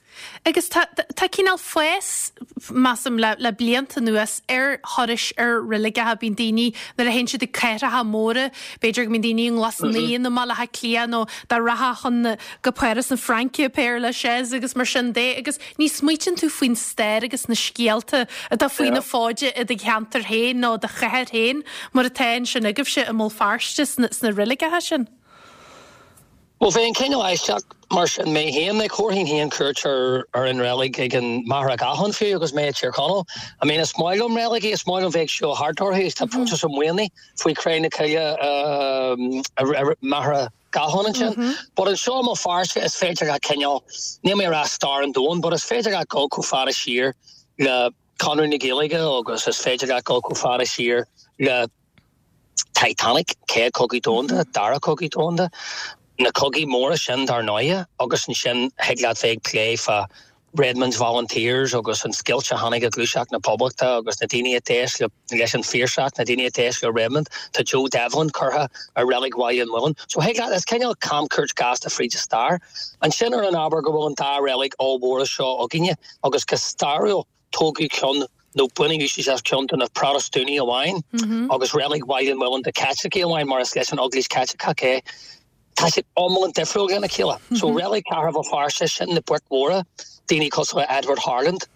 Agus tá, tá cineál fás, measaim, le, le blianta anuas ar thurais ar reiligeacha. Bíonn daoine, nuair a théann siad ag cathracha móra, b'fhéidir go mbíonn daoine i nGlas Naíon i mBaile Átha Cliath nó dá rachfá chun na, go Páras na Fraince, Père Lachaise agus mar sin de agus ní smaoitíonn tú faoin stair agus na scéalta atá faoi na fóide i do cheantar féin nó do chathair féin mar atá ansin agaibhse i mBéal Feirste sna, sna reiligeacha sin. Bhuel, bheinn cineál aisteach mar sin mé féin. Like, thabharfainn féin cuairt ar ar an reilig ag an Machaire Gathlán fiú agus mé i Tír Chonaill. I mean, is maith liom reiligí, is maith liom bheith ag siúl thart orthu. Tá Proinsias Ó Maonaigh faoi Chré na Cille i Machaire Gathlán ansin. But anseo i mBéal Feirste is féidir leat cineál, níl mé ag rá stair an domhain, but is féidir leat dul chomh fada siar le Conradh na Gaeilge agus is féidir leat dul chomh fada siar le Titanic, Céad Cogadh Domhanda, Dara Cogadh Domhanda, na cogaí móra sin dar ndóighe, agus ansin thig leat bheith ag plé fá Redmond's Volunteers agus an scoilt a tháinig i Gluaiseacht na Poblachta agus na daoine a d'éist leis an Phiarsach, na daoine a d'éist le Redmond. Tá Joe Devlin curtha i Reilig Bhaile an Mhuilinn. So thig leat, is cineál camchuairt gasta fríd an stair. Ansin ar an ábhar go bhfuil an dá reilig ollmhóra seo againne agus go stairiúil, Tógadh ceann, nó baineadh úsáid as ceann do na Protastúnaigh amháin agus Reilig Bhaile an Mhuilinn do Chaitlicigh amháin mar is leis an Eaglais Chaitliceach é. Tá siad iomlán difriúil lena chéile. So Reilig Chathair Bhéal Feirste, sin na boic mhóra, daoine cosúil le Edward Harland,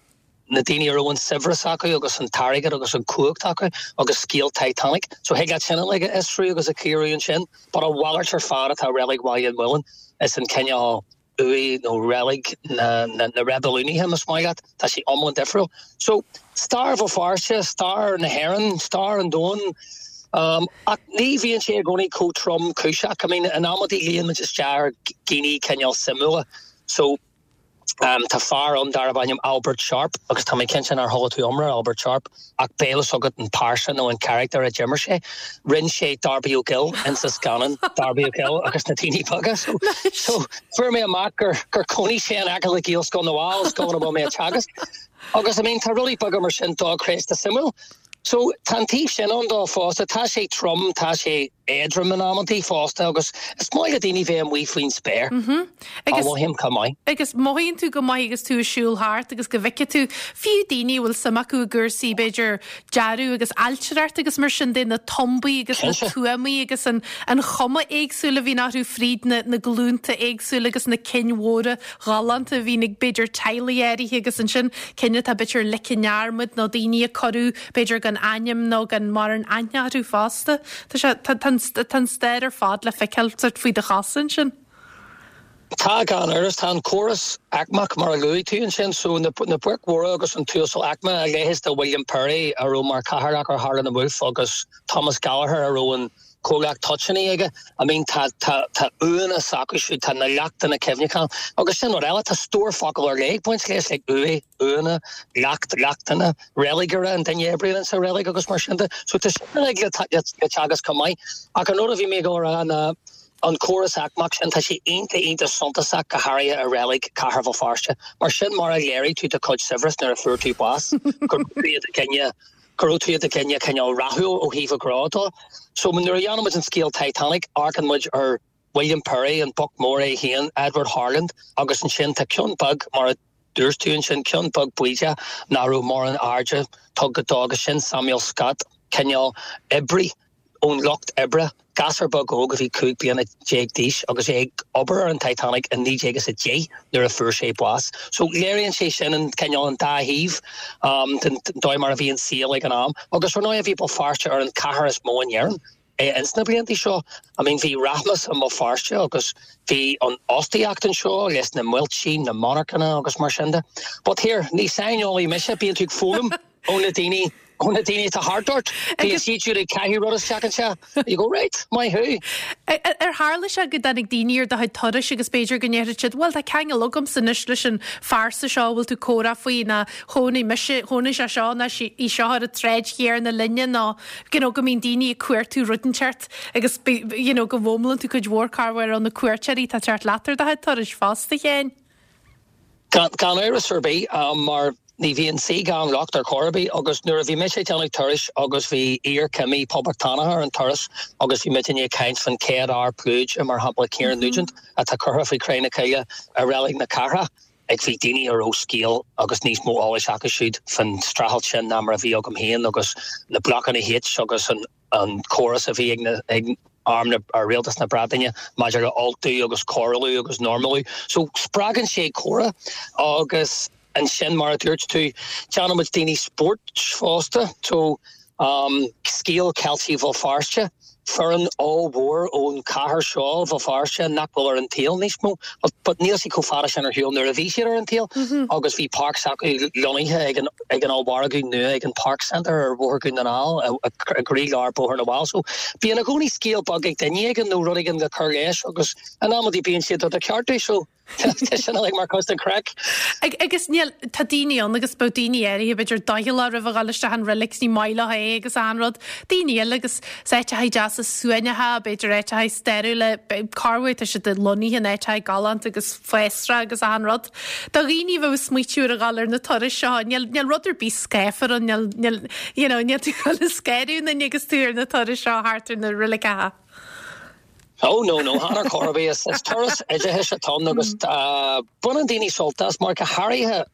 na daoine a raibh an saibhreas acu agus an t-airgead agus an chumhacht acu agus scéal Titanic. So thig leat sin uilig a fhiosrú agus a chíoradh ansin. But a mhalairt ar fad atá Reilig Bhaile an Mhuilinn is an cineál uaigh nó reilig na reibiliúnaithe, más maith leat. Tá sé iomlán difriúil. So, stair Bhéal Feirste, stair na hÉireann, stair an domhain. Ach ní bhíonn sé i gcónaí chomh tromchúiseach. I mean, in amantaí luíonn muid isteach ar dhaoine cineál suimiúla. So, tá fear ann darb ainm Albert Sharpe agus tá mé cinnte nár chuala tú iomrá ar Albert Sharpe. Ach beidh a fhios agat an pearsa nó an charachtar a d'imir sé. Rinne sé Darby O'Gill insa scannán Darby O'Gill agus na Daoine Beaga. So, so fuair mé amach gur, gur chónaigh sé in aice le Gaelscoil na bhFál, scoil ina bhfuil mé ag teagasc. Agus I mean tá rudaí beaga mar sin dochreidte suimiúil. So tá an taobh sin ann dó fosta. Tá sé trom, tá sé éadrom in amantaí fosta agus is maith le daoine bheith amuigh faoin spéir. Agus mothaím chomh maith. Agus mothaíonn tú go maith agus tú ag siúl thart agus go bhfeicfidh tú fiú daoine a bhfuil suim acu i gcúrsaí b'fhéidir dearadh agus ailtireacht agus mar sin de, na tumbaí agus na tuamaí agus an an chuma éagsúil a bhíonn orthu fríd na na glúnta éagsúla agus na cinn mhóra ghalánta a bhíonn ag b'fhéidir teaghlaigh áirithe agus ansin cinn atá b'fhéidir ligthe i ndearmad nó daoine a cuireadh b'fhéidir gan ainm nó gan mórán aithne orthu fosta. Tá sé, tá, tá an, tá an stair ar fad le feiceáil sort faoi do chosa ansin. Tá, gan amhras. Tá an córas aicmeach mar a luaigh tú ansin, so na, na boic mhóra agus an t-uasal aicme, a leithéid de William Perry a raibh mar chathaoirleach ar Harland and Wolff agus Thomas Gallagher a raibh an comhlacht toitíní aige. I mean tá, tá, tá uaigheanna s'acu siúd, tá na leachtanna cuimhneacháin agus sin rud eile, tá stór focal ar leith ag baint leis, like uaigh, uaigheanna, leacht, leachtanna, reiligire, an duine a oibríonn sa reilig agus mar sin de. So tá sin uilig le, le, le teagasc chomh maith. Ach an rud a bhí mé ag dul a rá ná an córas aicmeach sin, tá sé iontach, iontach suntasach go háirithe i reilig Chathair Bhéal Feirste. Mar sin mar a léirigh tú do chuid saibhreas nuair a fuair tú bás, go raibh tú i do dhuine, go raibh tú i do dhuine cineál rathúil ó thaobh an ghnó de. So nuair a dhéanann muid an scéal Titanic, amharcann muid ar William Perry, an boc mór é féin, Edward Harland, agus ansin tá ceann beag, mar a dúirt tú ansin, ceann beag baoideach nach raibh mórán airde tugtha dó agus sin Samuel Scott, cineál oibrí ón lucht oibre, gasúr beag óg a bhí 15 bliana d'aois agus é ag obair ar an Titanic i 1910 nuair a fuair sé bás. So léiríonn sé sin an cineál an dá thaobh den dóigh mar a bhí an saol ag an am. Agus ar ndóigh bhí Béal Feirste ar an chathair is mó in Éirinn ins na blianta seo. I mean bhí rachmas i mBéal Feirste agus bhí an fhostaíocht anseo leis na muiltí, na monarchana agus mar sin de. But here, ní saineolaí mise, bíonn tú ag foghlaim. ó na daoine, ó na daoine atá thart ort. Bíonn siad siúd ag caitheamh rud isteach anseo. You go, right, maith thú. Ar tharla sé go dtáinig daoine ar do chuid turais agus b'fhéidir go ndéarfadh siad, bhuel tá ceangal agamsa anois leis an phearsa seo a bhfuil tú ag comhrá faoi nó chónaigh mise, chónaigh sé seo nó í seo ar an tsráid chéanna linne nó you know go mbíonn daoine ag cuartú rud inteacht agus you know go bhfoghlaimíonn tú cuid mhór corruair ó na cuairteoirí atá ag teacht leat ar do chuid turais fosta, a Sheáin. Gan amhras ar bith, mar ní bhíonn saoi gan locht ar chor ar bith agus nuair a bhí mise ag déanamh turais agus bhí iarchimí poblachtánach ar an turas agus bhí muidinne ag caint faoin chéad fhear pluide, mar shampla Kieran Nugent, atá curtha faoi Chré na Cille i Reilig na Cathrach. Ag bhí daoine a raibh scéal agus níos mó eolais acu siúd faoin streachailt sin ná mar a bhí agam féin agus na blocanna H agus an an córas a bhí ag na ag arm na ar rialtas na Breataine maidir le Ultú agus cóireáil agus normalú. So spreagann sé comhrá agus ansin mar a dúirt tú déanann muid daoine spóirt fosta. So um scéal Ceiltigh Bhéal Feirste, foireann ollmhór ón chathair seo Bhéal Feirste nach bhfuil ar an tsaol níos mó but níl siad chomh fada sin ar shiúl nuair a bhí siad ar an tsaol agus bhí páirc s'acu lonnaithe ag an ag an ollmhargadh nua ag an Park Centre ar Bhóthar Dhún na nGall i gcroílár Bóthar na bhFál. So bíonn i gcónaí scéal beag ag duine éigin nó rud éigin le cur leis agus in amantaí bíonn siad do do cheartú so tá sin uilig mar chuid den chraic. Agus níl, tá daoine ann agus bheadh daoine áirithe b'fhéidir doicheallach roimh a dhul isteach an reilig 's ní maith leo é agus achan rud. Daoine eile agus is áiteacha deasa suaimhneacha, b'fhéidir áiteacha stairiúla, corruair tá siad lonnaithe in áiteacha galánta agus fásra agus achan rud. Do dhaoine a bheadh ag smaoitiú ar a dhul ar na turais seo, níl, níl rud ar bith scáfar ann, níl, níl, you know, níl tú ag dul ag scanrú aon duine agus tú ar na turais seo thart ar na reiligeacha. Oh no, no, chan ar chor ar bith. Is, is turas oideachais atá ann agus baineann daoine sult as mar go háirithe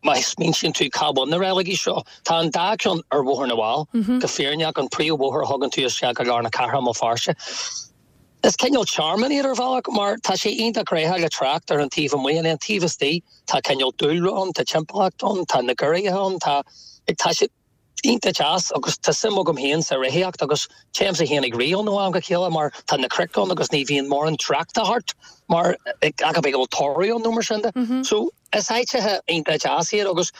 má smaointíonn tú cá bhfuil na reiligí seo. Tá an dá ceann ar Bhóthar na bhFál, go fírinneach, an príomhbhóthar a thugann tú isteach go lár na cathrach i mBéal Feirste. Is cineál tearmann iad ar bhealach mar tá sé iontach gnóthach le trácht ar an taobh amuigh and an taobh istigh tá cineál dúlra ann, tá timpeallacht ann, tá na garraithe ann, tá tá sé iontach deas agus tá suim agam féin sa reathaíocht agus téimse féin ag rith ann ó am go chéile mar tá na cnoic ann agus ní bhíonn mórán tráchta thart mar ach go bhfuil toradh ann nó mar sin de. So is áiteacha iontach deas iad agus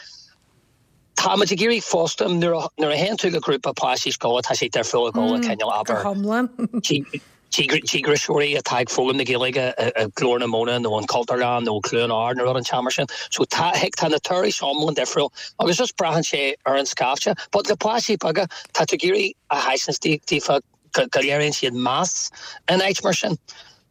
Tá muid ag iarraidh fosta, nuair a nuair a théann tú le grúpa páistí scoile tá sé difriúil ag dul le cineál, Go abair, hiomlán. díograiseoirí atá ag foghlaim na Gaeilge i Glór na Móna nó an Chultúrlann nó Cluain Ard nó rud inteacht mar sin. So tá tá na turais iomlán difriúil agus just braitheann sé ar an scaifte. But le páistí beaga tá tú ag iarraidh a thaispeáint daofa go léiríonn siad meas in áit mar sin.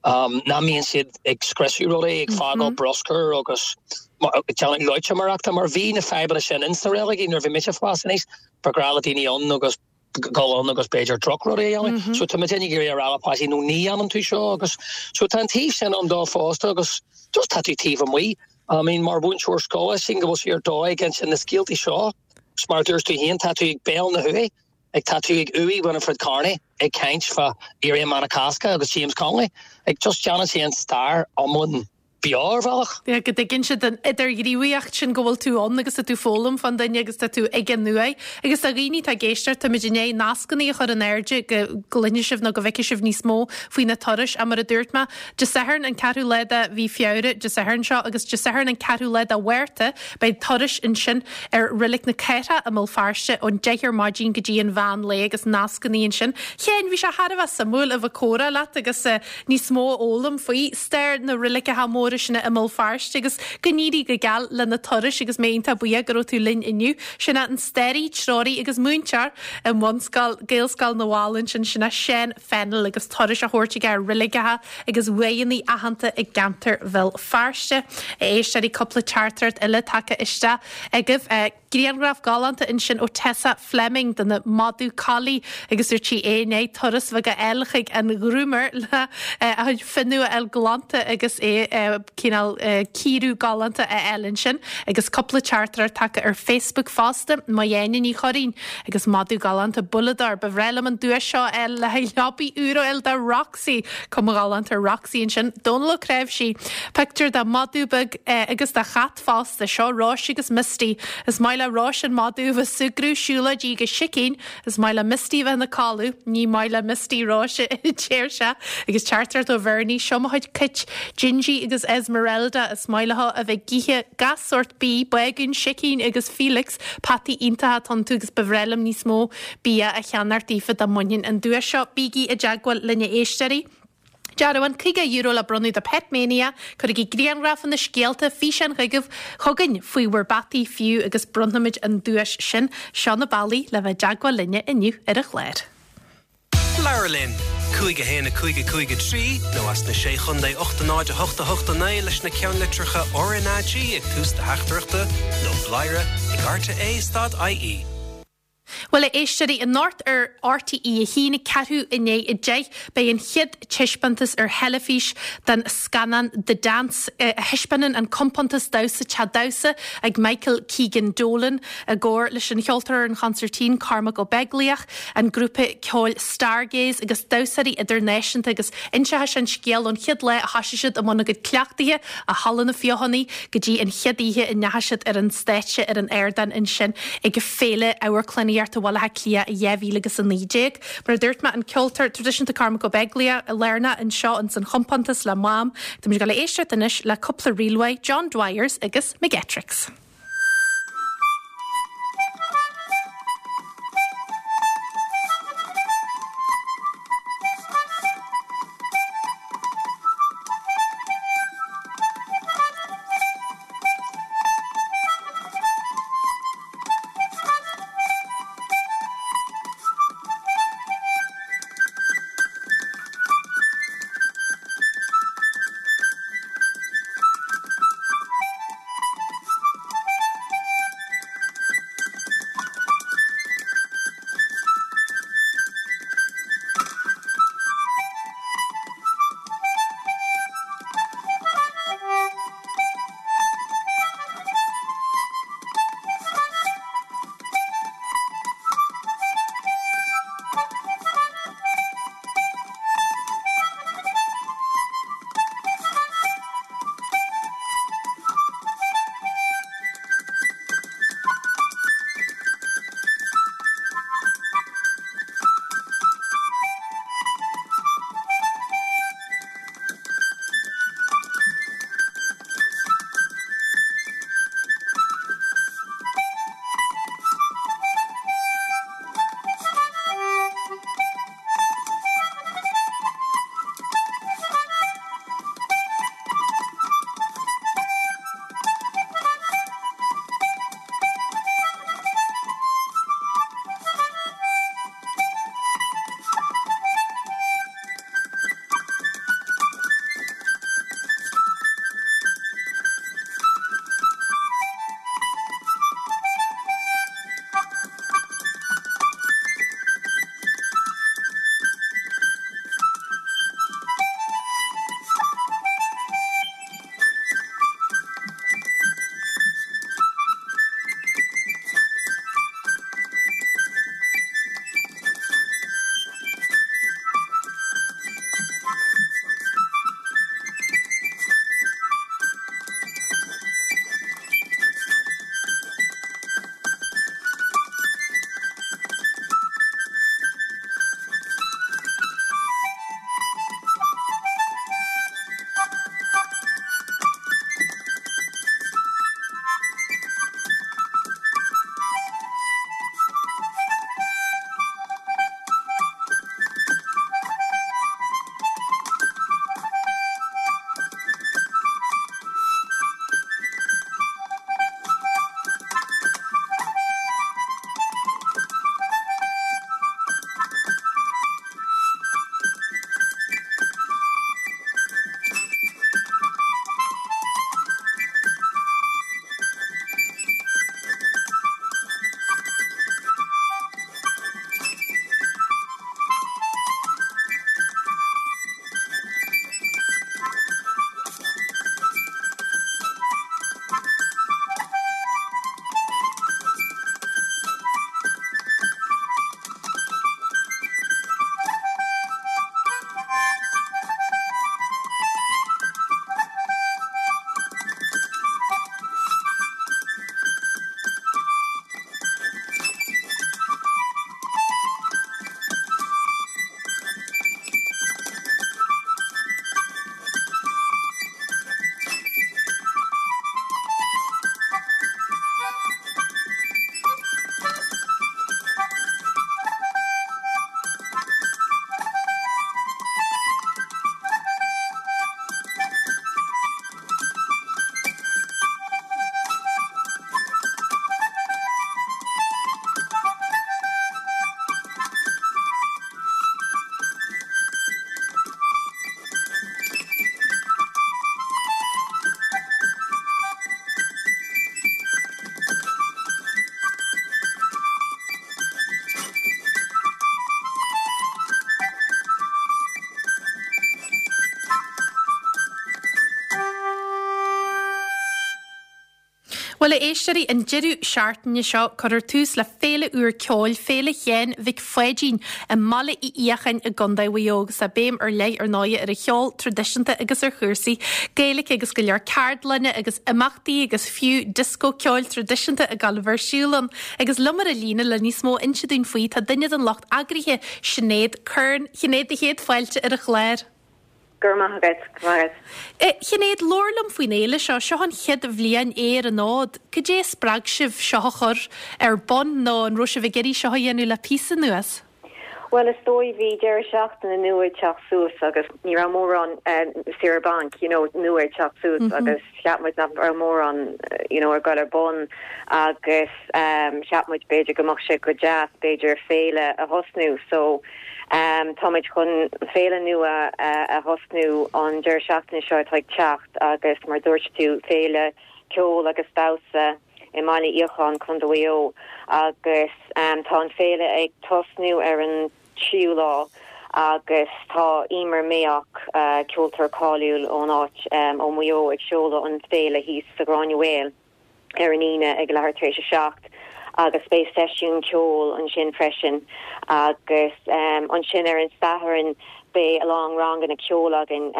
Nach mbíonn siad ag scriosadh rudaí, ag fágáil bruscair agus ag déanamh loitiméireachta mar bhí na fadhbanna sin ins na reiligí nuair a bhí mise ag fás aníos. Ba ghnách le daoine ann agus dul ann agus b'fhéidir drochrudaí a dhéanamh. So tá muid ag iarraidh a rá le páistí no ní dhéanann tú seo agus so tá an taobh sin ann dó fosta agus just tá tú taobh amuigh. I mean mar mhúinteoir scoile sílim go bhfuil sé ar dóigh ag insint na scéaltaí seo. Is mar a dúirt tú féin tá tú ag béal na huaighe. Ag tá tú ag uaigh Winifred Carney ag caint fá Éirí Amach na Cásca agus James Connolly. Ag just déanann sé an stair iomlán beo ar bhealach. Yeah, go dtuigeann siad an idirghníomhaíocht sin go bhfuil tú ann agus tá tú ag foghlaim fán duine agus tá tú ag an uaigh. Agus do dhaoine atá ag éisteacht, táimid i ndiaidh nascanna a chur in airde go gcluinfidh sibh nó go bhfeicfidh sibh níos mó faoi na turais ach mar a dúirt mé, Dé Sathairn an ceathrú lá de mhí Feabhra, Dé Sathairn seo, agus Dé Sathairn an ceathrú lá de Mhárta, Beidh turais ansin ar Reilig na Cathrach i mBéal Feirste ón 10 ar maidin go dtí an mheán lae agus nascanna ansin. Sheáin, bhí sé thar a bheith suimiúil a bheith ag comhrá leat agus níos mó a fhoghlaim faoi stair na reiligeacha móra sin i mBéal Feirste agus go n-éirí go geal le na turais agus mé iontach buíoch go raibh tú linn inniu. Sin é an staraí, treoraí agus múinteoir i mbunscoil Gaelscoil na bhFál ansin, sin é Seán Fennell agus turais á thabhairt aige ar reiligeacha agus uaigheanna aitheanta i gceantar Bhéal Feirste. A éisteoirí, cúpla teachtaireacht eile tagtha isteach agaibh. Grianghraf galánta ansin ó Tessa Fleming de na madadh collie agus dúirt sí é i ndiaidh turas bheag a fháil chuig an groomer le a chuid fionnadh a fháil glanta agus é cineál cíoradh galánta a fháil ansin. Agus cúpla teachtaireacht tagtha ar Facebook fosta. Maigh Ní Churraoin agus madadh galánta Bullador. Ba bhreá liom an duais seo a fháil le haghaidh leabaidh úr a fháil do Roxy. Cuma ghalánta ar Roxy ansin. Dónal Ó Cnáimhsí. Pictiúr de mhadadh beag agus de chat fosta. Seo Róis agus Misty. Is maith le Róis an madadh a bheith ag súgradh, siúlóidí agus sicín. Is maith le Misty a bheith ina codladh. Ní maith le Misty Róis a deir sé. Agus teachtaireacht ó Bhernie. Seo mo chuid cait, Gingy agus Esmeralda. Is maith leo a bheith ag ithe gach sórt bídh, bágún, sicín agus Felix. Peataí iontacha atá iontu agus ba bhreá liom níos mó bia a cheannacht daofa dá mbainfinn an duais seo. Bígí i dteagmháil linn a éisteoirí. Dearbhán €50 le bronnadh do Pet Mania. Cuirigí grianghrafanna, scéalta, físeáin chugaibh, chugainn faoi bhur bpeataí fiú agus bronnfaimid an duais sin. Seo na bealaí le bheith i dteagmháil linne inniu ar an chlár. Labhair linn! 5 1 5 5 3 nó as na Sé Chontae 8 0 8 8 9 leis na ceannlitreacha RnaG ag tús do theachtaireachta nó bladhaire ag rte stad ie. Bhuel, a éisteoirí, anocht ar RTÉ 1, ceathrú i ndiaidh 10, beidh an chéad taispeántas ar theilifís den scannán The Dance, a thaispeánann an compántas damhsa Teach Damhsa ag Michael Keegan Dolan i gcomhar leis an cheoltóir ar an chonsairtín Cormac Ó Beaglaoich, an grúpa ceoil Stargaze agus damhsóirí idirnáisiúnta agus inseoidh sé an scéal ón chéad lá a thosaigh siad i mbun a gcuid cleachtaithe i Halla na Feothanaí go dtí an chéad oíche a ndeachaigh siad ar an stáitse ar an ardán ansin ag Féile Amharclannaíochta Bhaile Átha Cliath 2019. Mar a dúirt mé, an ceoltóir traidisiúnta Cormac Ó Beaglaoich lárnach anseo ins an chompántas le Mam. Táimid ag dul a éisteacht anois le cúpla ríl uaidh, John Dwyers agus McGettricks. Bhuel, a éisteoirí, an deireadh seachtaine seo, cuirfear tús le féile úr ceoil, Féile Sheáin Mhic Pháidín, i mBaile Uí Fhiacháin i gContae Mhaigh Eo agus tá béim ar leith ar ndóighe ar an cheol traidisiúnta agus ar chúrsaí Gaeilge agus go leor ceardlanna agus imeachtaí agus fiú dioscó ceoil traidisiúnta ag gabháil a bheith ar siúl ann. Agus liom ar an líne le níos mó a inse dúinn faoi tá duine den lucht eagraithe, Sinéad Curran. Sinéad, do chéad fáilte ar an chlár. Go raibh maith agat, go raibh maith agat. Sinéad, labhair liom faoin fhéile seo. Seo an chéad bhliain é ar an fhód. Cad é a spreag sibh seo a chur ar bun nó an raibh sibh ag iarraidh seo a dhéanamh le píosa anuas? Bhuel, is dóigh, bhí deireadh seachtaine nua ag teacht suas agus ní raibh mórán saoire bainc, you know, nua ag teacht suas agus cheap muid nach raibh mórán, you know, ag dul ar bun agus cheap muid b'fhéidir go mbeadh sé go deas b'fhéidir féile a thosnú. So, Táimid chun féile nua a thosnú an deireadh seachtaine seo atá ag teacht agus mar dúirt tú, féile ceoil agus damhsa i mBaile Fhiacháin, Contae Mhaigh Eo agus tá an féile ag tosnú ar an tríú lá agus tá Emer Mayock, ceoltóir cáiliúil ón áit ó Mhaigh Eo ag seoladh an féile thíos sa Ghráinne Mhaol. ar an Aoine ag leathuair tar éis a 7 agus beidh seisiún ceoil ansin freisin agus ansin ar an Satharn beidh a lán ranganna ceoil againn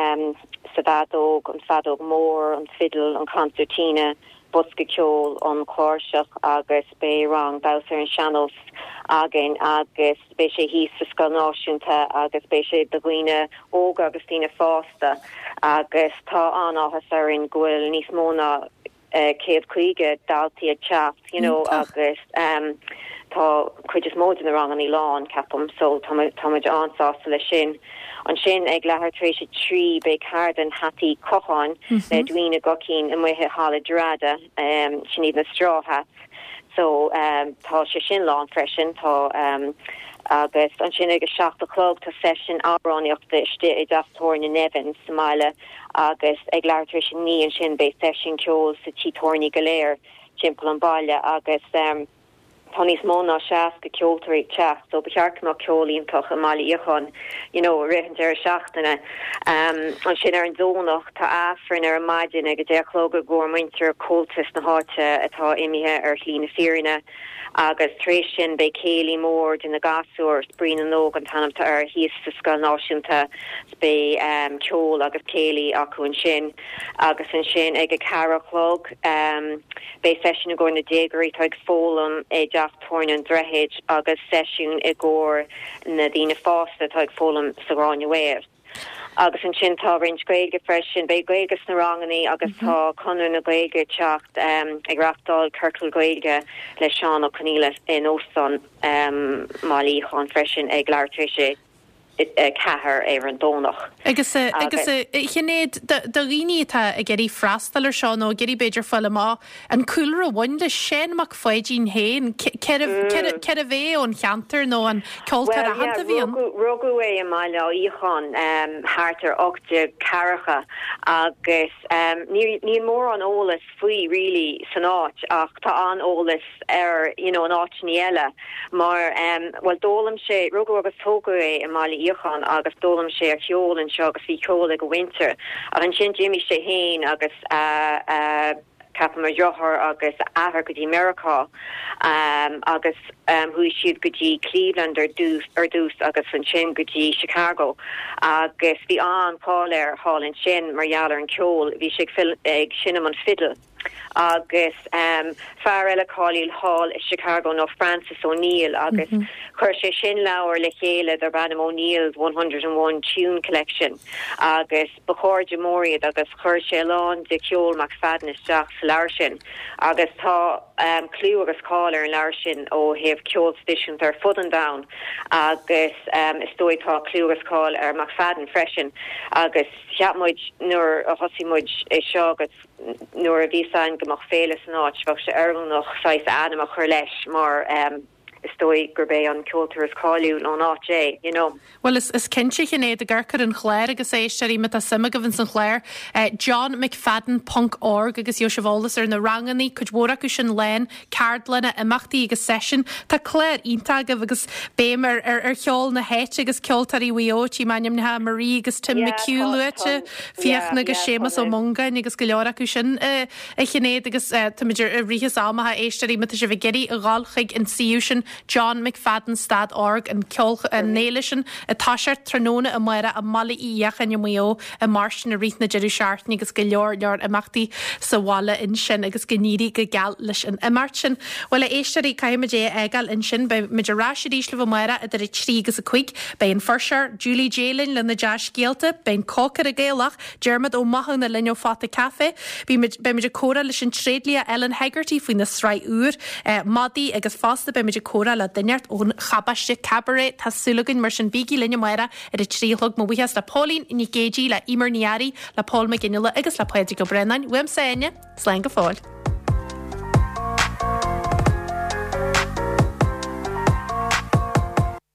sa bhfeadóg, an feadóg mór, an fidil, an concertina, bosca ceoil, an chláirseach agus beidh rang damhsa ar an sean-nós againn agus beidh sé thíos sa Scoil Náisiúnta agus beidh sé do dhaoine óga agus daoine fásta agus tá an-áthas orainn go bhfuil níos mó ná 150 daltaí ag teacht you know agus tá cuid is mó de na rangannaí lán ceapaim so tá tá muid an-sásta leis sin. Ansin ag leathuair tar éis a 3 beidh ceardlann hataí cocháin le Edwina Guckian amuigh i Halla Drogheda sin iad na straw hats so tá sé sin lán freisin tá agus ansin ag a 7 a chlog tá seisiún amhránaíochta istigh i dteach tábhairne Nevin sa mbaile agus ag leathuair tar éis a 9 ansin beidh seisiún ceoil sa tí tábhairne go léir timpeall an bhaile agus tá níos mó ná 60 ceoltóirí ag teacht so ba cheart go mbeadh ceol iontach i mBaile Fhiacháin you know i rith an deireadh seachtaine. Ansin ar an Domhnach tá Aifreann ar an maidin ag a 10 a chlog i gcomhair muintir Comhaltas na háite atá imithe ar shlí na fírinne agus tar éis sin beidh céilí mór de na gasúir, Spraoi na nÓg an t-ainm atá air, thíos sa Scoil Náisiúnta. Beidh ceol agus céilí acu ansin agus ansin ag a ceathair a chlog beidh seisiún i gcomhair na déagóirí atá ag foghlaim i dteach tabhairne an Droichid agus seisiún i gcomhair na daoine fásta atá ag foghlaim sa Ghráinne Mhaol. Agus ansin tá roinnt Gaeilge freisin, beidh Gaeilge sna rangannaí agus tá Conradh na Gaeilge ag teacht ag reachtáil ciorcal Gaeilge le Seán Ó Conghaile in Óstán Bhaile Fhiacháin freisin ag leathuair tar éis a 4 ar an Domhnach. Agus, agus a Shinéad, do dhaoine atá ag iarraidh freastal ar seo nó ag iarraidh b'fhéidir fáil amach an cúlra a bhain le Seán Mac Pháidín féin, cérbh é ón cheantar nó an ceoltóir aitheanta a bhí ann? Rugadh é i mBaile Fhiacháin thart ar 1840 agus níl mórán eolas faoi really san áit ach tá an-eolas air you know in áiteanna eile mar em bhuel d'fhoghlaim sé, rugadh agus tógadh é i mBaile Fhiacháin agus d'fhoghlaim sé a cheol anseo agus bhí ceol ag a mhuintir ach ansin d'imigh sé féin agus a a ceapaim a dheartháir agus a athair go dtí Meiriceá em agus em chuaigh siad go dtí Cleveland ar dtús ar dtús agus ansin go dtí Chicago agus bhí an-cháil air thall ansin mar gheall ar an ceol bhí sé ag ag seinm an fidil. Agus fear eile cáiliúil thall i Chicago ná Francis O'Neill agus chuir sé sin leabhar le chéile darb ainm O'Neill's 101 Tune Collection agus ba chairde mór iad agus chuir sé a lán de cheol McFadden isteach sa leabhar sin agus tá clú agus cáil ar an leabhar sin ó thaobh ceol traidisiúnta ar fud an domhain agus is dóigh tá clú agus cáil ar McFadden freisin agus cheap muid nuair a thosaigh muid é seo agus Nuair a bhí fhios againn go mbeadh féile san áit, bheadh sé oiriúnach saghas a ainm a chur leis mar. Is dóigh gurb é an ceoltóir is cáiliúil ón áit é, you know. Bhuel, is is cinnte, a Shinéad, ag amharc ar an chlár agus a éisteoirí, má tá suim agaibh ins an chlár, johnmcfadden ponc org agus gheobhaidh sibh eolas ar na rangannaí, cuid mhór acu sin lán, ceardlanna, imeachtaí agus seisiúin. Tá clár iontach agaibh agus béim ar ar ar cheol na háite agus ceoltóirí Mhaigh Eo, tchím ainmneacha Marie agus Tim Yeah, McHugh tá, luaite, tá, Fiachna yeah, agus yeah, tá Séamus Ó na. Mongáin agus go leor acu sin. A Shinéad, agus táimid i rith is am a éisteoirí, má tá sibh ag iarraidh a dhul chuig an suíomh sin, John McFadden stad org, an ceol, an fhéile sin ag toiseacht tráthnóna amárach i mBaile Uí Fhiacháin i Maigh Eo i mBeairtle i rith na deireadh seachtaine agus go leor leor imeachtaí sa bhaile ansin agus go n-éirí go geal leis an imeacht sin. Bhuel a éisteoirí, caithfimid é a fhágáil ansin. Beidh muid ar ais arís libh amárach idir 3 agus 5. Beidh an fuirseoir, Julie Jay linn lena dea-scéalta, beidh an cócaire Gaelach, Diarmaid Ó Mathúna linn ó Phota Café. Beimid beimid ag comhrá leis an tréidlia Ellen Hegarty faoina sraith úr, Madaí agus fosta beimid ag comhrá le duine inteacht ón Chabáiste Cabaret. Tá súil againn mar sin bígí linn amárach ar a 3 a chlog. Mo bhuíochas le Póilín Nic Géidigh, le Emer Ní Fhearraigh, le Pól Mac Fhionnghaile agus le Pádraig Ó Braonáin. Uaimse Áine, slán go fóill.